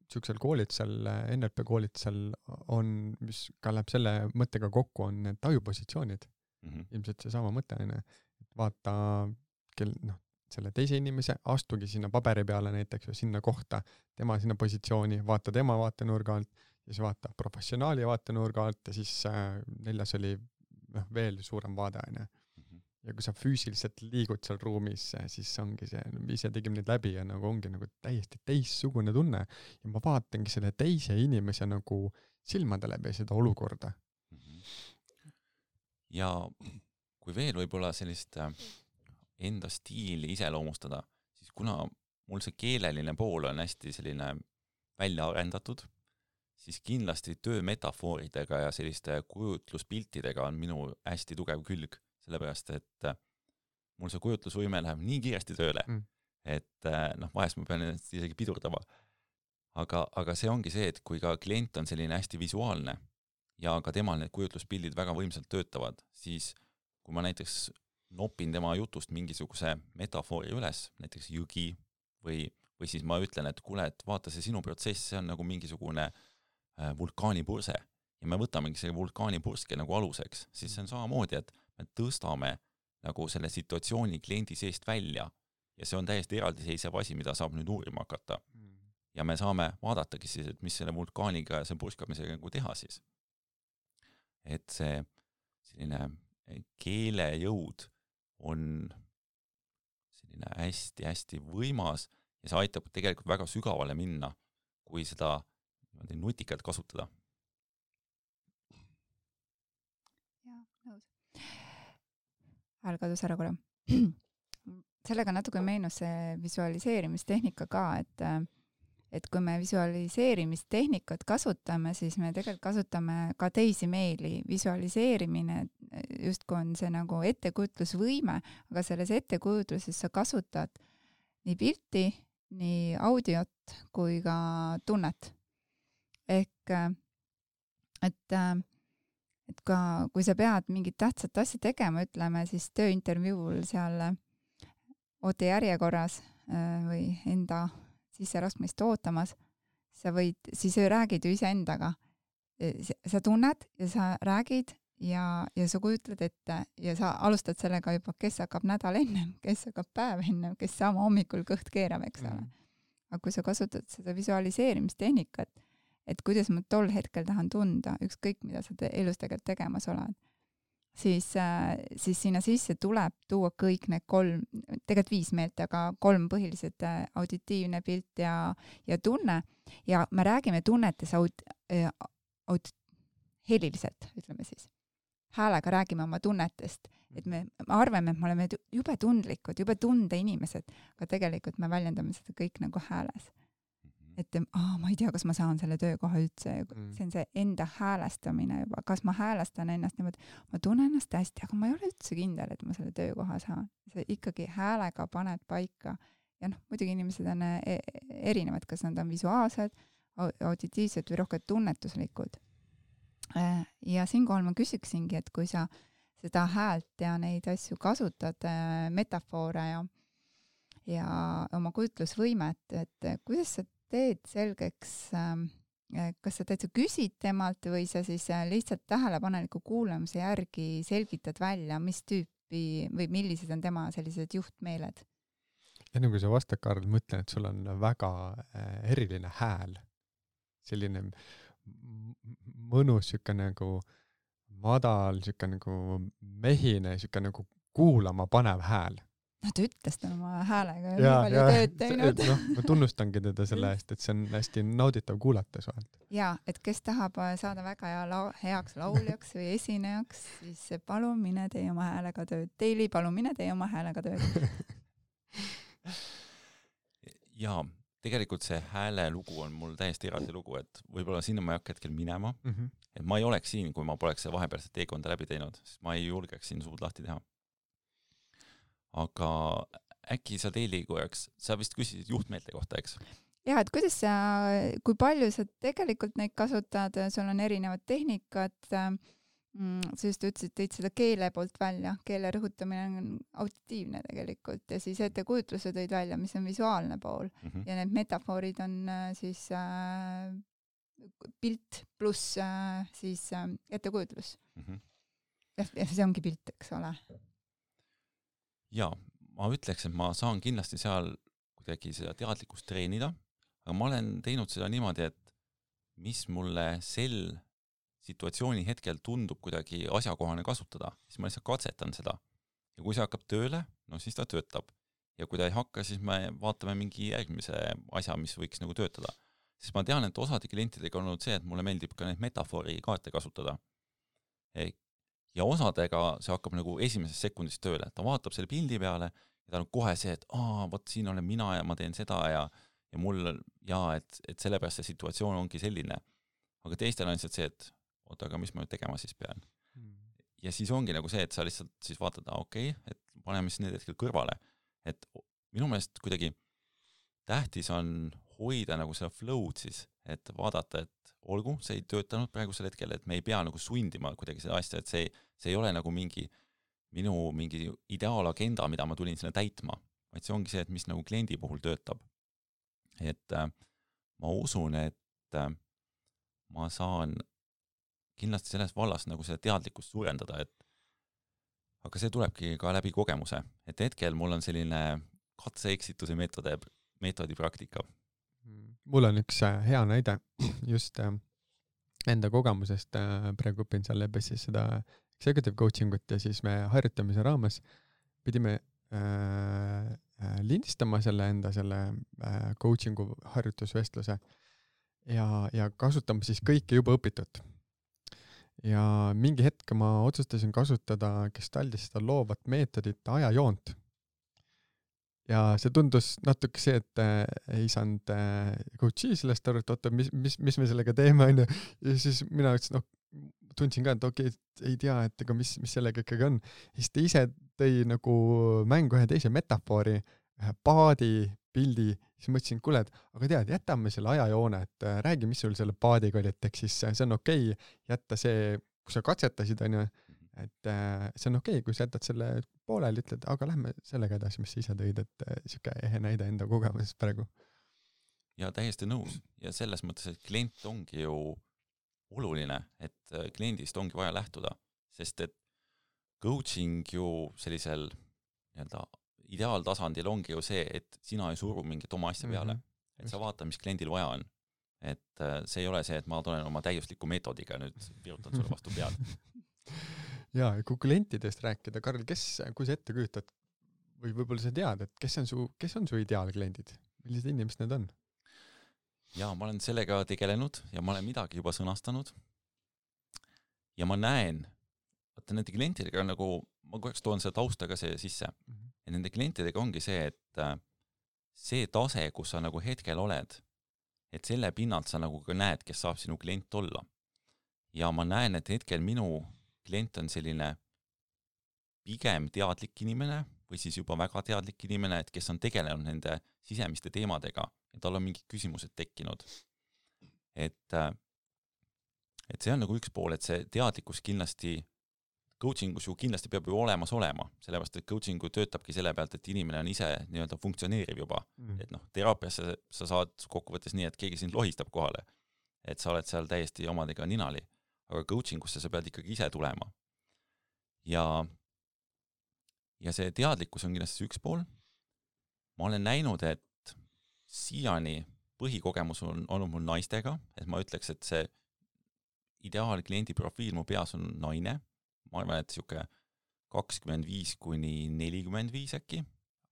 siuksel koolitusel, NLP koolitusel on, mis ka läheb selle mõttega kokku, on need tajupositsioonid. Ilmselt see sama mõte on, et vaata selle teise inimese, astugi sinna paberi peale näiteks või sinna kohta, tema sinna positsiooni, vaata tema vaatenurga alt, siis vaata professionaali vaatenurga alt ja siis 4. oli veel suurem vaade. Ja kui sa füüsiliselt liigud seal ruumis, siis ongi see, ise tegime neid läbi ja nagu ongi nagu täiesti teissugune tunne ja ma vaatangi selle teise inimese nagu silmade läbi seda olukorda. Ja kui veel võib-olla sellist enda stiili iseloomustada, siis kuna mul see keeleline pool on hästi selline välja arendatud, siis kindlasti töömetafooridega ja selliste kujutluspiltidega on minu hästi tugev külg. Sellepärast, et mul see kujutlusvõime läheb nii kiiresti tööle, et vahest ma pean isegi pidurdama. Aga see ongi see, et kui ka klient on selline hästi visuaalne ja ka temal need kujutluspildid väga võimsalt töötavad, siis kui ma näiteks nopin tema jutust mingisuguse metafoori üles, näiteks jõgi või siis ma ütlen, et kuule, et vaata see sinu protsess, see on nagu mingisugune vulkaanipurse ja me võtamegi selle vulkaanipurske nagu aluseks, siis see on samamoodi, et me tõstame nagu selle situatsiooni kliendi seest välja ja see on täiesti eraldiseisev asi, mida saab nüüd uurima hakata. Ja me saame vaadatagi siis, et mis selle vulkaaniga ja see purskamisega nagu teha siis. Et see selline keelejõud on selline hästi-hästi võimas ja see aitab tegelikult väga sügavale minna, kui seda nutikalt kasutada. Jaa, nõus. Hääl kadus ära korra. Sellega natuke meenus see visualiseerimistehnika ka, et kui me visualiseerimistehnikat kasutame, siis me tegelikult kasutame ka teisi meeli. Visualiseerimine justkui on see nagu ettekujutlusvõime, aga selles ettekujutluses sa kasutad nii pilti, nii audiot kui ka tunnet. Ehk, et ka, kui sa pead mingit tähtsat asja tegema, ütleme siis tööintervjuul seal ootejärjekorras või enda sisseraskmist ootamas, siis räägid ju iseendaga. Sa tunned ja sa räägid ja sa kujutled ette ja sa alustad sellega juba, kes hakkab nädal ennem, kes hakkab päev ennem, kes sama hommikul kõht keerab, eks ole. Aga kui sa kasutad seda visualiseerimistehnikat, et kuidas ma tol hetkel tahan tunda, ükskõik mida sa elus tegelikult tegemas oled, siis sinna sisse tuleb tuua kõik need 3, tegelikult 5 meelt, aga 3 põhilised auditiivne pilt ja tunne. Ja me räägime tunnetes heliliselt, ütleme siis. Häälega räägime oma tunnetest, et me arvame, et me oleme jube tundlikud, jube tundeinimesed, aga tegelikult me väljendame seda kõik nagu hääles. Et ma ei tea, kas ma saan selle töökoha üldse. See on see enda häälestamine juba. Kas ma häälestan ennast niimoodi? Ma tunnen ennast hästi, aga ma ei ole üldse kindel, et ma selle töökoha saan. See ikkagi häälega paned paika. Ja muidugi inimesed on erinevad, kas nad on visuaalsed, auditiivsed või rohkem tunnetuslikud. Ja siinkohal ma küsiksingi, et kui sa seda häält ja neid asju kasutad, metafoore ja oma kujutlusvõimet, et kuidas sa teed selgeks, kas sa täitsa küsid temalt või sa siis lihtsalt tähelepaneliku kuulamise järgi selgitad välja, mis tüüpi või millised on tema sellised juhtmeeled? Enne kui sa vastad, Karl, mõtlen, et sul on väga eriline hääl. Selline mõnus, siuke nagu madal, siuke nagu mehine, siuke nagu kuulama panev hääl. Ta ütles ta oma häälega ja nii palju tööd teinud. Ma tunnustangi teda selle eest, et see on hästi nauditav kuulata suhelt. Ja, et kes tahab saada väga heaks lauljaks või esinejaks, siis palun mine tee oma häälega tööd. Teili, palun mine tee oma häälega tööd. Ja tegelikult see hääle lugu on mul täiesti eraldi lugu, et võib-olla sinna ma ei hakka hetkel minema. Et ma ei oleks siin, kui ma poleks see vahepealset teekonda läbi teinud, sest ma ei julgeks siin suud lahti teha. Aga äkki sa Teili korraks, sa vist küsisid juhtmeelte kohta, eks? jah, et kuidas sa, kui palju sa tegelikult neid kasutad, sul on erinevad tehnikad, sa just ütlesid, tõid seda keele poolt välja, keele rõhutamine on auditiivne tegelikult ja siis ettekujutluse tõid välja, mis on visuaalne pool ja need metafoorid on siis pilt pluss siis ettekujutlus. Ja see ongi pilt, eks ole. Ja, ma ütleks, et ma saan kindlasti seal kuidagi seda teadlikkust treenida, aga ma olen teinud seda niimoodi, et mis mulle sel situatsiooni hetkel tundub kuidagi asjakohane kasutada, siis ma lihtsalt katsetan seda. Ja kui see hakkab tööle, no siis ta töötab. Ja kui ta ei hakka, siis me vaatame mingi järgmise asja, mis võiks nagu töötada. Siis ma tean, et osade klientidega on olnud see, et mulle meeldib ka neid metafoori kaarte kasutada. Ja osadega see hakkab nagu esimesest sekundist tööle. Ta vaatab selle pildi peale ja ta on kohe see, et võt siin olen mina ja ma teen seda ja mul et sellepärast see situatsioon ongi selline. Aga teistel on lihtsalt see, et aga mis ma nüüd tegema siis pean. Ja siis ongi nagu see, et sa lihtsalt siis vaatad, et paneme siis need hetkel kõrvale. Et minu meelest kuidagi tähtis on hoida nagu seda flow'd siis, et vaadata, et olgu, see ei töötanud praegusel hetkel, et me ei pea nagu sundima kuidagi seda asja, et see ei ole nagu minu mingi ideaalagenda, mida ma tulin sinna täitma, vaid see ongi see, et mis nagu kliendi puhul töötab. Et ma usun, et ma saan kindlasti selles vallas nagu seda teadlikkust suurendada, aga see tulebki ka läbi kogemuse, et hetkel mul on selline katse-eksituse meetodi praktika. Mul on üks hea näide just enda kogemusest, praegu õpin seal Lebessis seda executive coaching ut ja siis me harjutamise raames pidime lindistama selle coachingu harjutusvestluse ja kasutama siis kõike juba õpitud. Ja mingi hetk ma otsustasin kasutada Gestaltis seda loovat meetodit ajajoont. Ja see tundus natuke see, et ei saanud coachi sellest aru, et mis me sellega teeme, on. Ja siis mina ütlesin, tundsin ka, et ei tea, et ega mis sellega ikkagi on. Siis ta ise tõi nagu mängu ühe teise metafoori, ühe paadi pildi, siis mõtlesin, kuule, aga tead, jätame selle ajajoone, et räägi, mis sul selle paadiga oli, et eks siis see on okei, jätta see, kui sa katsetasid, on ju, et see on okei, kui sa jätad selle pooleli, ütled, aga lähme sellega edasi, mis sa ise tõid, et siuke ehe näide enda kogemusest praegu. Ja täiesti nõus. Ja selles mõttes, et klient ongi ju oluline, et kliendist ongi vaja lähtuda, sest et coaching ju sellisel nii-öelda ideaaltasandil ongi ju see, et sina ei suru mingit oma asja peale, et sa vaata, mis kliendil vaja on. Et see ei ole see, et ma tulen oma täiusliku meetodiga nüüd virutan sulle vastu pead. Ja, kui klientidest rääkida, Karl, kui sa ette kujutad või võib-olla sa tead, et kes on su ideaalkliendid? Millised inimesed need on? Ja ma olen sellega tegelenud ja ma olen midagi juba sõnastanud. Ja ma näen, et nende klientidega nagu, ma korraks toon seda tausta ka see sisse. Ja nende klientidega ongi see, et see tase, kus sa nagu hetkel oled, et selle pinnalt sa nagu ka näed, kes saab sinu klient olla. Ja ma näen, et hetkel minu klient on selline pigem teadlik inimene või siis juba väga teadlik inimene, et kes on tegelenud nende sisemiste teemadega ja tal on mingid küsimused tekkinud. Et see on nagu üks pool, et see teadlikkus kindlasti coachingus ju kindlasti peab ju olemas olema, sellepärast, et coachingu töötabki selle pealt, et inimene on ise nii-öelda funktsioneeriv juba. Et teraapiasse sa saad kokkuvõttes nii, et keegi sind lohistab kohale, et sa oled seal täiesti omadega ninali, aga coachingusse sa pead ikkagi ise tulema. Ja see teadlikkus on kindlasti üks pool. Ma olen näinud, et siiani põhikogemus on olnud mul naistega, et ma ütleks, et see ideaalkliendi profiil mu peas on naine. Ma arvan, et siuke 25–45 äkki,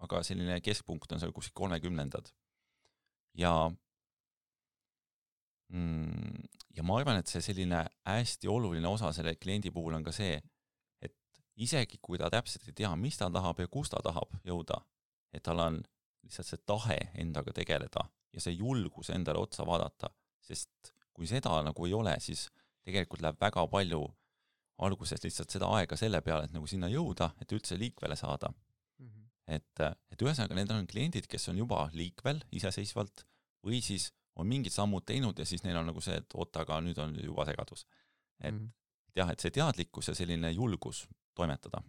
aga selline keskpunkt on seal kuskil 30. Ja ma arvan, et see selline hästi oluline osa selle kliendi puhul on ka see, et isegi kui ta täpselt ei tea, mis ta tahab ja kus ta tahab jõuda, et tal on lihtsalt see tahe endaga tegeleda ja see julgus endale otsa vaadata, sest kui seda nagu ei ole, siis tegelikult läheb väga palju alguses lihtsalt seda aega selle peale, et nagu sinna jõuda, et üldse liikvele saada. Et ühesõnaga, need on kliendid, kes on juba liikvel iseseisvalt või siis on mingid sammud teinud ja siis neil on nagu see, et oota, aga nüüd on juba segadus. Et jah, et see teadlikkus ja selline julgus toimetada.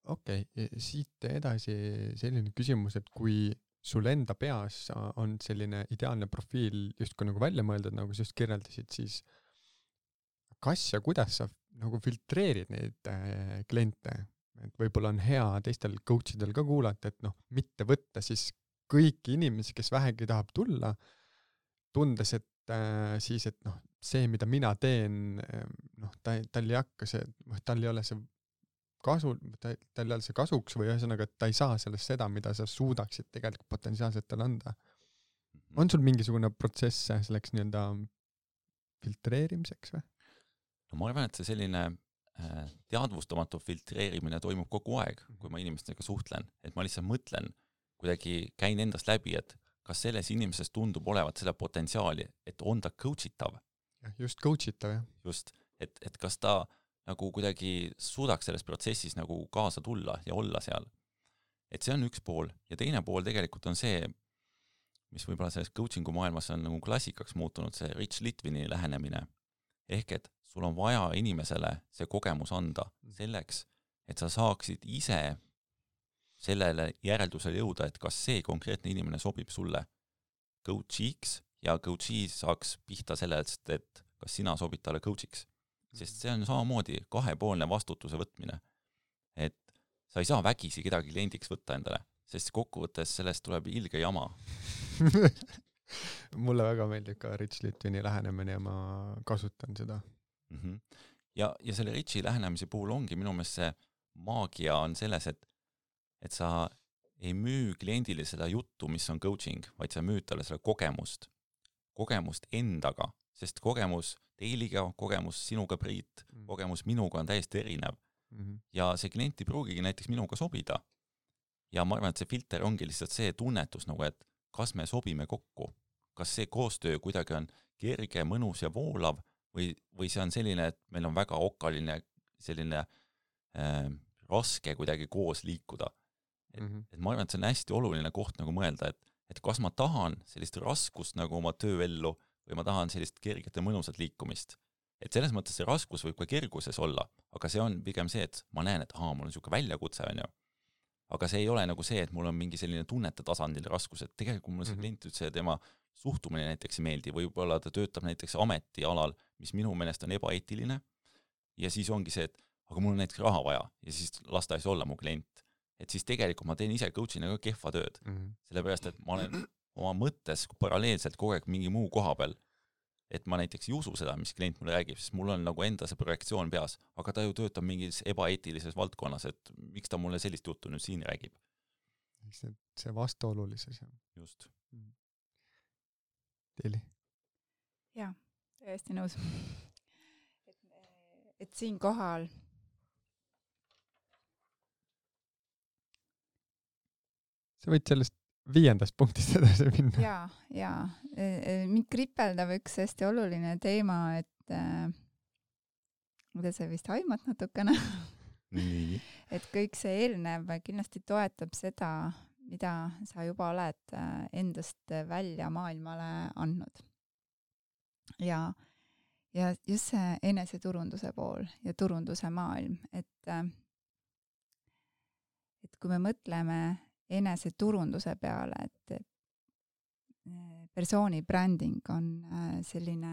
Okei, siit edasi selline küsimus, et kui sul enda peas on selline ideaalne profiil justkui nagu välja mõeldud, nagu sa just kirjeldasid, siis kas ja kuidas sa nagu filtreerid neid kliente? Et võib-olla on hea teistel coachidel ka kuulata, et mitte võtta siis kõiki inimesi, kes vähegi tahab tulla, tundes, et siis, et see, mida mina teen, tal ei hakka see, tal ei ole see kasu, tal ei ole see kasuks või ühesõnaga, et ta ei saa sellest seda, mida sa suudaksid tegelikult potentsiaalselt talle anda. On sul mingisugune protsess selleks nii-öelda filtreerimiseks või? No ma arvan, et see selline teadvustamatu filtreerimine toimub kogu aeg, kui ma inimestega suhtlen, et ma lihtsalt mõtlen, kuidagi käin endast läbi, et kas selles inimeses tundub olevat seda potentsiaali, et on ta coachitav. Just coachitav, jah. Just, et kas ta nagu kuidagi suudaks selles protsessis nagu kaasa tulla ja olla seal. Et see on üks pool ja teine pool tegelikult on see, mis võib-olla selles coachingu maailmas on nagu klassikaks muutunud, see Rich Litvini lähenemine. Ehk et sul on vaja inimesele see kogemus anda selleks, et sa saaksid ise sellele järeldusele jõuda, et kas see konkreetne inimene sobib sulle coachiks ja coachi saaks pihta sellest, et kas sina sobid talle coachiks. Sest see on samamoodi kahepoolne vastutuse võtmine. Et sa ei saa vägisi kedagi kliendiks võtta endale, sest kokkuvõttes sellest tuleb ilge jama. Mulle väga meeldib ka Rich Litvini lähenemine ja ma kasutan seda. Ja selle Richi lähenemise puhul ongi minu meelest see maagia on selles, et sa ei müü kliendile seda juttu, mis on coaching, vaid sa müüd talle seda kogemust endaga, sest kogemus teiliga, kogemus sinuga Priit, kogemus minuga on täiesti erinev. Ja see klient ei pruugigi näiteks minuga sobida. Ja ma arvan, et see filter ongi lihtsalt see tunnetus, nagu, et kas me sobime kokku, kas see koostöö kuidagi on kerge, mõnus ja voolav või see on selline, et meil on väga okaline selline raske kuidagi koos liikuda. Et ma arvan, et see on hästi oluline koht nagu mõelda, et kas ma tahan sellist raskust nagu oma tööellu või ma tahan sellist kerget ja mõnusat liikumist. Et selles mõttes see raskus võib ka kerguses olla, aga see on pigem see, et ma näen, et mul on niisugune väljakutse, on ju. Aga see ei ole nagu see, et mul on mingi selline tunnete tasandil raskus, et tegelikult mul see klient üldse tema suhtumine näiteks ei meeldi, võib-olla ta töötab näiteks ametialal, mis minu meelest on ebaeetiline ja siis ongi see, et aga mul on näiteks raha vaja ja siis lasta ei saa olla mu klient. Et siis tegelikult ma teen ise coachina ka kehva tööd. Sellepärast, et ma olen oma mõttes paralleelselt kogu aeg mingi muu koha peal, et ma näiteks ei usu seda, mis klient mulle räägib, sest mul on nagu enda see projektsioon peas, aga ta ju töötab mingis ebaeetilises valdkonnas, et miks ta mulle sellist juttu nüüd siin räägib. See vastuolulisus. Just. Teili? Jaa, täiesti nõus. Et siin kohal sa võid sellest 5. punktist edasi minna. Jaa. Mind kripeldab üks hästi oluline teema, et mida sa vist aimad natukene. Et kõik see eelnev kindlasti toetab seda, mida sa juba oled endast välja maailmale andnud. Ja just see eneseturunduse pool ja turunduse maailm, et kui me mõtleme eneseturunduse peale, et persooni bränding on selline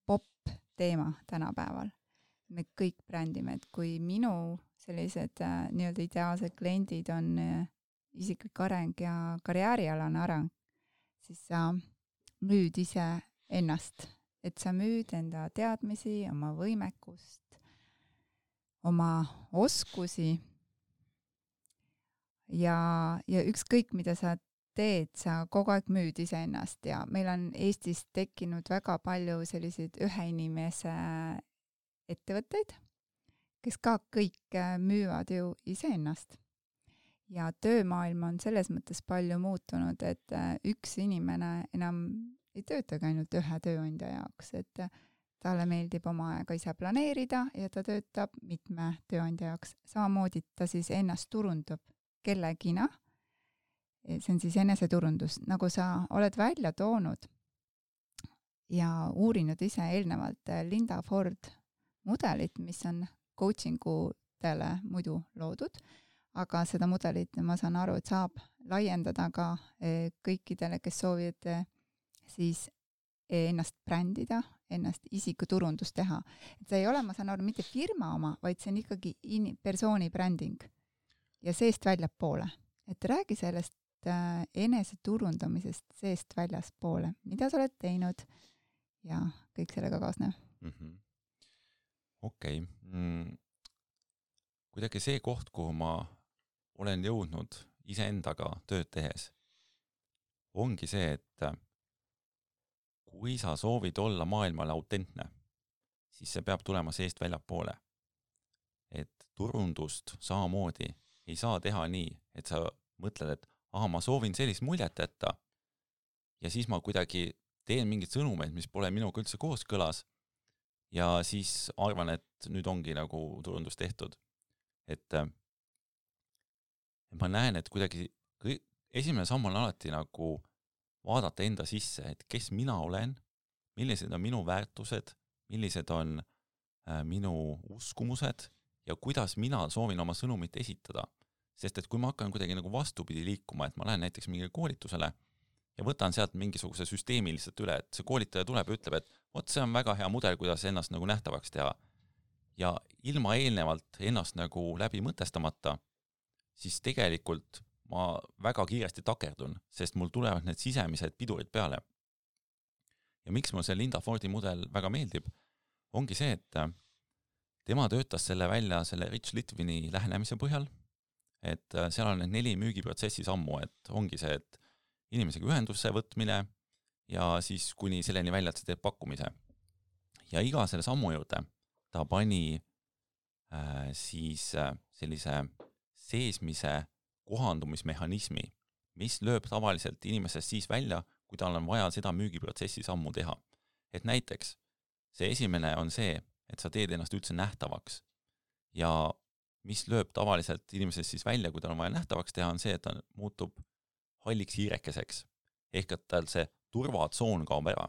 pop teema tänapäeval. Me kõik brändime, et kui minu sellised nii-öelda ideaalsed kliendid on isiklik areng ja karjäärialane areng, siis sa müüd ise ennast, et sa müüd enda teadmisi, oma võimekust, oma oskusi. Ja ükskõik, mida sa teed, sa kogu aeg müüd iseennast ja meil on Eestis tekkinud väga palju selliseid ühe inimese ettevõtteid, kes ka kõik müüvad ju iseennast. Ja töömaailm on selles mõttes palju muutunud, et üks inimene enam ei töötagi ainult ühe tööandja jaoks, et talle meeldib oma aega ise planeerida ja ta töötab mitme tööandja jaoks. Samamoodi ta siis ennast turundab kellegina see on siis eneseturundus, nagu sa oled välja toonud ja uurinud ise eelnevalt Linda Ford mudelit, mis on coachingutele muidu loodud, aga seda mudelit ma saan aru, et saab laiendada ka kõikidele, kes soovivad siis ennast brändida, ennast isikuturundust teha. Et see ei ole, ma saan aru, mitte firma oma, vaid see on ikkagi persooni bränding ja seest väljapoole. Et räägi sellest eneseturundamisest seest väljaspoole. Mida sa oled teinud ja kõik sellega kaasnev? Okei. Kuidagi see koht, kuhu ma olen jõudnud iseendaga tööd tehes, ongi see, et kui sa soovid olla maailmale autentne, siis see peab tulema seest väljapoole. Et turundust samamoodi ei saa teha nii, et sa mõtled, et ma soovin sellist muljet jätta ja siis ma kuidagi teen mingid sõnumeid, mis pole minuga üldse kooskõlas ja siis arvan, et nüüd ongi nagu turundus tehtud. Et ma näen, et kuidagi esimene samm on alati nagu vaadata enda sisse, et kes mina olen, millised on minu väärtused, millised on minu uskumused ja kuidas mina soovin oma sõnumit esitada. Sest et kui ma hakkan kuidagi nagu vastupidi liikuma, et ma lähen näiteks mingile koolitusele ja võtan sealt mingisuguse süsteemi lihtsalt üle, et see koolitaja tuleb ja ütleb, et see on väga hea mudel, kuidas ennast nagu nähtavaks teha. Ja ilma eelnevalt ennast nagu läbi mõtestamata, siis tegelikult ma väga kiiresti takerdun, sest mul tulevad need sisemised pidurid peale. Ja miks mul see Linda Fordi mudel väga meeldib, ongi see, et tema töötas selle välja selle Rich Litvini lähenemise põhjal, et seal on need 4 müügiprotsessi sammu, et ongi see, et inimesega ühendusse võtmine ja siis kuni selleni välja, et sa teed pakkumise. Ja iga selle sammu juurde ta pani siis sellise seesmise kohandumismehhanismi, mis lööb tavaliselt inimesest siis välja, kui tal on vaja seda müügiprotsessi sammu teha. Et näiteks see esimene on see, et sa teed ennast üldse nähtavaks ja mis lööb tavaliselt inimesest siis välja, kui tal on vaja nähtavaks teha, on see, et ta muutub halliks hiirekeseks. Ehk et tal see turvatsoon kaob ära.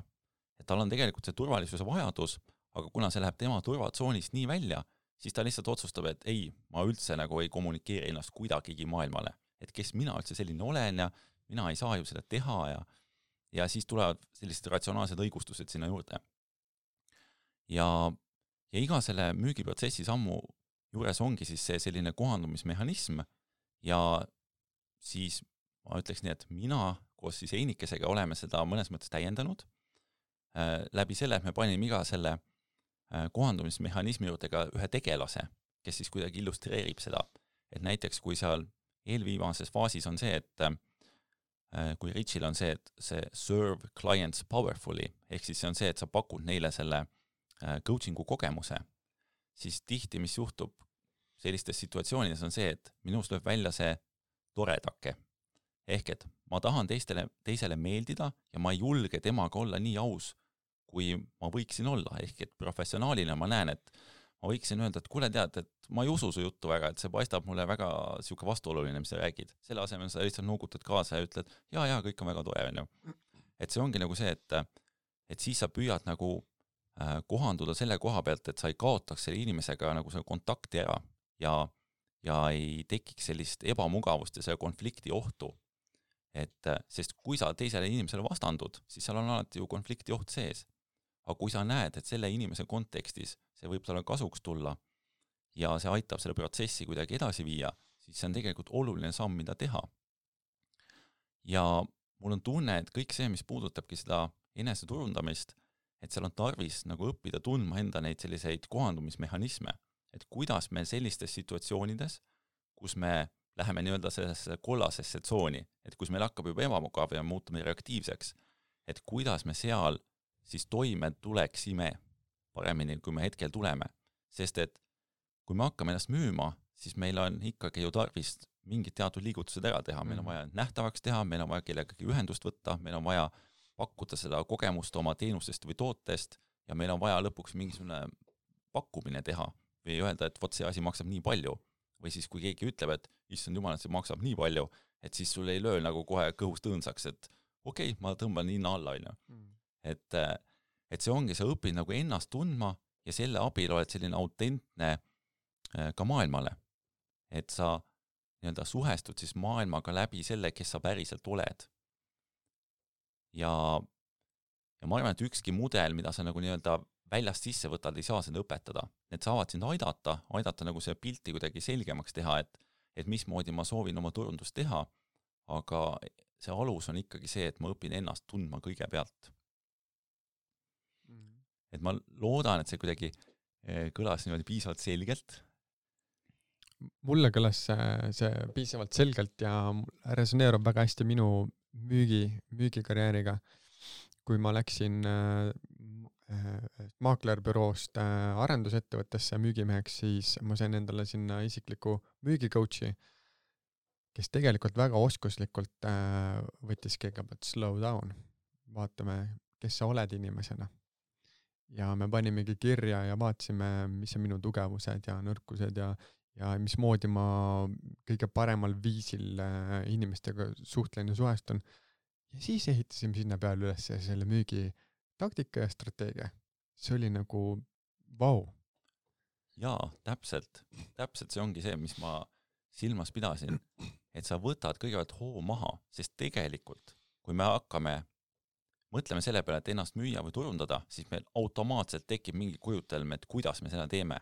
Et tal on tegelikult see turvalisuse vajadus, aga kuna see läheb tema turvatsoonist nii välja, siis ta lihtsalt otsustab, et ei, ma üldse nagu ei kommunikeeri ennast kuidagigi maailmale. Et kes mina üldse selline olen ja mina ei saa ju seda teha ja siis tulevad sellised ratsionaalsed õigustused sinna juurde. Ja iga selle müügiprotsessi sammu juures ongi siis see selline kohandumismehhanism ja siis ma ütleks nii, et mina koos siis Einikesega oleme seda mõnes mõttes täiendanud. Läbi selle, et me panime iga selle kohandumismehhanismi juurde ka ühe tegelase, kes siis kuidagi illustreerib seda. Et näiteks kui seal eelviimases faasis on see, et kui Richil on see, et see serve clients powerfully, ehk siis see on see, et sa pakud neile selle coachingu kogemuse, siis tihti, mis juhtub sellistes situatsioonides on see, et minust lööb välja see toredake. Ehk et ma tahan teisele meeldida ja ma ei julge temaga olla nii aus, kui ma võiksin olla. Ehk et professionaalina ma näen, et ma võiksin öelda, et kuule tead, et ma ei usu su juttu väga, et see paistab mulle väga siuke vastuoluline, mis sa räägid. Selle asemel sa lihtsalt nuugutad kaasa ja ütled, ja, kõik on väga tore. Et see ongi nagu see, et siis sa püüad nagu kohanduda selle koha pealt, et sa ei kaotaks selle inimesega nagu selle kontakti ära ja ei tekiks sellist ebamugavust ja selle konflikti ohtu. Et sest kui sa teisele inimesele vastandud, siis seal on alati ju konflikti oht sees. Aga kui sa näed, et selle inimese kontekstis see võib talle kasuks tulla ja see aitab selle protsessi kuidagi edasi viia, siis see on tegelikult oluline samm, mida teha. Ja mul on tunne, et kõik see, mis puudutabki seda eneseturundamist, et seal on tarvis nagu õppida tundma enda neid selliseid kohandumismehhanisme, et kuidas me sellistes situatsioonides, kus me läheme nii-öelda sellesse kollasesse tsooni, et kus meil hakkab juba ebamugav ja muutume reaktiivseks, et kuidas me seal siis toime tuleksime paremini, kui me hetkel tuleme. Sest et kui me hakkame ennast müüma, siis meil on ikkagi ju tarvis mingid teatud liigutused ära teha. Meil on vaja nähtavaks teha, meil on vaja kellegagi ühendust võtta, meil on vaja pakkuda seda kogemust oma teenustest või tootest ja meil on vaja lõpuks mingisugune pakkumine teha või öelda, et vot see asi maksab nii palju. Või siis kui keegi ütleb, et issand jumal, et see maksab nii palju, et siis sul ei löö nagu kohe kõhust õõnsaks, et okei, ma tõmban hinna alla, et see ongi, sa õpid nagu ennast tundma ja selle abil oled selline autentne ka maailmale, et sa nii-öelda suhestud siis maailmaga läbi selle, kes sa päriselt oled. Ja ma arvan, et ükski mudel, mida sa nagu nii-öelda väljast sisse võtad, ei saa seda õpetada. Need saavad sind aidata nagu see pilti kuidagi selgemaks teha, et mismoodi ma soovin oma turundust teha, aga see alus on ikkagi see, et ma õpin ennast tundma kõigepealt. Et ma loodan, et see kuidagi kõlas niimoodi piisavalt selgelt. Mulle kõlas see piisavalt selgelt ja resoneerub väga hästi minu müügikarjääriga. Kui ma läksin maaklerbüroost arendusettevõttesse müügimeheks, siis ma sain endale sinna isikliku müügicoachi, kes tegelikult väga oskuslikult võttis kõigepealt slow down. Vaatame, kes sa oled inimesena. Ja me panimegi kirja ja vaatasime, mis on minu tugevused ja nõrkused ja mismoodi ma kõige paremal viisil inimestega suhtlen ja suhestun. Ja siis ehitasime sinna peale üles selle müügi taktika ja strateegia. See oli nagu vau. Jaa, täpselt see ongi see, mis ma silmas pidasin, et sa võtad kõigepealt hoo maha, sest tegelikult, kui me mõtleme selle peale, et ennast müüa või turundada, siis meil automaatselt tekib mingi kujutelm, et kuidas me seda teeme.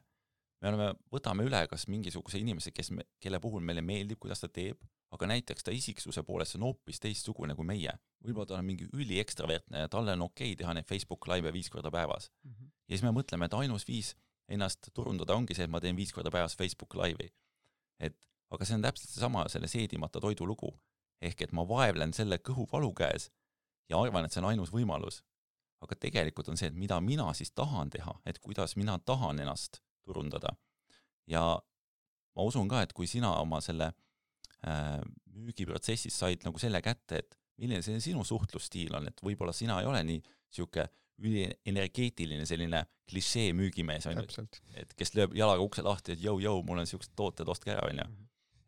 Võtame üle kas mingisuguse inimese, kelle puhul meile meeldib, kuidas ta teeb, aga näiteks ta isiksuse poolest on hoopis teistsugune kui meie. Võib-olla ta on mingi üli ekstravertne ja talle on okei teha neid Facebook live 5 korda päevas. Ja siis me mõtleme, et ainus viis ennast turundada ongi see, et ma teen 5 korda päevas Facebook live'i. Aga see on täpselt sama selle seedimata toidu lugu. Ehk et ma vaevlen selle kõhuvalu käes ja arvan, et see on ainus võimalus. Aga tegelikult on see, et mida mina siis tahan teha, et kuidas mina tahan ennast turundada. Ja ma usun ka, et kui sina oma selle müügiprotsessis said nagu selle kätte, et milline see sinu suhtlusstiil on, et võib-olla sina ei ole nii siuke energeetiline selline klišee müügimees, et kes lööb jalaga ukse lahti, et jõu, mul on siuksed tooted, ostke ära.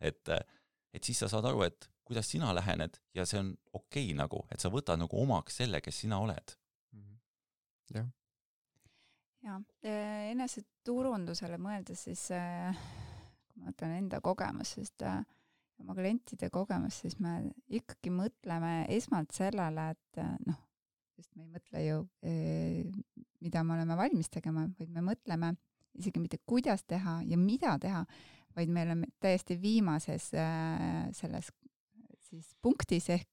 Et siis sa saad aru, et kuidas sina lähened ja see on okei nagu, et sa võtad nagu omaks selle, kes sina oled. Jah. Ja enese turundusele mõeldes siis, kui ma mõtlen enda kogemus, sest oma klientide kogemus, siis me ikkagi mõtleme esmalt sellele, et sest me ei mõtle ju, mida me oleme valmis tegema, vaid me mõtleme isegi mitte kuidas teha ja mida teha, vaid me oleme täiesti viimases selles siis punktis ehk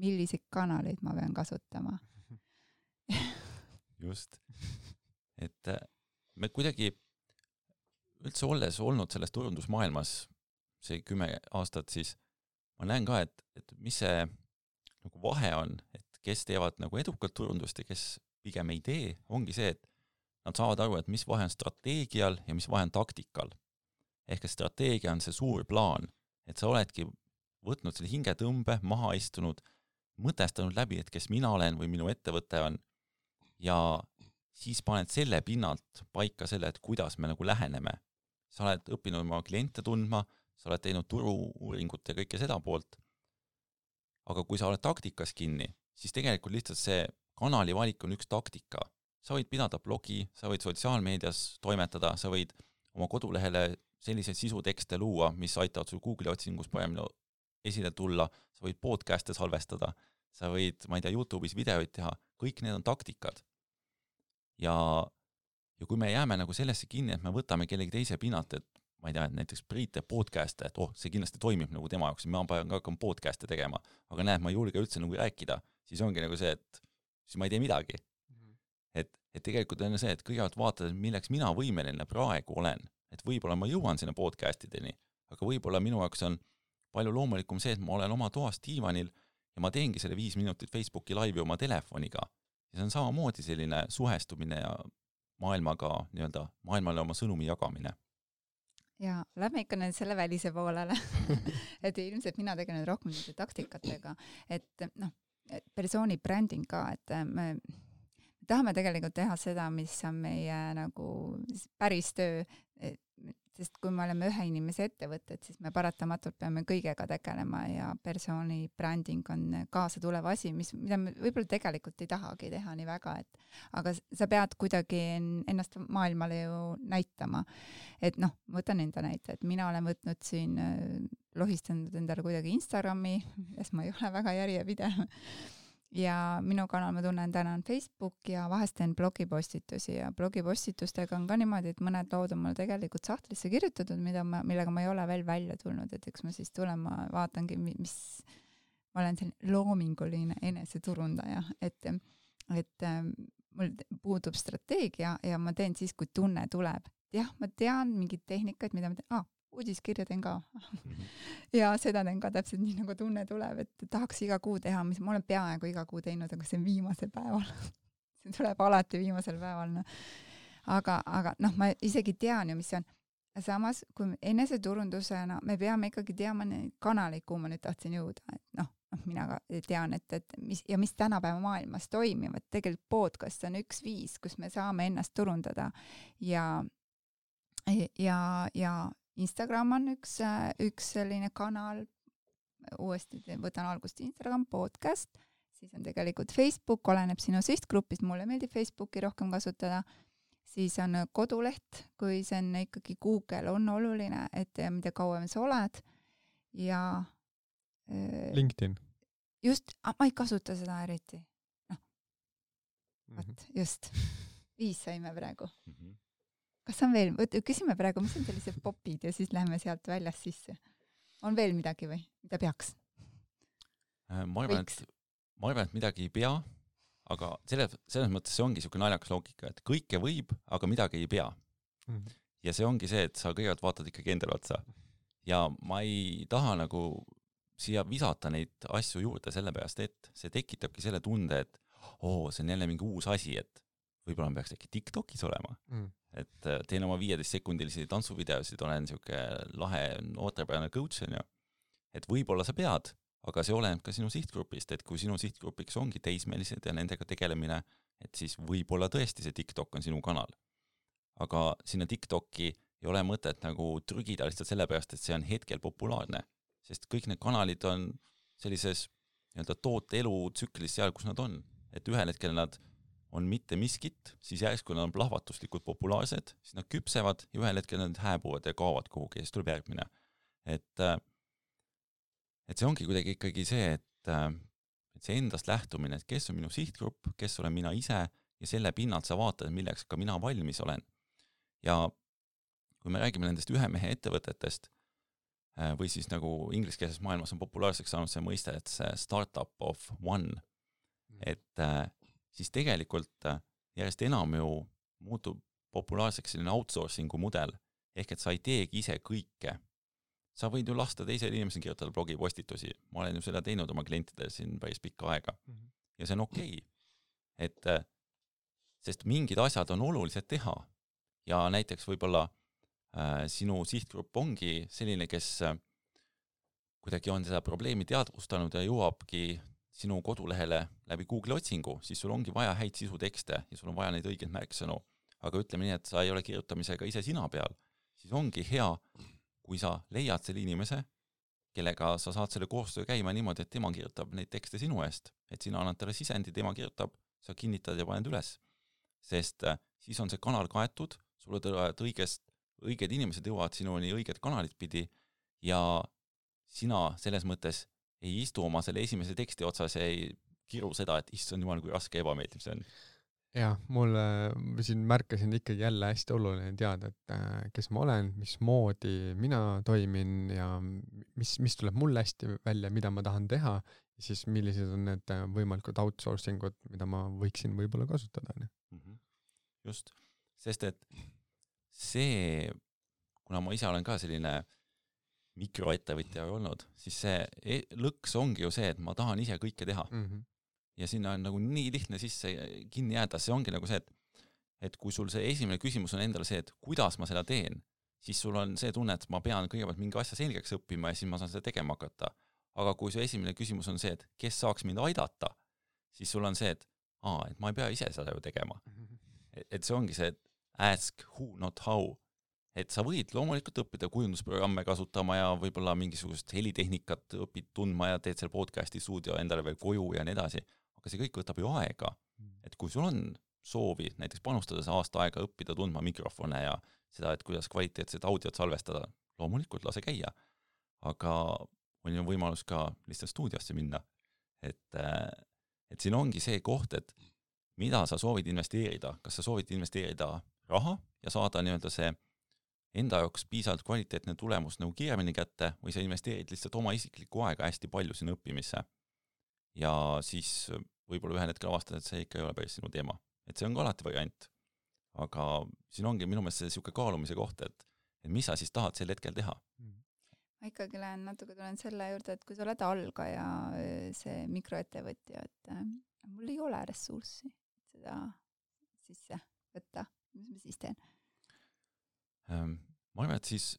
milliseid kanaleid ma pean kasutama. Just. Et me kuidagi üldse olles olnud selles turundusmaailmas see 10 aastat, siis ma näen ka, et mis see nagu vahe on, et kes teevad nagu edukalt turundust ja kes pigem ei tee, ongi see, et nad saavad aru, et mis vahe on strateegial ja mis vahe on taktikal. Ehk et strateegia on see suur plaan, et sa oledki võtnud selle hingetõmbe, maha istunud, mõtestanud läbi, et kes mina olen või minu ettevõte on ja siis paned selle pinnalt paika selle, et kuidas me nagu läheneme. Sa oled õppinud oma kliente tundma, sa oled teinud turu-uuringut ja kõike seda poolt. Aga kui sa oled taktikas kinni, siis tegelikult lihtsalt see kanali valik on üks taktika. Sa võid pidada blogi, sa võid sotsiaalmeedias toimetada, sa võid oma kodulehele selliseid sisutekste luua, mis aitavad sul Google otsingus paremini esile tulla, sa võid podcast'e salvestada, sa võid, ma ei tea, YouTube'is videoid teha, kõik need on taktikad. Ja kui me jääme nagu sellesse kinni, et me võtame kellegi teise pinnalt, et ma ei tea, et näiteks Priit teeb podcast'e, et see kindlasti toimib nagu tema jaoks, ma pean ka hakkama podcast'e tegema, aga näed, ma ei julge üldse nagu rääkida, siis ongi nagu see, et siis ma ei tee midagi. Et tegelikult on see, et kõigepealt vaatad, milleks mina võimeline praegu olen, et võib-olla ma jõuan sinna podcast'ideni, aga võib-olla minu jaoks on palju loomulikum see, et ma olen oma toas diivanil ja ma teengi selle 5 minutit Facebooki laivi oma telefoniga. Ja see on samamoodi selline suhestumine ja maailmale oma sõnumi jagamine. Ja lähme ikka nüüd selle välise poolele. Et ilmselt mina tegelen rohkem taktikatega, et persooni bränding ka, et me tahame tegelikult teha seda, mis on meie nagu päris töö, sest kui me oleme ühe inimese ettevõtted, siis me paratamatult peame kõigega tegelema ja persooni bränding on kaasa tulev asi, mida me võib-olla tegelikult ei tahagi teha nii väga, aga sa pead kuidagi ennast maailmale ju näitama. Et noh, võtan enda näite, et mina olen võtnud siin, lohistanud endale kuidagi Instagrami, milles ma ei ole väga järjepidev. Ja minu kanal ma tunnen täna on Facebook ja vahest teen blogipostitusi ja blogipostitustega on ka niimoodi, et mõned lood on mul tegelikult sahtlisse kirjutatud, millega ma ei ole veel välja tulnud, et eks ma siis tulen, ma vaatangi, ma olen selline loominguline eneseturundaja, et mul puudub strateegia ja ma teen siis, kui tunne tuleb. Jah, ma tean mingid tehnikad, mida ma teen, uudiskirja teen ka. Ja seda teen ka täpselt nii, nagu tunne tuleb, et tahaks iga kuu teha, mis ma olen peaaegu iga kuu teinud, aga see on viimasel päeval. See tuleb alati viimasel päeval. No. Aga ma isegi tean ju, mis see on. Samas, kui eneseturundusena me peame ikkagi teama neid kanaleid, kuhu ma nüüd tahtsin jõuda. Et mina ka tean, et mis tänapäeva maailmas toimivad. Tegelikult podcast on üks viis, kus me saame ennast turundada ja Instagram on üks selline kanal, uuesti võtan algust Instagram, podcast, siis on tegelikult Facebook, oleneb sinu sihtgrupist, mulle meeldib Facebooki rohkem kasutada, siis on koduleht, kui see on ikkagi Google on oluline, et mida kauem sa oled ja LinkedIn. Just, ma ei kasuta seda eriti. Just, 5 saime praegu. Kas on veel, küsime praegu, mis on sellised popid ja siis läheme sealt väljas sisse. On veel midagi või? Mida peaks? Ma arvan, et midagi ei pea, aga selles mõttes see ongi niisugune naljakas loogika, et kõike võib, aga midagi ei pea. Ja see ongi see, et sa kõigepealt vaatad ikkagi endale otsa. Ja ma ei taha nagu siia visata neid asju juurde sellepärast, et see tekitabki selle tunde, et see on jälle mingi uus asi, et võib-olla peaks äkki TikTokis olema. Et teen oma 15-sekundilisi tantsuvideosid, olen niisugune lahe noortepärane coach, et võib-olla sa pead, aga see oleneb ka sinu sihtgrupist, et kui sinu sihtgrupiks ongi teismelised ja nendega tegelemine, et siis võib-olla tõesti see TikTok on sinu kanal. Aga sinna TikToki ei ole mõtet nagu trügida lihtsalt sellepärast, et see on hetkel populaarne, sest kõik need kanalid on sellises toote elu tsüklis seal, kus nad on, et ühel hetkel nad on mitte miskit, siis järsku nad on plahvatuslikult populaarsed, siis nad küpsevad ja ühel hetkel nad hääbuvad ja kaovad kuhugi ja siis tuleb järgmine. Et see ongi kuidagi ikkagi see, et see endast lähtumine, et kes on minu sihtgrupp, kes olen mina ise ja selle pinnalt sa vaatad, milleks ka mina valmis olen. Ja kui me räägime nendest ühe mehe ettevõtetest või siis nagu ingliskeelses maailmas on populaarseks saanud see mõiste, et see startup of one, et siis tegelikult järjest enam ju muutub populaarseks selline outsourcingu mudel, ehk et sa ei teegi ise kõike. Sa võid ju lasta teisel inimesel kirjutada blogipostitusi. Ma olen ju seda teinud oma klientidel siin päris pikka aega. Ja see on okei. Et sest mingid asjad on olulised teha. Ja näiteks võib-olla sinu sihtgrupp ongi selline, kes kuidagi on seda probleemi teadvustanud ja jõuabki sinu kodulehele läbi Google otsingu, siis sul ongi vaja häid sisutekste ja sul on vaja neid õigeid märksõnu. Aga ütleme nii, et sa ei ole kirjutamisega ise sina peal, siis ongi hea, kui sa leiad selle inimese, kellega sa saad selle koostöö käima niimoodi, et tema kirjutab neid tekste sinu eest, et sina annad talle sisendi, tema kirjutab, sa kinnitad ja paned üles. Sest siis on see kanal kaetud, sulle tulevad õiged inimesed jõuavad sinuni õiged kanalid pidi ja sina selles mõttes ei istu oma selle esimese teksti otsas ja ei kiru seda, et issand jumal, kui raske ebameeldiv see on. Jah, mulle siin märkasin ikkagi jälle hästi oluline teada, et kes ma olen, mismoodi mina toimin ja mis tuleb mulle hästi välja, mida ma tahan teha ja siis millised on need võimalikud outsourcingud, mida ma võiksin võib-olla kasutada. Just, sest et see, kuna ma ise olen ka selline mikroettevõtja olnud, siis see lõks ongi ju see, et ma tahan ise kõike teha. Ja sinna on nagu nii lihtne sisse kinni jääda, see ongi nagu see, et kui sul see esimene küsimus on endale see, et kuidas ma seda teen, siis sul on see tunne, et ma pean kõigepealt mingi asja selgeks õppima ja siis ma saan seda tegema hakata. Aga kui see esimene küsimus on see, et kes saaks mind aidata, siis sul on see, et ma ei pea ise seda ju tegema. Et see ongi see, et ask who, not how. et sa võid loomulikult õppida kujundusprogramme kasutama ja võib-olla mingisugust helitehnikat õpid tundma ja teed seal podcasti stuudio endale veel koju ja nii edasi, aga see kõik võtab ju aega. Et kui sul on soovi näiteks panustada see aasta aega õppida tundma mikrofone ja seda, et kuidas kvaliteetset audiot salvestada, loomulikult lase käia, aga on ju võimalus ka lihtsalt stuudiosse minna. Et siin ongi see koht, et mida sa soovid investeerida, kas sa soovid investeerida raha ja saada nii-öelda see enda jaoks piisavalt kvaliteetne tulemus nagu kiiremini kätte või sa investeerid lihtsalt oma isiklikku aega hästi palju sinna õppimisse. Ja siis võib-olla ühel hetkel avastad, et see ikka ei ole päris sinu teema. Et see on ka alati variant. Aga siin ongi minu meelest see siuke kaalumise koht, et mis sa siis tahad sel hetkel teha. Ma ikkagi natuke tulen selle juurde, et kui sa oled algaja, see mikroettevõtja, et mul ei ole ressurssi seda sisse võtta. Mis ma siis teen? Ma arvan, et siis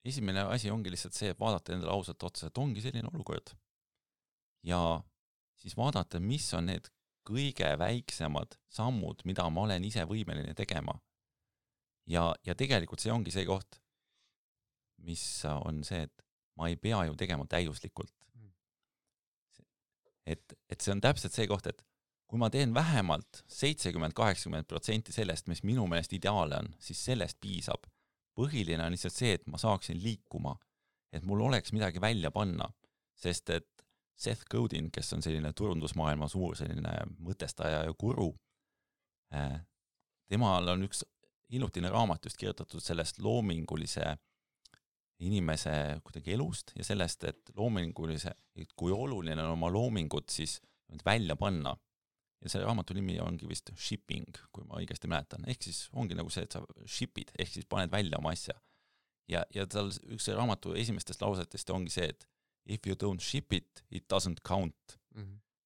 esimene asi ongi lihtsalt see, et vaadata endale ausalt otsa, et ongi selline olukord. Ja siis vaadata, mis on need kõige väiksemad sammud, mida ma olen ise võimeline tegema. Ja tegelikult see ongi see koht, mis on see, et ma ei pea ju tegema täiuslikult. Et see on täpselt see koht, et kui ma teen vähemalt 70-80% sellest, mis minu meelest ideaale on, siis sellest piisab. Põhiline on lihtsalt see, et ma saaksin liikuma, et mul oleks midagi välja panna, sest et Seth Godin, kes on selline turundusmaailma suur selline mõtestaja ja guru, temal on üks hiljutine raamat just kirjutatud sellest loomingulise inimese kuidagi elust ja sellest, et loomingulise, et kui oluline on oma loomingut siis välja panna. Ja selle raamatu nimi ongi vist shipping, kui ma õigesti mäletan. Ehk siis ongi nagu see, et sa shipid, ehk siis paned välja oma asja. Ja tal üks raamatu esimestest lausetest ongi see, et if you don't ship it, it doesn't count.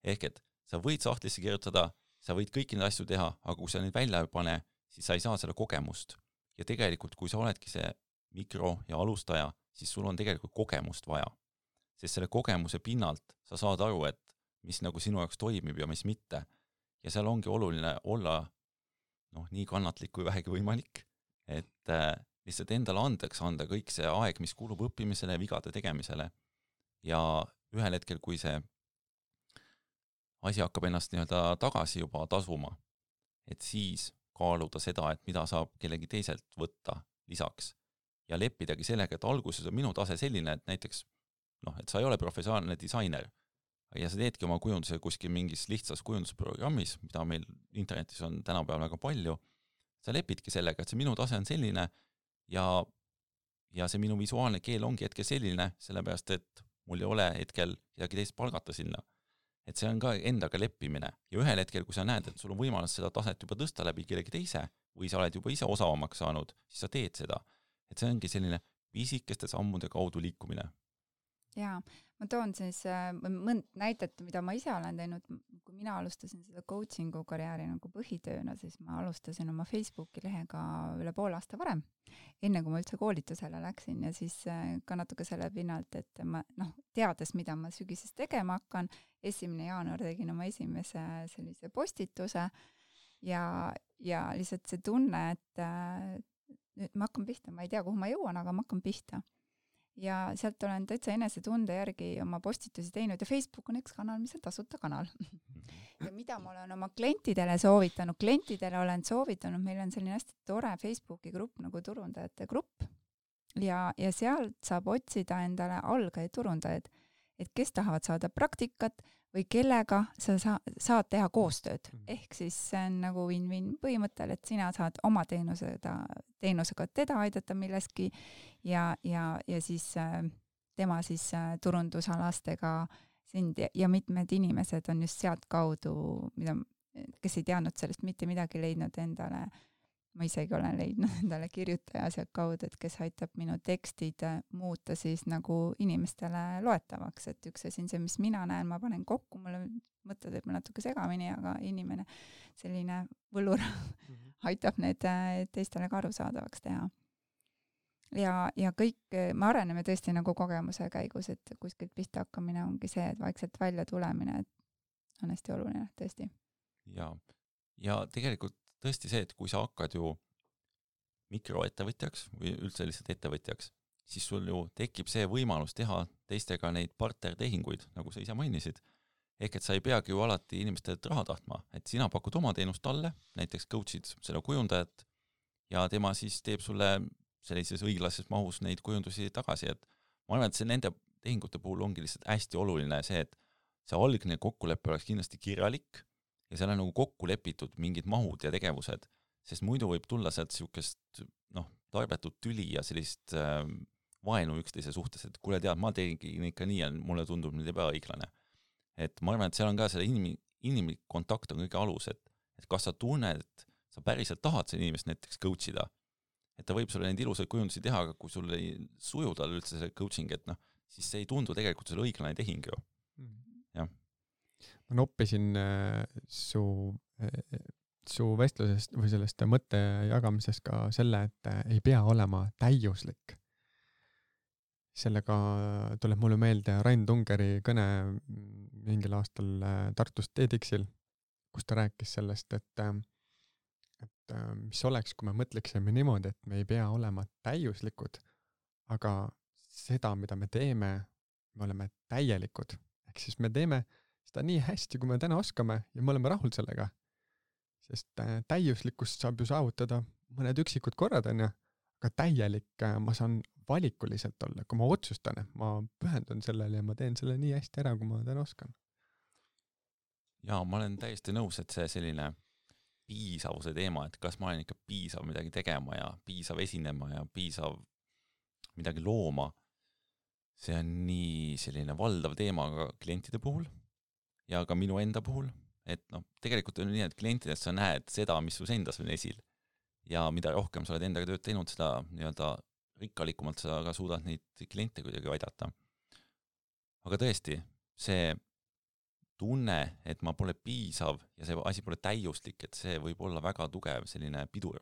Ehk et sa võid sahtlisse kirjutada, sa võid kõiki neid asju teha, aga kui sa neid välja ei pane, siis sa ei saa selle kogemust. Ja tegelikult, kui sa oledki see mikro- ja alustaja, siis sul on tegelikult kogemust vaja. Sest selle kogemuse pinnalt sa saad aru, et mis nagu sinu jaoks toimib ja mis mitte. Ja seal ongi oluline olla nii kannatlik kui vähegi võimalik, et lihtsalt endale andeks anda kõik see aeg, mis kulub õppimisele ja vigade tegemisele. Ja ühel hetkel, kui see asi hakkab ennast nii-öelda tagasi juba tasuma, et siis kaaluda seda, et mida saab kellegi teiselt võtta lisaks. Ja leppidagi sellega, et alguses on minu tase selline, et näiteks, et sa ei ole professionaalne disainer, ja sa teedki oma kujunduse kuskil mingis lihtsas kujundusprogrammis, mida meil internetis on tänapäeval väga palju, sa lepidki sellega, et see minu tase on selline ja see minu visuaalne keel ongi hetkel selline, sellepärast, et mul ei ole hetkel kedagi teist palgata sinna. Et see on ka endaga leppimine. Ja ühel hetkel, kui sa näed, et sul on võimalus seda taset juba tõsta läbi kellegi teise või sa oled juba ise osavamaks saanud, siis sa teed seda. Et see ongi selline pisikeste sammude kaudu liikumine. Jaa, ma toon siis mõnd näitet, mida ma ise olen teinud. Kui mina alustasin seda coachingu karjääri nagu põhitööna, siis ma alustasin oma Facebooki lehega üle pool aasta varem, enne kui ma üldse koolitusele läksin ja siis ka natuke selle pinnalt, et ma teades, mida ma sügises tegema hakkan, 1. jaanuar tegin oma esimese sellise postituse ja lihtsalt see tunne, et nüüd ma hakkan pihta, ma ei tea, kuhu ma jõuan, aga ma hakkan pihta. Ja sealt olen täitsa enesetunde järgi oma postitusi teinud ja Facebook on üks kanal, mis on tasuta kanal. Ja mida ma olen oma klientidele soovitanud, meil on selline hästi tore Facebooki grupp nagu turundajate grupp ja sealt saab otsida endale algajaid turundajaid, et kes tahavad saada praktikat või kellega sa saad teha koostööd. Ehk siis see on nagu win-win põhimõttel, et sina saad oma teenusega teda aidata milleski ja siis tema siis turundusalastega sind ja mitmed inimesed on just sealt kaudu, kes ei teadnud sellest mitte midagi leidnud endale. Ma isegi olen leidnud endale kirjutaja sealt kaudu, et kes aitab minu tekstid muuta siis nagu inimestele loetavaks, et üks asi on see, mis mina näen, ma panen kokku, mulle mõtted võib natuke segamini, aga inimene selline võlur aitab need teistele ka arusaadavaks teha. Ja kõik, me areneme tõesti nagu kogemuse käigus, et kuskilt pihta hakkamine ongi see, et vaikselt välja tulemine, et on hästi oluline, tõesti. Ja tegelikult tõesti see, et kui sa hakkad ju mikroettevõtjaks või üldse lihtsalt ettevõtjaks, siis sul ju tekib see võimalus teha teistega neid partnertehinguid, nagu sa ise mainisid. Ehk et sa ei peagi ju alati inimestelt raha tahtma, et sina pakud oma teenust talle, näiteks coach'id selle kujundajat ja tema siis teeb sulle sellises õiglases mahus neid kujundusi tagasi, et ma arvan, et see nende tehingute puhul ongi lihtsalt hästi oluline see, et see algne kokkulepe oleks kindlasti kirjalik ja seal on nagu kokku lepitud mingid mahud ja tegevused, sest muidu võib tulla sealt niisugust tarbetut tüli ja sellist vaenu üksteise suhtes, et kuule tead, ma tegin ikka nii ja mulle tundub nüüd ebaõiglane. Et ma arvan, et seal on ka selle inimlik kontakt on kõige alus, et kas sa tunned, et sa päriselt tahad selle inimest näiteks coachida, et ta võib sulle neid ilusaid kujundusi teha, aga kui sul ei suju tal üldse see coaching, et siis see ei tundu tegelikult selle õiglane tehing ju. Jah. Ma noppisin su vestlusest või sellest mõtte jagamisest ka selle, et ei pea olema täiuslik. Sellega tuleb mulle meelde Rain Tungeri kõne mingil aastal Tartus TEDxil, kus ta rääkis sellest, et mis oleks, kui me mõtleksime niimoodi, et me ei pea olema täiuslikud, aga seda, mida me teeme, me oleme täielikud. Ehk siis me teeme seda nii hästi, kui me täna oskame ja me oleme rahul sellega. Sest täiuslikkust saab ju saavutada mõned üksikud korrad, aga täielik ma saan valikuliselt olla, kui ma otsustan, et ma pühendun sellele ja ma teen selle nii hästi ära, kui ma täna oskan. Ja ma olen täiesti nõus, et see selline piisavuse teema, et kas ma olen ikka piisav midagi tegema ja piisav esinema ja piisav midagi looma, see on nii selline valdav teema ka klientide puhul ja ka minu enda puhul, et tegelikult on nii, et klientidest sa näed seda, mis sul endas on esil ja mida rohkem sa oled endaga tööd teinud, seda nii-öelda rikkalikumalt sa ka suudad neid kliente kuidagi aidata. Aga tõesti, see tunne, et ma pole piisav ja see asi pole täiuslik, et see võib olla väga tugev selline pidur.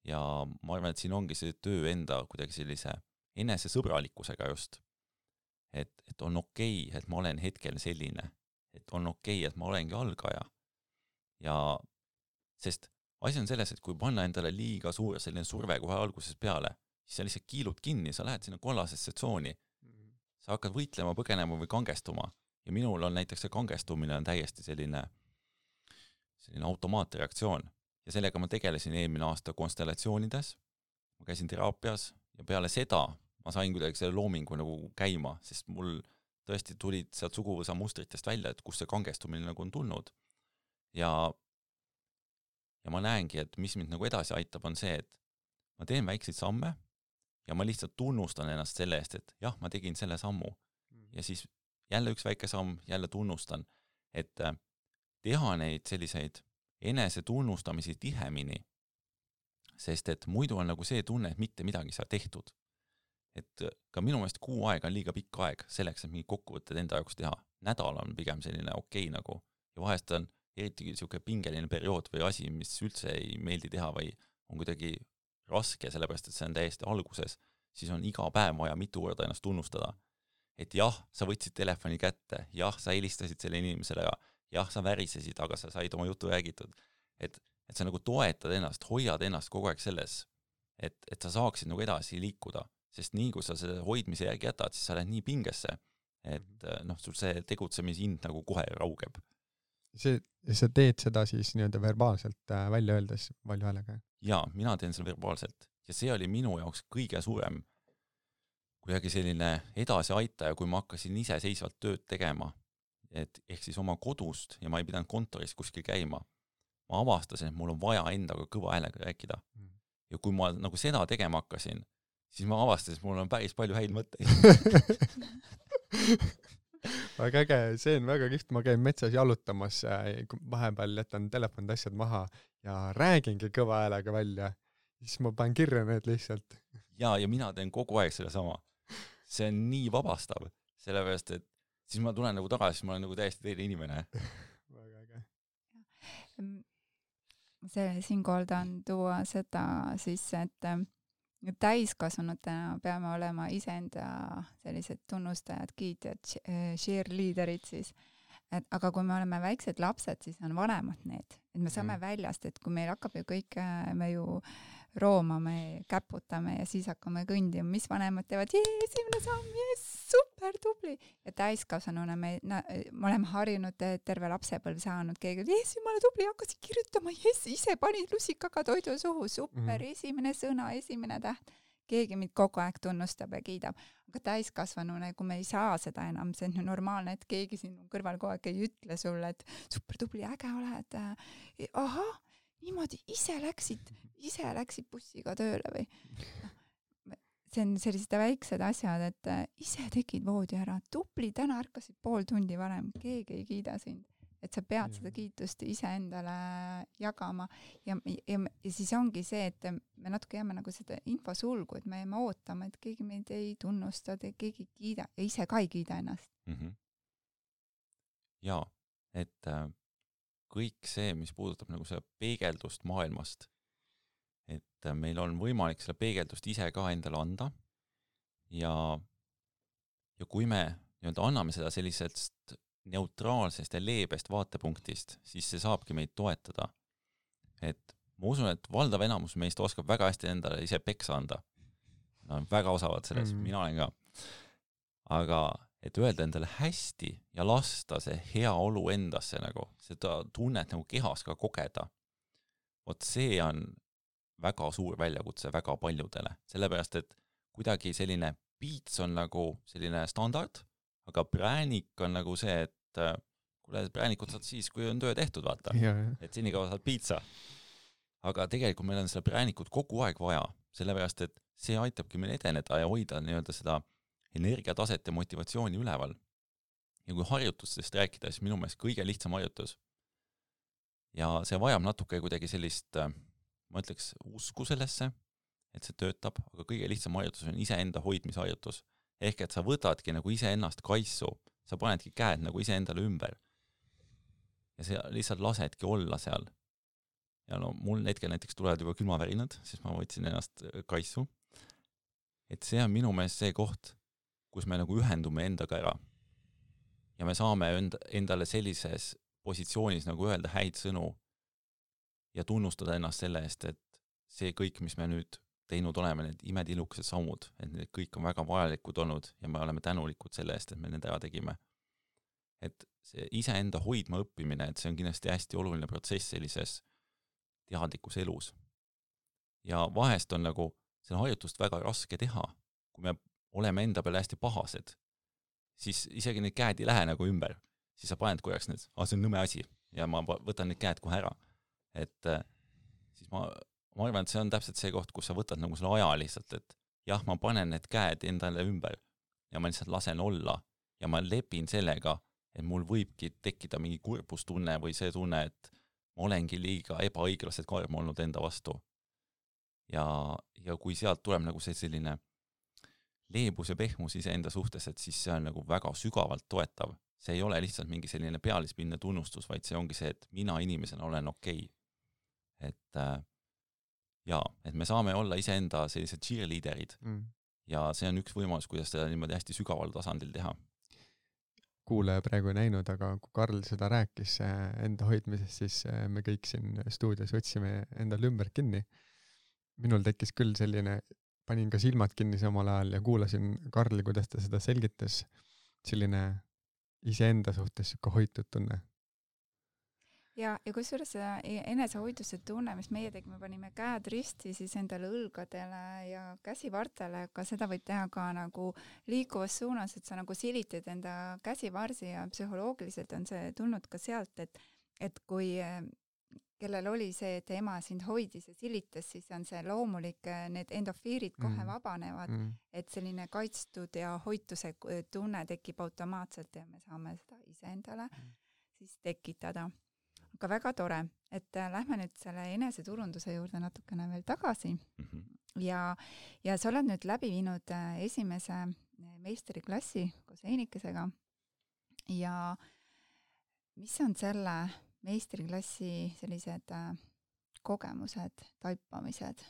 Ja ma arvan, et siin ongi see töö enda kuidagi sellise enesesõbralikkusega just. Et on okei, et ma olen hetkel selline. Et on okei, et ma olengi algaja. Ja sest asi on selles, et kui panna endale liiga suur selline surve kohe alguses peale, siis sa lihtsalt kiilud kinni, sa lähed sinna kollasesse tsooni. Sa hakkad võitlema, põgenema või kangestuma. Ja minul on näiteks see kangestumine on täiesti selline automaatreaktsioon. Ja sellega ma tegelesin eelmine aasta konstellatsioonides. Ma käisin teraapias ja peale seda ma sain kuidagi selle loomingu nagu käima, sest mul tõesti tulid sealt suguvõsa mustritest välja, et kus see kangestumine nagu on tulnud. Ja ma näengi, et mis mind nagu edasi aitab, on see, et ma teen väikseid samme ja ma lihtsalt tunnustan ennast selle eest, et jah, ma tegin selle sammu. Ja siis jälle üks väike samm, jälle tunnustan, et teha neid selliseid enese tunnustamisi tihemini, sest et muidu on nagu see tunne, et mitte midagi saa tehtud. Et ka minu meelest kuu aega on liiga pikk aeg selleks, et mingi kokkuvõtted enda jaoks teha. Nädal on pigem selline okei nagu ja vahest on eriti siuke pingeline periood või asi, mis üldse ei meeldi teha või on kuidagi raske, sellepärast et see on täiesti alguses, siis on iga päev vaja mitu korda ennast tunnustada. Et jah, sa võtsid telefoni kätte, jah, sa helistasid selle inimesele ja jah, sa värisesid, aga sa said oma jutu räägitud. Et sa nagu toetad ennast, hoiad ennast kogu aeg selles, et sa saaksid nagu edasi liikuda, sest nii kui sa selle hoidmise järgi jätad, siis sa lähed nii pingesse, et sul see tegutsemishind nagu kohe raugeb. Sa teed seda siis nii-öelda verbaalselt välja öeldes palju häälega? Jaa, mina teen seda verbaalselt ja see oli minu jaoks kõige suurem kuidagi selline edasi aitaja, kui ma hakkasin ise seisvalt tööd tegema, et ehk siis oma kodust ja ma ei pidanud kontoris kuskil käima. Ma avastasin, et mul on vaja endaga kõva häälega rääkida. Ja kui ma nagu seda tegema hakkasin, siis ma avastasin, et mul on päris palju häid mõtteid. Väga äge, see on väga kihvt, ma käin metsas jalutamas, vahepeal jätan telefonid asjad maha ja räägingi kõva häälega välja, siis ma panen kirja need lihtsalt. Ja mina teen kogu aeg selle sama. See on nii vabastav, sellepärast, et siis ma tulen nagu tagasi, siis ma olen nagu täiesti teine inimene. Väga äge. Siinkohal tahan tuua seda siis, et täiskasvanutena peame olema iseenda sellised tunnustajad, kiitjad, cheerleaderid siis. Aga kui me oleme väiksed lapsed, siis on vanemad need. Et me saame väljast, et kui meil hakkab ju kõik, me ju roomame, käputame ja siis hakkame kõndima, mis vanemad teevad, esimene samm, super tubli. Ja täiskasvanuna me oleme harjunud terve lapsepõlv saanud, keegi, jumala tubli, hakkasid kirjutama, ise panid lusikaga toidu suhu, super, esimene sõna, esimene täht. Keegi mind kogu aeg tunnustab ja kiidab. Aga täiskasvanuna, kui me ei saa seda enam, see on normaalne, et keegi sinu kõrval kogu aeg ei ütle sulle, et super tubli, äge oled. Aha, niimoodi ise läksid bussiga tööle või? See on sellised väiksed asjad, et ise tegid voodi ära, tubli, täna ärkasid pool tundi varem, keegi ei kiida sind. Et sa pead seda kiitust ise endale jagama ja siis ongi see, et me natuke jääme nagu seda infosulgu, et me jääme ootama, et keegi meid ei tunnusta, keegi ei kiida ja ise ka ei kiida ennast. Ja, et kõik see, mis puudutab nagu seda peegeldust maailmast, et meil on võimalik seda peegeldust ise ka endale anda ja kui me nii-öelda anname seda sellisest neutraalsest ja leebest vaatepunktist, siis see saabki meid toetada. Et ma usun, et valdav enamus meist oskab väga hästi endale ise peksa anda. Nad on väga osavad selles, mina olen ka. Aga et öelda endale hästi ja lasta see hea olu endasse nagu, seda tunnet nagu kehas ka kogeda. Vot see on väga suur väljakutse väga paljudele. Sellepärast, et kuidagi selline piits on nagu selline standard, aga präänik on nagu see, et kuule, präänikut saad siis, kui on töö tehtud, vaata. Et senikaua saad piitsa. Aga tegelikult meil on seda präänikut kogu aeg vaja, sellepärast, et see aitabki meil edeneda ja hoida nii-öelda seda energiataset ja motivatsiooni üleval. Ja kui harjutustest rääkida, siis minu meelest kõige lihtsam harjutus. Ja see vajab natuke kuidagi sellist, ma ütleks, usku sellesse, et see töötab, aga kõige lihtsam harjutus on iseenda hoidmisharjutus. Ehk et sa võtadki nagu ise ennast kaisu, sa panedki käed nagu ise endale ümber. Ja sa lihtsalt lasedki olla seal. Ja no mul hetkel näiteks tulevad juba külmavärinad, siis ma võtsin ennast kaisu. Et see on minu meelest see koht, kus me nagu ühendume endaga ära. Ja me saame endale sellises positsioonis nagu öelda häid sõnu ja tunnustada ennast selle eest, et see kõik, mis me nüüd teinud oleme, need imetilukesed sammud, et need kõik on väga vajalikud olnud ja me oleme tänulikud selle eest, et me need ära tegime. Et see iseenda hoidma õppimine, et see on kindlasti hästi oluline protsess sellises teadlikus elus. Ja vahest on nagu see harjutust väga raske teha, kui me oleme enda peale hästi pahased, siis isegi need käed ei lähe nagu ümber, siis sa paned korraks need, see on nõme asi ja ma võtan need käed kohe ära. Et siis ma arvan, et see on täpselt see koht, kus sa võtad nagu selle aja lihtsalt, et jah, ma panen need käed endale ümber ja ma lihtsalt lasen olla ja ma lepin sellega, et mul võibki tekkida mingi kurbustunne või see tunne, et ma olengi liiga ebaõiglaselt karm olnud enda vastu. Ja kui sealt tuleb nagu see selline leebus ja pehmus iseenda suhtes, et siis see on nagu väga sügavalt toetav. See ei ole lihtsalt mingi selline pealispinne tunnustus, vaid see ongi see, et mina inimesena olen okei. Et me saame olla iseenda sellised cheerleaderid ja see on üks võimalus, kuidas seda niimoodi hästi sügaval tasandil teha. Kuulaja praegu ei näinud, aga kui Karl seda rääkis enda hoidmisest, siis me kõik siin stuudios võtsime endal ümber kinni. Minul tekkis küll selline, panin ka silmad kinni samal ajal ja kuulasin Karli, kuidas ta seda selgitas, selline iseenda suhtes siuke hoitud tunne. Ja kusjuures enesehoiduse tunne, mis meie tegime, panime käed risti siis endale õlgadele ja käsivartele, aga seda võib teha ka nagu liikuvas suunas, et sa nagu silitad enda käsivarsi ja psühholoogiliselt on see tulnud ka sealt, et kui kellel oli see, et ema sind hoidis ja silitas, siis on see loomulik, need endofiirid kohe vabanevad, et selline kaitstud ja hoituse tunne tekib automaatselt ja me saame seda iseendale siis tekitada. Aga väga tore, et lähme nüüd selle eneseturunduse juurde natukene veel tagasi ja sa oled nüüd läbi viinud esimese meistriklassi koos Heinikesega ja mis on selle meistriklassi sellised kogemused, taipamised,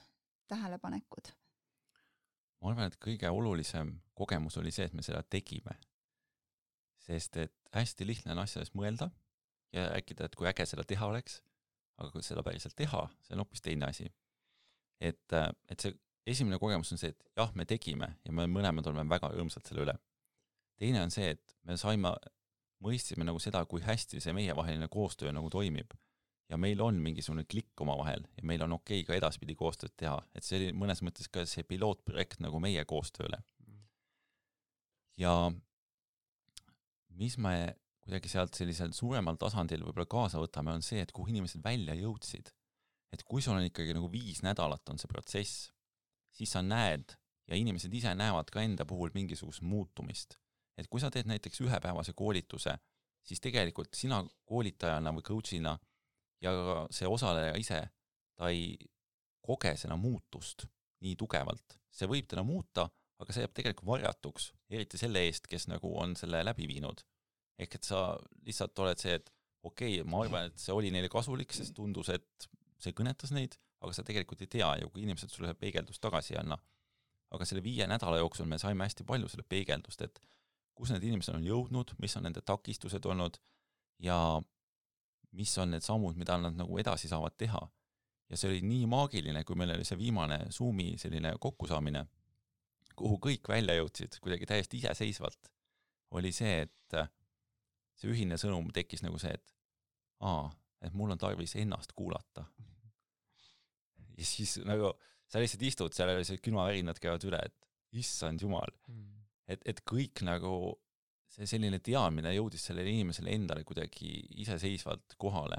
tähelepanekud? Ma arvan, et kõige olulisem kogemus oli see, et me seda tegime, sest et hästi lihtne on asjades mõelda ja rääkida, et kui äge seda teha oleks, aga kui seda päriselt teha, see on hoopis teine asi. et see esimene kogemus on see, et jah, me tegime ja me mõlemad oleme väga rõõmsad selle üle. Teine on see, et me mõistsime nagu seda, kui hästi see meievaheline koostöö nagu toimib. Ja meil on mingisugune klikk oma vahel ja meil on okei ka edaspidi koostööd teha. Et see oli mõnes mõttes ka see pilootprojekt nagu meie koostööle. Ja mis me kuidagi sealt sellisel suuremal tasandil võib-olla kaasa võtame, on see, et kuhu inimesed välja jõudsid. Et kui sul on ikkagi nagu 5 nädalat on see protsess, siis sa näed ja inimesed ise näevad ka enda puhul mingisugust muutumist. Et kui sa teed näiteks ühepäevase koolituse, siis tegelikult sina koolitajana või coachina ja see osaleja ise, ta ei koge seda muutust nii tugevalt. See võib teda muuta, aga see jääb tegelikult varjatuks, eriti selle eest, kes nagu on selle läbi viinud. Ehk et sa lihtsalt oled see, et okei, ma arvan, et see oli neile kasulik, sest tundus, et see kõnetas neid, aga sa tegelikult ei tea ju, kui inimesed sulle peegeldust tagasi ei anna. Aga selle 5 nädala jooksul me saime hästi palju selle peegeldust, et kus need inimesed on jõudnud, mis on nende takistused olnud ja mis on need sammud, mida nad nagu edasi saavad teha. Ja see oli nii maagiline, kui meil oli see viimane Zoomi selline kokkusaamine, kuhu kõik välja jõudsid, kuidagi täiesti iseseisvalt, oli see, et see ühine sõnum tekkis nagu see, et mul on tarvis ennast kuulata. Ja siis nagu sa lihtsalt istud, seal oli see külmavärinad käivad üle, et issand jumal. Et kõik nagu see selline teadmine jõudis sellele inimesele endale kuidagi iseseisvalt kohale.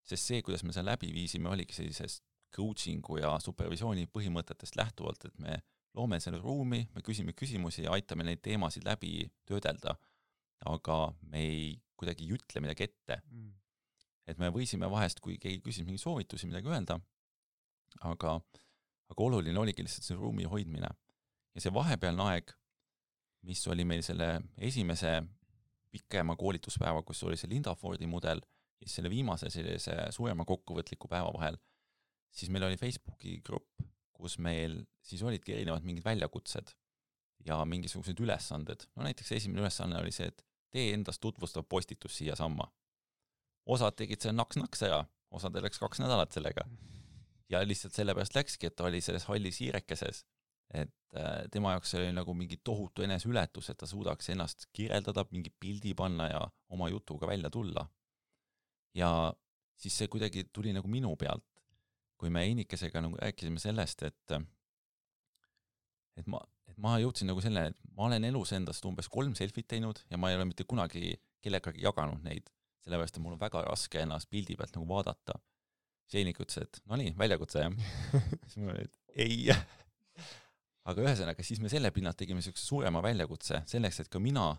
Sest see, kuidas me seda läbi viisime, oligi sellisest coachingu ja supervisiooni põhimõtetest lähtuvalt, et me loome selle ruumi, me küsime küsimusi ja aitame neid teemasid läbi töödelda, aga me ei kuidagi jutle midagi ette. Et me võisime vahest, kui keegi küsis mingi soovitusi midagi öelda, aga oluline oligi lihtsalt see ruumi hoidmine. Ja see vahepealne aeg, mis oli meil selle esimese pikema koolituspäeva, kus oli see Linda Fordi mudel, ja selle viimase sellise suurema kokkuvõtliku päeva vahel, siis meil oli Facebooki grupp, kus meil siis olidki erinevad mingid väljakutsed ja mingisugused ülesanded. No näiteks esimene ülesanne oli see, et tee endast tutvustav postitus siia samma. Osad tegid selle naks-naks ära, osad läks 2 nädalat sellega. Ja lihtsalt sellepärast läkski, et ta oli selles hallis hiirekeses, et tema jaoks oli nagu mingi tohutu eneseületus, et ta suudaks ennast kirjeldada, mingi pildi panna ja oma jutuga välja tulla. Ja siis see kuidagi tuli nagu minu pealt, kui me Einikesega nagu rääkisime sellest, et ma jõudsin nagu selle, et ma olen elus endast umbes 3 selfit teinud ja ma ei ole mitte kunagi kellegagi jaganud neid, sellepärast, et mul on väga raske ennast pildi pealt nagu vaadata. Einik ütles, et no nii, väljakutse jah. Siis ma olin, et ei. Aga ühesõnaga, siis me selle pinnalt tegime sellise suurema väljakutse selleks, et ka mina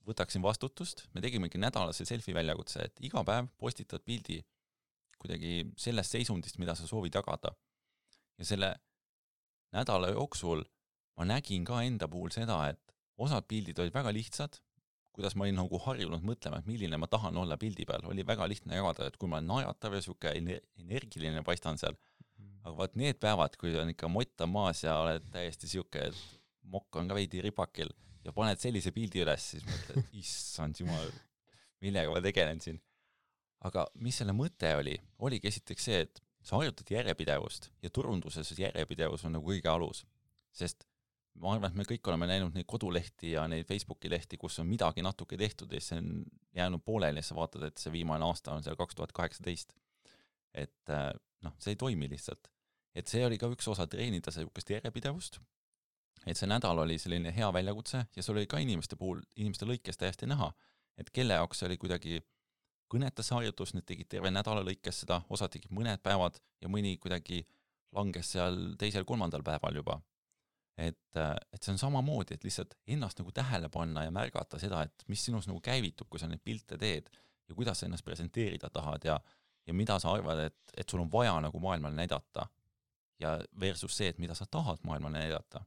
võtaksin vastutust. Me tegimegi nädalase selfie väljakutse, et iga päev postitad pildi kuidagi sellest seisundist, mida sa soovid jagada. Ja selle nädala jooksul ma nägin ka enda puhul seda, et osad pildid olid väga lihtsad, kuidas ma olin nagu harjunud mõtlema, et milline ma tahan olla pildi peal. Oli väga lihtne jagada, et kui ma olen naeratav ja siuke energiline paistan seal. Aga vaat need päevad, kui on ikka motta maas ja oled täiesti siuke, et mokk on ka veidi ripakil ja paned sellise pildi üles, siis mõtled, issand jumal, millega ma tegelen siin. Aga mis selle mõte oligi esiteks see, et sa harjutad järjepidevust ja turunduses järjepidevus on nagu kõige alus. Sest ma arvan, et me kõik oleme näinud neid kodulehti ja neid Facebooki lehti, kus on midagi natuke tehtud ja see on jäänud pooleli ja sa vaatad, et see viimane aasta on seal 2018. Et see ei toimi lihtsalt. Et see oli ka üks osa treenida sellist järjepidevust. Et see nädal oli selline hea väljakutse ja see oli ka inimeste puhul, inimeste lõikes täiesti näha, et kelle jaoks see oli kuidagi kõnetas harjutus, need tegid terve nädala lõikes seda, osad tegid mõned päevad ja mõni kuidagi langes seal 2.-3. päeval juba. Et see on samamoodi, et lihtsalt ennast nagu tähele panna ja märgata seda, et mis sinus nagu käivitub, kui sa neid pilte teed ja kuidas sa ennast presenteerida tahad ja mida sa arvad, et sul on vaja nagu maailmale näidata ja versus see, et mida sa tahad maailmale näidata.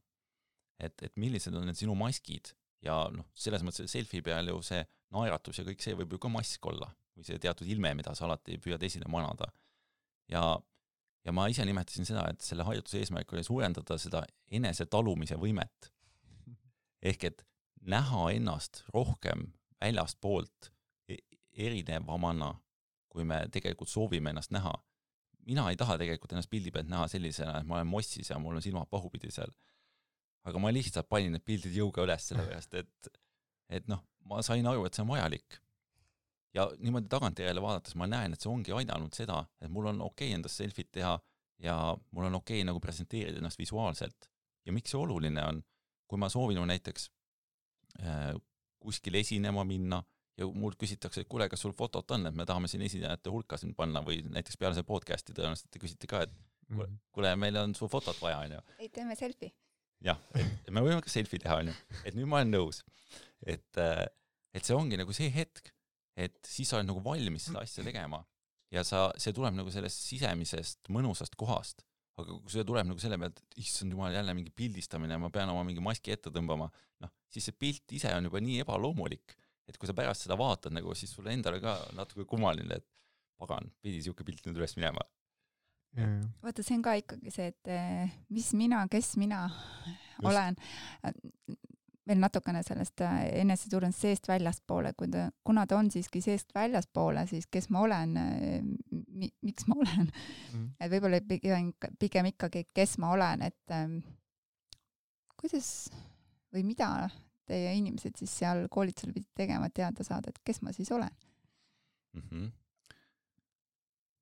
Et millised on need sinu maskid ja selles mõttes selfie peal ju see naeratus ja kõik see võib ju ka mask olla või see teatud ilme, mida sa alati püüad esile manada. Ja ma ise nimetasin seda, et selle harjutuse eesmärk oli suurendada seda enese talumise võimet. Ehk et näha ennast rohkem väljast poolt erinevamana, kui me tegelikult soovime ennast näha. mina ei taha tegelikult ennast pildi pealt näha sellisena, et ma olen mossis ja mul on silmad pahupidi seal. Aga ma lihtsalt panin need pildid jõuga üles sellepärast, et noh, ma sain aru, et see on vajalik. Ja niimoodi tagantjärele vaadates ma näen, et see ongi aidanud seda, et mul on okei endast selfit teha ja mul on okei nagu presenteerida ennast visuaalselt. Ja miks see oluline on, kui ma soovin näiteks kuskil esinema minna ja mul küsitakse, et kuule, kas sul fotot on, et me tahame siin esinejate hulka siin panna või näiteks peale see podcasti tõenäoliselt te küsite ka, et kuule, meil on su fotot vaja, on ju. Ei, teeme selfie. Jah, et me võime ka selfie teha, on ju. Et nüüd ma olen nõus. Et see ongi nagu see hetk, et siis sa oled nagu valmis seda asja tegema ja see tuleb nagu sellest sisemisest mõnusast kohast. Aga kui see tuleb nagu selle pealt, et issand jumal jälle mingi pildistamine ja ma pean oma mingi maski ette tõmbama, noh, siis see pilt ise on juba nii ebaloomulik, et kui sa pärast seda vaatad, nagu, siis sulle endale ka natuke kummaline, et pagan, pidi siuke pilt nüüd üles minema. Vaata, see on ka ikkagi see, et mis mina, kes mina olen. Veel natukene sellest eneseturundust seest väljaspoole, kuna ta on siiski seest väljaspoole, siis kes ma olen, miks ma olen. Et võib-olla pigem ikkagi, kes ma olen, et kuidas või mida teie inimesed siis seal koolitusel pidid tegema, teada saada, et kes ma siis olen?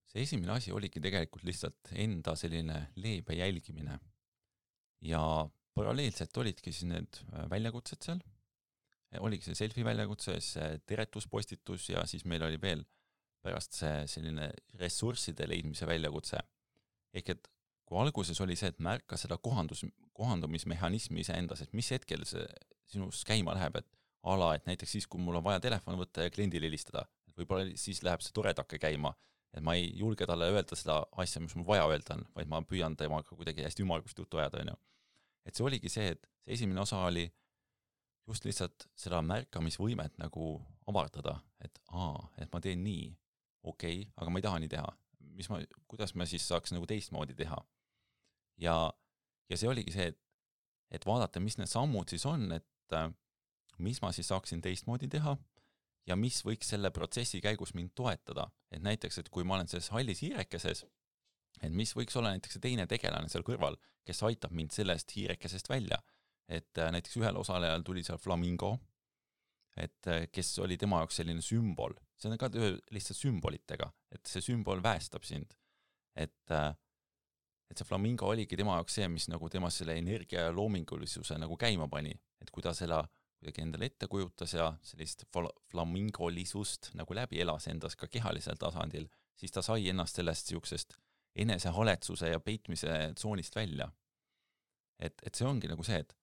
See esimene asi oligi tegelikult lihtsalt enda selline leebe jälgimine ja paralleelselt olidki siis need väljakutsed seal, oligi see selfie väljakutse, see teretuspostitus ja siis meil oli veel pärast see selline ressursside leidmise väljakutse. Ehk et kui alguses oli see, et märka seda kohandumismehhanismi iseendas, et mis hetkel see sinus käima läheb, et et näiteks siis, kui mul on vaja telefon võtta ja kliendile helistada, võib-olla siis läheb see toredake käima, et ma ei julge talle öelda seda asja, mis mul vaja öelda on, vaid ma püüan temaga kuidagi hästi ümmargust juttu ajada, on ju. Et see oligi see, et see esimene osa oli just lihtsalt seda märkamisvõimet nagu avardada, et ma teen nii, okei, aga ma ei taha nii teha. Kuidas ma siis saaks nagu teistmoodi teha? Ja see oligi see, et vaadata, mis need sammud siis on, et mis ma siis saaksin teistmoodi teha ja mis võiks selle protsessi käigus mind toetada. Et näiteks, et kui ma olen selles hallis hiirekeses, et mis võiks olla näiteks teine tegelane seal kõrval, kes aitab mind sellest hiirekesest välja. Et näiteks ühel osalejal tuli seal flamingo, et kes oli tema jaoks selline sümbol. See on ka lihtsalt sümbolitega, et see sümbol väestab sind. Et see flamingo oligi tema jaoks see, mis nagu tema selle energia ja loomingulisuse nagu käima pani. Et kui ta selle kuidagi endale ette kujutas ja sellist flamingolisust nagu läbi elas endas ka kehalisel tasandil, siis ta sai ennast sellest siuksest enesehaletsuse ja peitmise tsoonist välja. Et see ongi nagu see, et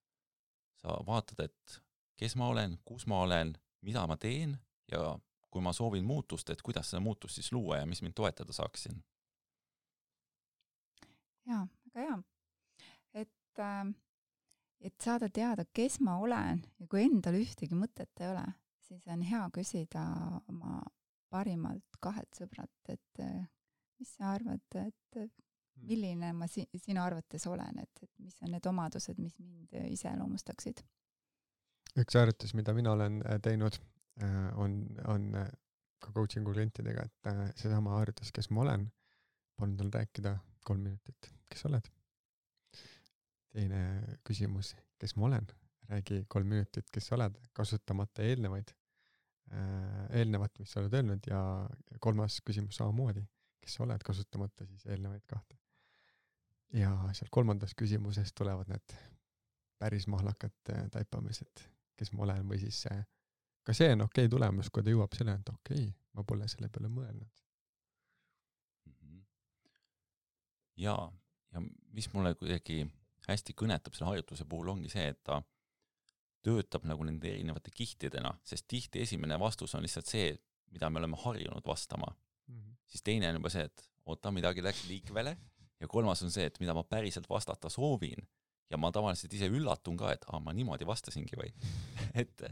sa vaatad, et kes ma olen, kus ma olen, mida ma teen ja kui ma soovin muutust, et kuidas seda muutust siis luua ja mis mind toetada saaksin. Jaa, väga hea. Et saada teada, kes ma olen ja kui endal ühtegi mõtet ei ole, siis on hea küsida oma parimalt 2 sõbrat, et mis sa arvad, et milline ma sinu arvates olen, et mis on need omadused, mis mind iseloomustaksid? Üks harjutus, mida mina olen teinud, on ka coachingu klientidega, et seesama harjutus, kes ma olen, palun tal rääkida 3 minutit, kes oled? Teine küsimus, kes ma olen? Räägi 3 minutit, kes oled, kasutamata eelnevat, mis sa oled öelnud ja 3. küsimus samamoodi. Kes sa oled, kasutamata siis eelnevaid 2. Ja seal 3. küsimuses tulevad need päris mahlakad taipamised, kes ma olen või siis ka see on okei tulemus, kui ta jõuab selle, et okei, ma pole selle peale mõelnud. Ja mis mulle kuidagi hästi kõnetab selle harjutuse puhul ongi see, et ta töötab nagu nende erinevate kihtidena, sest tihti esimene vastus on lihtsalt see, mida me oleme harjunud vastama. Siis teine on juba see, et midagi läks liikvele ja 3. on see, et mida ma päriselt vastata soovin ja ma tavaliselt ise üllatun ka, et ma niimoodi vastasingi või. et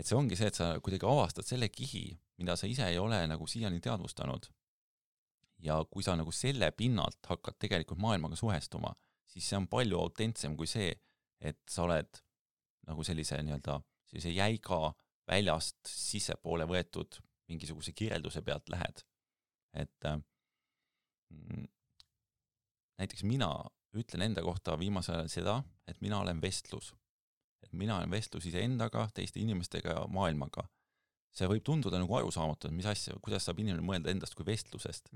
see ongi see, et sa kuidagi avastad selle kihi, mida sa ise ei ole nagu siiani teadvustanud ja kui sa nagu selle pinnalt hakkad tegelikult maailmaga suhestuma, siis see on palju autentsem kui see, et sa oled nagu sellise jäiga väljast sissepoole võetud mingisuguse kirjelduse pealt lähed. Et näiteks mina ütlen enda kohta viimasel ajal seda, et mina olen vestlus. Et mina olen vestlus iseendaga, teiste inimestega ja maailmaga. See võib tunduda nagu arusaamatu, et mis asja, kuidas saab inimene mõelda endast kui vestlusest.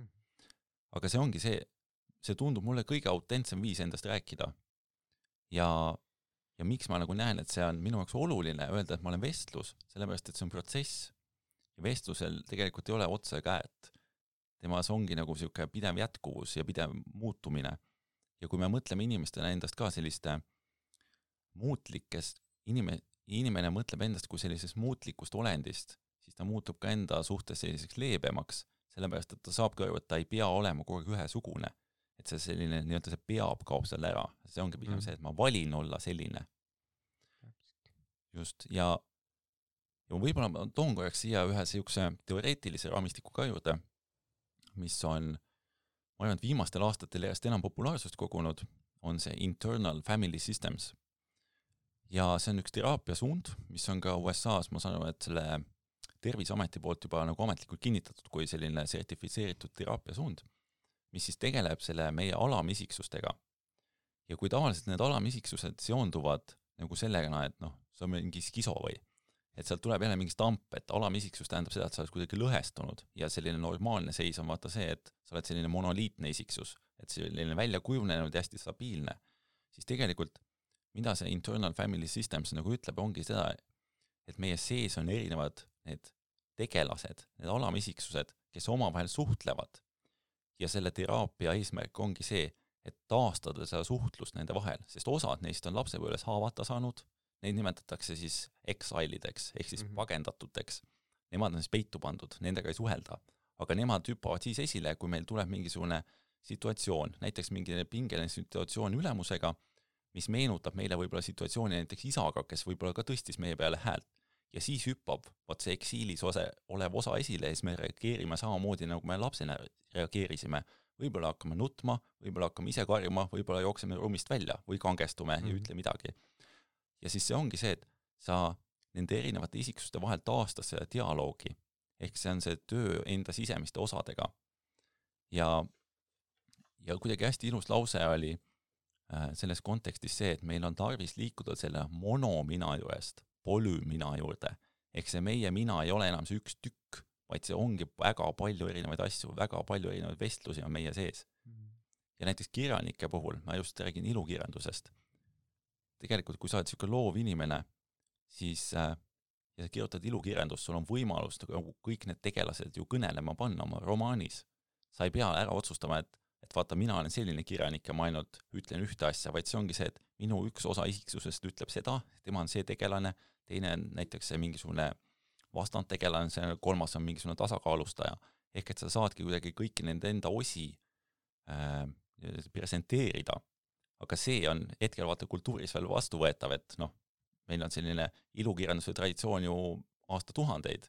Aga see ongi see tundub mulle kõige autentsem viis endast rääkida. Ja miks ma nagu näen, et see on minu jaoks oluline öelda, et ma olen vestlus, sellepärast, et see on protsess. Ja vestlusel tegelikult ei ole otse käet. Temas ongi nagu siuke pidev jätkuvus ja pidev muutumine. Ja kui me mõtleme inimestena endast ka selliste muutlikest, inimene mõtleb endast kui sellisest muutlikust olendist, siis ta muutub ka enda suhtes selliseks leebemaks, sellepärast, et ta saab kõrvu, et ta ei pea olema kogu aeg ühesugune. Et see selline, nii-öelda see peab kaob seal ära. See ongi pigem see, et ma valin olla selline. Just, ja võib-olla ma toon korraks siia ühe siukse teoreetilise raamistiku ka juurde, mis on, ma arvan, et viimastel aastatel järjest enam populaarsust kogunud, on see internal family systems. Ja see on üks teraapiasuund, mis on ka USA-s, ma saan aru, et selle Terviseameti poolt juba nagu ametlikult kinnitatud kui selline sertifitseeritud teraapiasuund, mis siis tegeleb selle meie alamisiksustega. Ja kui tavaliselt need alamisiksused seonduvad nagu sellega, et see on mingi skiso või, et sealt tuleb jälle mingi stamp, et alamisiksus tähendab seda, et sa oled kuidagi lõhestunud ja selline normaalne seis on vaata see, et sa oled selline monoliitne isiksus, et selline välja kujunenud ja hästi stabiilne. Siis tegelikult, mida see internal family systems nagu ütleb, ongi seda, et meie sees on erinevad need tegelased, need alamisiksused, kes omavahel suhtlevad. Ja selle teraapia eesmärk ongi see, et taastada seda suhtlust nende vahel, sest osad neist on lapsepõlves haavata saanud, neid nimetatakse siis exile'ideks, ehk siis pagendatuteks. Nemad on siis peitu pandud, nendega ei suhelda, aga nemad hüppavad siis esile, kui meil tuleb mingisugune situatsioon, näiteks mingi pingeline situatsioon ülemusega, mis meenutab meile võib-olla situatsiooni näiteks isaga, kes võib-olla ka tõstis meie peale häält. Ja siis hüppab see eksiilis olev osa esile ja siis me reageerime samamoodi, nagu me lapsena reageerisime. Võib-olla hakkame nutma, võib-olla hakkame ise karjuma, võib-olla jookseme ruumist välja või kangestume ja ütle midagi. Ja siis see ongi see, et sa nende erinevate isiksuste vahel taastas seda dialoogi. Ehk see on see töö enda sisemiste osadega. Ja kuidagi hästi ilus lause oli selles kontekstis see, et meil on tarvis liikuda selle monomina juurest polümina juurde. Ehk see meie mina ei ole enam see üks tükk, vaid see ongi väga palju erinevaid asju, väga palju erinevaid vestlusi on meie sees. Ja näiteks kirjanike puhul, ma just räägin ilukirjandusest. Tegelikult, kui sa oled siuke loov inimene, siis ja sa kirjutad ilukirjandust, sul on võimalus kõik need tegelased ju kõnelema panna oma romaanis. Sa ei pea ära otsustama, et vaata, mina olen selline kirjanik ja ma ainult ütlen ühte asja, vaid see ongi see, et minu üks osa isiksusest ütleb seda, tema on see tegelane, teine on näiteks see mingisugune vastandtegelane, see kolmas on mingisugune tasakaalustaja. Ehk et sa saadki kuidagi kõiki nende enda osi presenteerida. Aga see on hetkel vaata kultuuris veel vastuvõetav, et meil on selline ilukirjanduse traditsioon ju aastatuhandeid.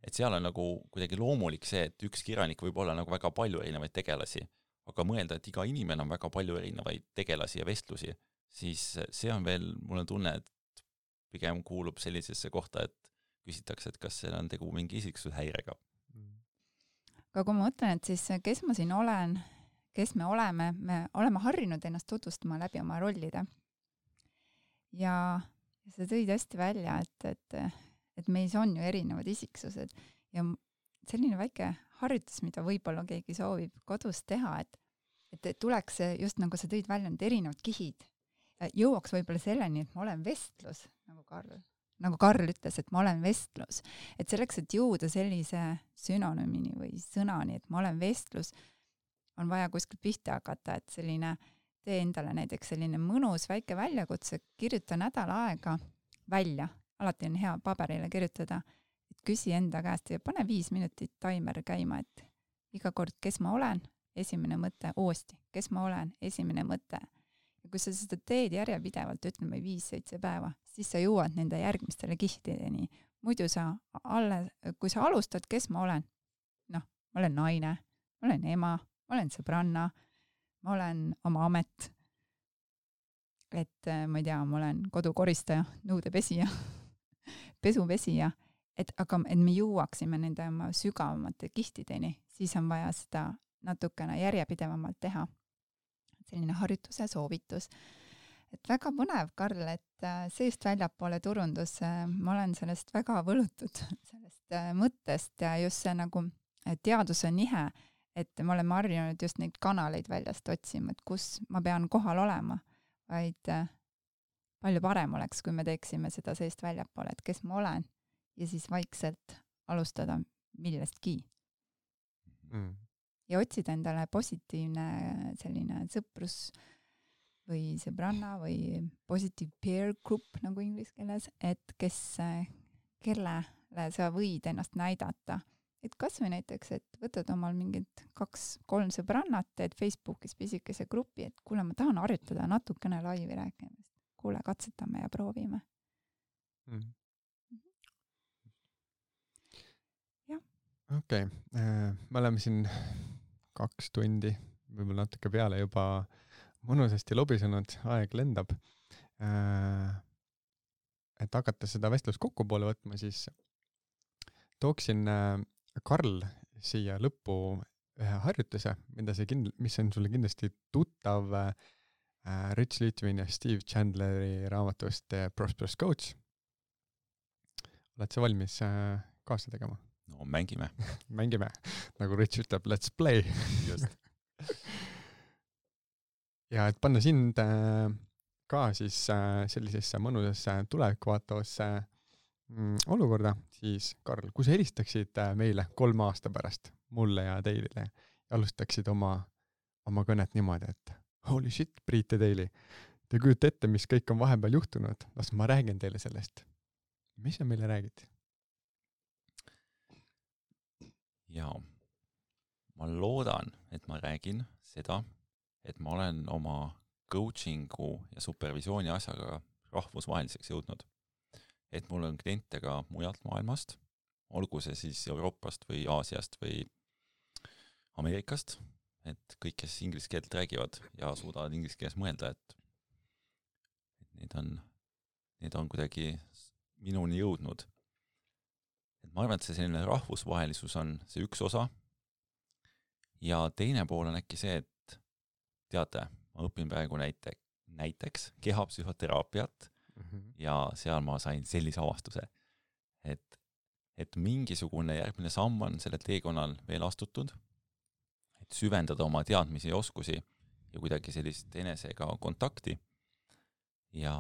Et seal on nagu kuidagi loomulik see, et üks kirjanik võib olla nagu väga palju erinevaid tegelasi, aga mõelda, et iga inimene on väga palju erinevaid tegelasi ja vestlusi, siis see on veel, mulle tunne, et pigem kuulub sellisesse kohta, et küsitakse, et kas seal on tegu mingi isiksushäirega. Aga kui ma mõtlen, et siis kes ma siin olen, kes me oleme harjunud ennast tutvustama läbi oma rollide. Ja see tõid hästi välja, et meis on ju erinevad isiksused ja selline väike harjutus, mida võib-olla keegi soovib kodus teha, et tuleks just nagu sa tõid välja need erinevad kihid. Jõuaks võib-olla selleni, et ma olen vestlus, nagu Karl ütles, et ma olen vestlus. Et selleks, et jõuda sellise sünonüümini või sõnani, et ma olen vestlus, on vaja kuskilt pihta hakata, et selline tee endale näiteks selline mõnus väike väljakutse, kirjuta nädal aega välja. Alati on hea paberile kirjutada, et küsi enda käest ja pane 5 minutit taimer käima, et iga kord, kes ma olen, esimene mõte, uuesti, kes ma olen, esimene mõte. Ja kui sa seda teed järjepidevalt, ütleme 5-7 päeva, siis sa jõuad nende järgmistele kihtideni. Muidu kui sa alustad, kes ma olen, ma olen naine, ma olen ema, ma olen sõbranna, ma olen oma amet, et ma ei tea, ma olen kodukoristaja, nõudepesija, pesupesija, et me jõuaksime nende oma sügavamate kihtideni, siis on vaja seda natukene järjepidevamalt teha. Selline harjutuse soovitus. Et väga põnev, Karl, et seest väljapoole turundus, ma olen sellest väga võlutud, sellest mõttest ja just see nagu teaduse nihe, et me oleme harjunud just neid kanaleid väljast otsima, et kus ma pean kohal olema, vaid palju parem oleks, kui me teeksime seda seest väljapoole, et kes ma olen ja siis vaikselt alustada millestki. Ja otsida endale positiivne selline sõprus või sõbranna või positive peer group nagu inglise keeles, et kellele sa võid ennast näidata. Et kas või näiteks, et võtad omal mingid 2-3 sõbrannat, teed Facebookis pisikese grupi, et kuule, ma tahan harjutada natukene laivi rääkimist. Kuule, katsetame ja proovime. Okei, me oleme siin 2 tundi, võib-olla natuke peale juba mõnusasti lobisenud, aeg lendab. Et hakata seda vestlust kokku poole võtma, siis tooksin Karl siia lõppu ühe harjutuse, mis on sulle kindlasti tuttav Rich Litvin ja Steve Chandleri raamatust Prosperous Coach. Oled sa valmis kaasa tegema? No mängime. Mängime, nagu Rich ütleb, let's play. Just. Ja et panna sind ka siis sellisesse mõnusasse tulevikku vaatavasse olukorda, siis Karl, kui sa helistaksid meile 3 aasta pärast, mulle ja Teilile, ja alustaksid oma kõnet niimoodi, et holy shit, Priit ja Teili, te kujuta ette, mis kõik on vahepeal juhtunud, las ma räägin teile sellest. Mis sa meile räägid? Jaa, ma loodan, et ma räägin seda, et ma olen oma coachingu ja supervisiooni asjaga rahvusvaheliseks jõudnud. Et mul on kliente ka mujalt maailmast, olgu see siis Euroopast või Aasiast või Ameerikast, et kõik, kes inglise keelt räägivad ja suudavad inglise keeles mõelda, et need on kuidagi minuni jõudnud. Et ma arvan, et see selline rahvusvahelisus on see üks osa ja teine pool on äkki see, et teate, ma õpin praegu näiteks kehapsühhoteraapiat ja seal ma sain sellise avastuse, et mingisugune järgmine samm on selle teekonnal veel astutud, et süvendada oma teadmisi ja oskusi ja kuidagi sellist enesega kontakti ja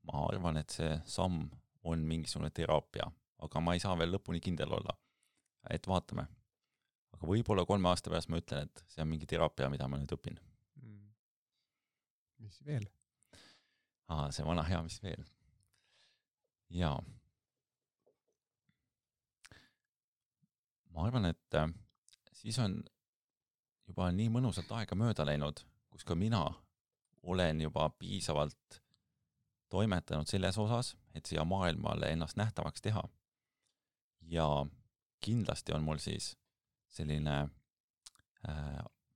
ma arvan, et see samm on mingisugune teraapia, aga ma ei saa veel lõpuni kindel olla, et vaatame. Aga võib-olla 3 aasta pärast ma ütlen, et see on mingi teraapia, mida ma nüüd õpin. Mis veel? See vana hea, mis veel. Jaa. Ma arvan, et siis on juba nii mõnusalt aega mööda läinud, kus ka mina olen juba piisavalt toimetanud selles osas, et siia maailmale ennast nähtavaks teha. Ja kindlasti on mul siis selline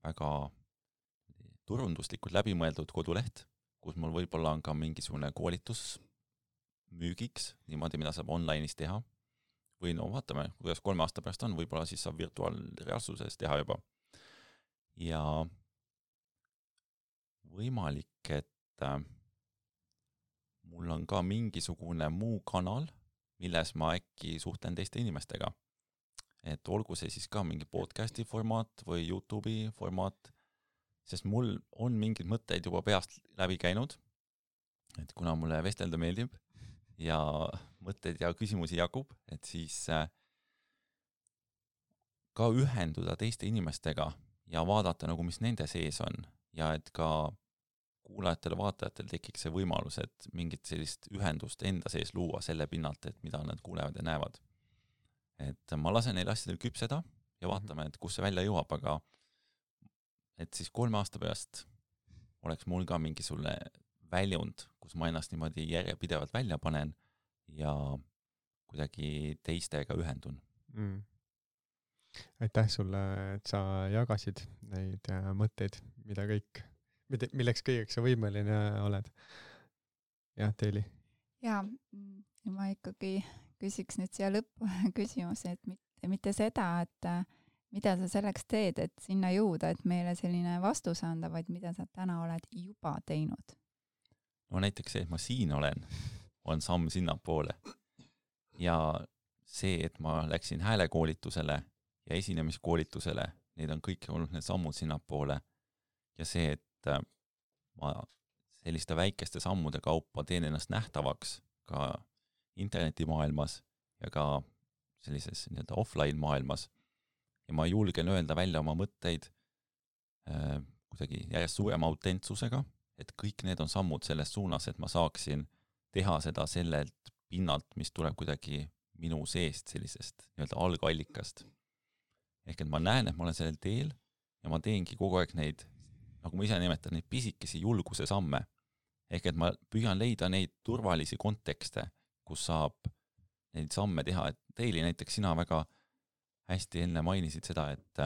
väga turunduslikult läbimõeldud koduleht, kus mul võib-olla on ka mingisugune koolitus müügiks, niimoodi, mida saab online'is teha. Või no vaatame, kuidas 3 aasta pärast on, võib-olla siis saab virtuaalreaalsuses teha juba. Ja võimalik, et mul on ka mingisugune muu kanal, milles ma äkki suhtlen teiste inimestega. Et olgu see siis ka mingi podcasti formaat või YouTube'i formaat, sest mul on mingid mõtteid juba peast läbi käinud, et kuna mulle vestelda meeldib ja mõtteid ja küsimusi jagub, et siis ka ühenduda teiste inimestega ja vaadata nagu, mis nende sees on ja et ka kuulajatel, vaatajatel tekiks see võimalus, et mingit sellist ühendust enda sees luua selle pinnalt, et mida nad kuulevad ja näevad. Et ma lasen neil asjadel küpseda ja vaatame, et kus see välja jõuab, aga et siis 3 aasta pärast oleks mul ka mingisugune väljund, kus ma ennast niimoodi järjepidevalt välja panen ja kuidagi teistega ühendun. Aitäh sulle, et sa jagasid neid mõtteid, milleks kõigeks sa võimeline oled. Jah, Teili? Ja ma ikkagi küsiks nüüd siia lõppu küsimuse, et mitte seda, mida sa selleks teed, et sinna jõuda, et meile selline vastus anda, vaid mida sa täna oled juba teinud? No näiteks see, et ma siin olen, on samm sinnapoole. Ja see, et ma läksin häälekoolitusele ja esinemiskoolitusele, need on kõik olnud need sammud sinnapoole. Ja see, et ma selliste väikeste sammude kaupa teen ennast nähtavaks ka internetimaailmas ja ka sellises nii-öelda offline maailmas. Ja ma julgen öelda välja oma mõtteid kuidagi järjest suurema autentsusega, et kõik need on sammud selles suunas, et ma saaksin teha seda sellelt pinnalt, mis tuleb kuidagi minu seest sellisest nii-öelda algallikast. Ehk et ma näen, et ma olen sellel teel ja ma teengi kogu aeg neid, nagu ma ise nimetan, neid pisikesi julguse samme. Ehk et ma püüan leida neid turvalisi kontekste, kus saab neid samme teha. Et Teili näiteks sina väga hästi enne mainisid seda, et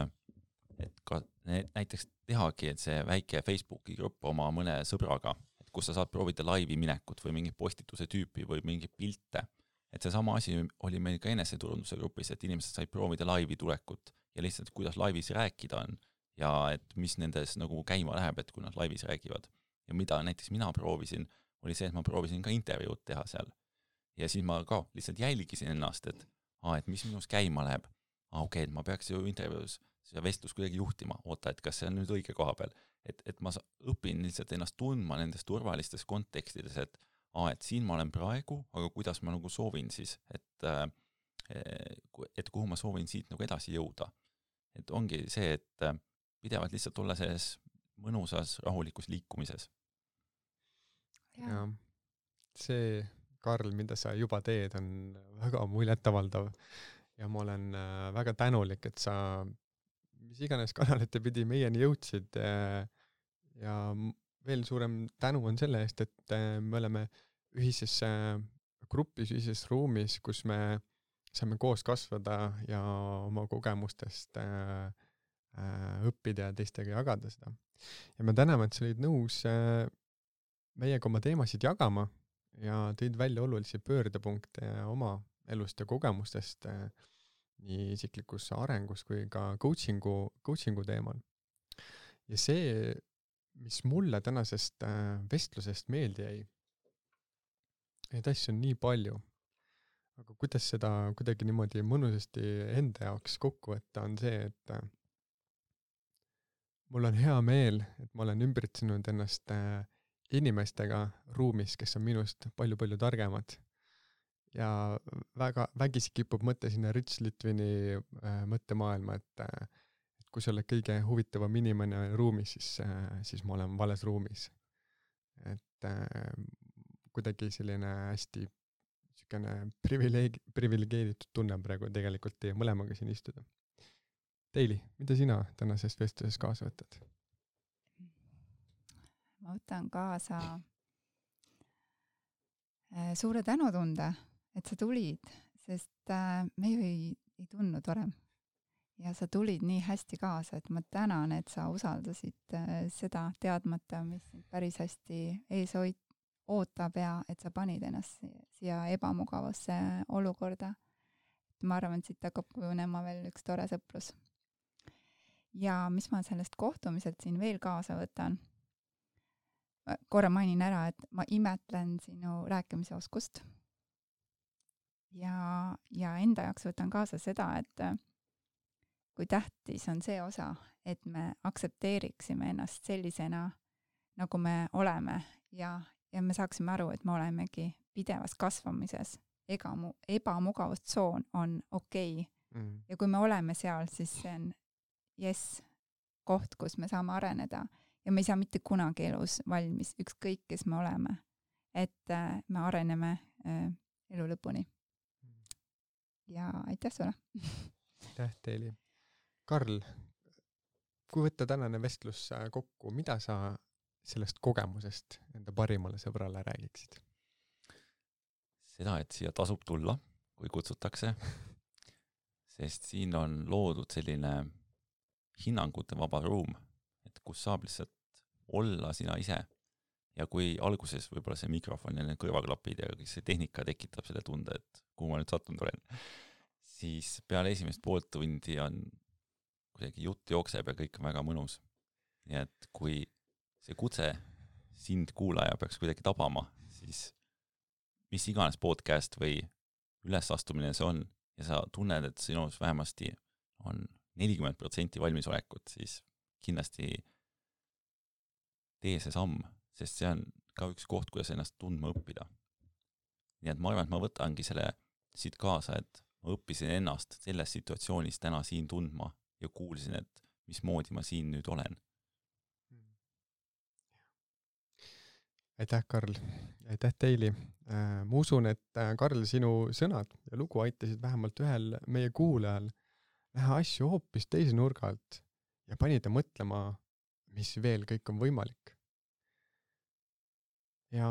ka näiteks tehagi, et see väike Facebooki grupp oma mõne sõbraga, et kus sa saad proovida laivi minekut või mingi postituse tüüpi või mingi pilte. Et see sama asi oli meil ka eneseturunduse grupis, et inimesed said proovida laivi tulekut ja lihtsalt kuidas laivis rääkida on ja et mis nendes nagu käima läheb, et kui nad laivis räägivad. Ja mida näiteks mina proovisin, oli see, et ma proovisin ka intervjuud teha seal. Ja siis ma ka lihtsalt jälgisin ennast, et mis minus käima läheb. Okei, et ma peaks ju intervjuus seda vestlus kuidagi juhtima, oota, et kas see on nüüd õige koha peal. Et ma õpin lihtsalt ennast tundma nendes turvalistes kontekstides, et siin ma olen praegu, aga kuidas ma nagu soovin siis, et kuhu ma soovin siit nagu edasi jõuda. Et ongi see, et pidevalt lihtsalt olla selles mõnusas, rahulikus liikumises. Ja see, Karl, mida sa juba teed, on väga muljetavaldav ja ma olen väga tänulik, et sa mis iganes kanalite pidi meieni jõudsid ja veel suurem tänu on selle eest, et me oleme ühises grupis, ühises ruumis, kus me saame koos kasvada ja oma kogemustest õppida ja teistega jagada seda. Ja me täname, et sa olid nõus meiega oma teemasid jagama ja tõid välja olulisi pöördepunkte oma elust ja kogemustest nii isiklikus arengus kui ka coachingu teemal. Ja see, mis mulle tänasest vestlusest meeldi jäi, neid asju on nii palju, aga kuidas seda kuidagi niimoodi mõnusasti enda jaoks kokku võtta, on see, et mul on hea meel, et ma olen ümbritsenud ennast inimestega ruumis, kes on minust palju-palju targemad. Ja vägisi kipub mõte sinna Rich Litvini mõttemaailma, et kui sa oled kõige huvitavam inimene ruumis, siis ma olen vales ruumis. Et kuidagi selline hästi privilegeeritud tunne praegu tegelikult teie mõlemaga siin istuda. Teili, mida sina tänasest vestluses kaasa võtad? Ma võtan kaasa suure tänutunde, et sa tulid, sest me ju ei tundnud varem. Ja sa tulid nii hästi kaasa, et ma tänan, et sa usaldasid seda teadmata, mis päris hästi ees ootab ja et sa panid ennast siia ebamugavasse olukorda. Ma arvan, et siit hakkab kujunema veel üks tore sõprus. Ja mis ma sellest kohtumiselt siin veel kaasa võtan? Korra mainin ära, et ma imetlen sinu rääkimise oskust. Ja enda jaoks võtan kaasa seda, et kui tähtis on see osa, et me aktsepteeriksime ennast sellisena, nagu me oleme ja me saaksime aru, et me olemegi pidevas kasvamises. Ebamugavustsoon on okei. Ja kui me oleme seal, siis see on koht, kus me saame areneda ja me ei saa mitte kunagi elus valmis, ükskõik kes me oleme. Et me areneme elu lõpuni. Ja aitäh sulle! Aitäh teile! Karl, kui võtta tänane vestlus kokku, mida sa sellest kogemusest enda parimale sõbrale räägiksid? Seda, et siia tasub tulla, kui kutsutakse, sest siin on loodud selline hinnangute vaba ruum, et kus saab lihtsalt olla sina ise. Ja kui alguses võib-olla see mikrofon ja need kõrvaklapid ja kõik see tehnika tekitab selle tunde, et kuhu ma nüüd sattunud olen, siis peale esimest poolt tundi on kuidagi jutt jookseb ja kõik on väga mõnus. Nii et kui see kutse sind kuulaja peaks kuidagi tabama, siis mis iganes podcast või ülesastumine see on ja sa tunned, et sinus vähemasti on 40% valmisolekut, siis kindlasti tee see samm, sest see on ka üks koht, kuidas ennast tundma õppida. Nii et ma arvan, et ma võtangi selle siit kaasa, et ma õppisin ennast selles situatsioonis täna siin tundma ja kuulsin, et mismoodi ma siin nüüd olen. Aitäh, Karl. Aitäh teili. Ma usun, et Karl, sinu sõnad ja lugu aitasid vähemalt ühel meie kuulajal näha asju hoopis teise nurga alt ja panida mõtlema, mis veel kõik on võimalik. Ja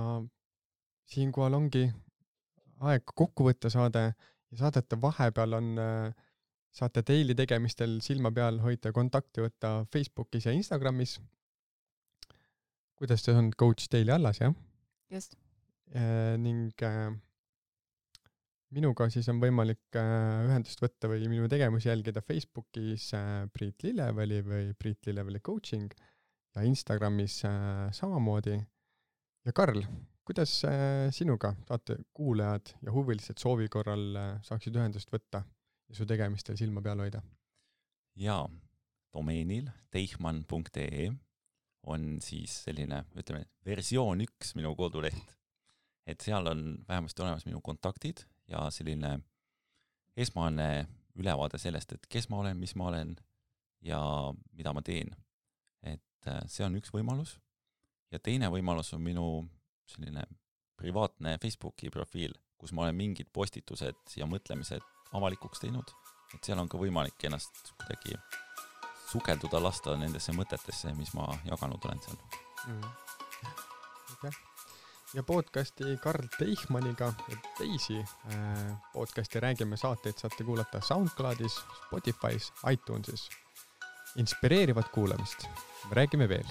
siinkohal ongi aeg kokku võtta saade ja saadete vahepeal saate teili tegemistel silma peal hoida kontakti võtta Facebookis ja Instagramis. Kuidas see on coach teili allas, jah? Just. Ning minuga siis on võimalik ühendust võtta või minu tegemusi jälgida Facebookis Priit Lilleveli või Priit Lilleveli coaching ja Instagramis samamoodi. Ja Karl, kuidas sinuga saate kuulajad ja huvilised soovi korral saaksid ühendust võtta ja su tegemistel silma peal hoida? Jaa, domeenil teichmann.ee on siis selline, ütleme, versioon 1 minu koduleht. Et seal on vähemasti olemas minu kontaktid ja selline esmane ülevaade sellest, et kes ma olen, mis ma olen ja mida ma teen. Et see on üks võimalus. Ja teine võimalus on minu selline privaatne Facebooki profiil, kus ma olen mingid postitused ja mõtlemised avalikuks teinud. Et seal on ka võimalik ennast kuidagi sukelduda lasta nendesse mõtetesse, mis ma jaganud olen seal. Okay. Ja podcasti Karl Teichmanniga ja teisi podcasti Räägime saateid saate kuulata SoundCloudis, Spotify's, iTunesis. Inspireerivat kuulamist. Me räägime veel.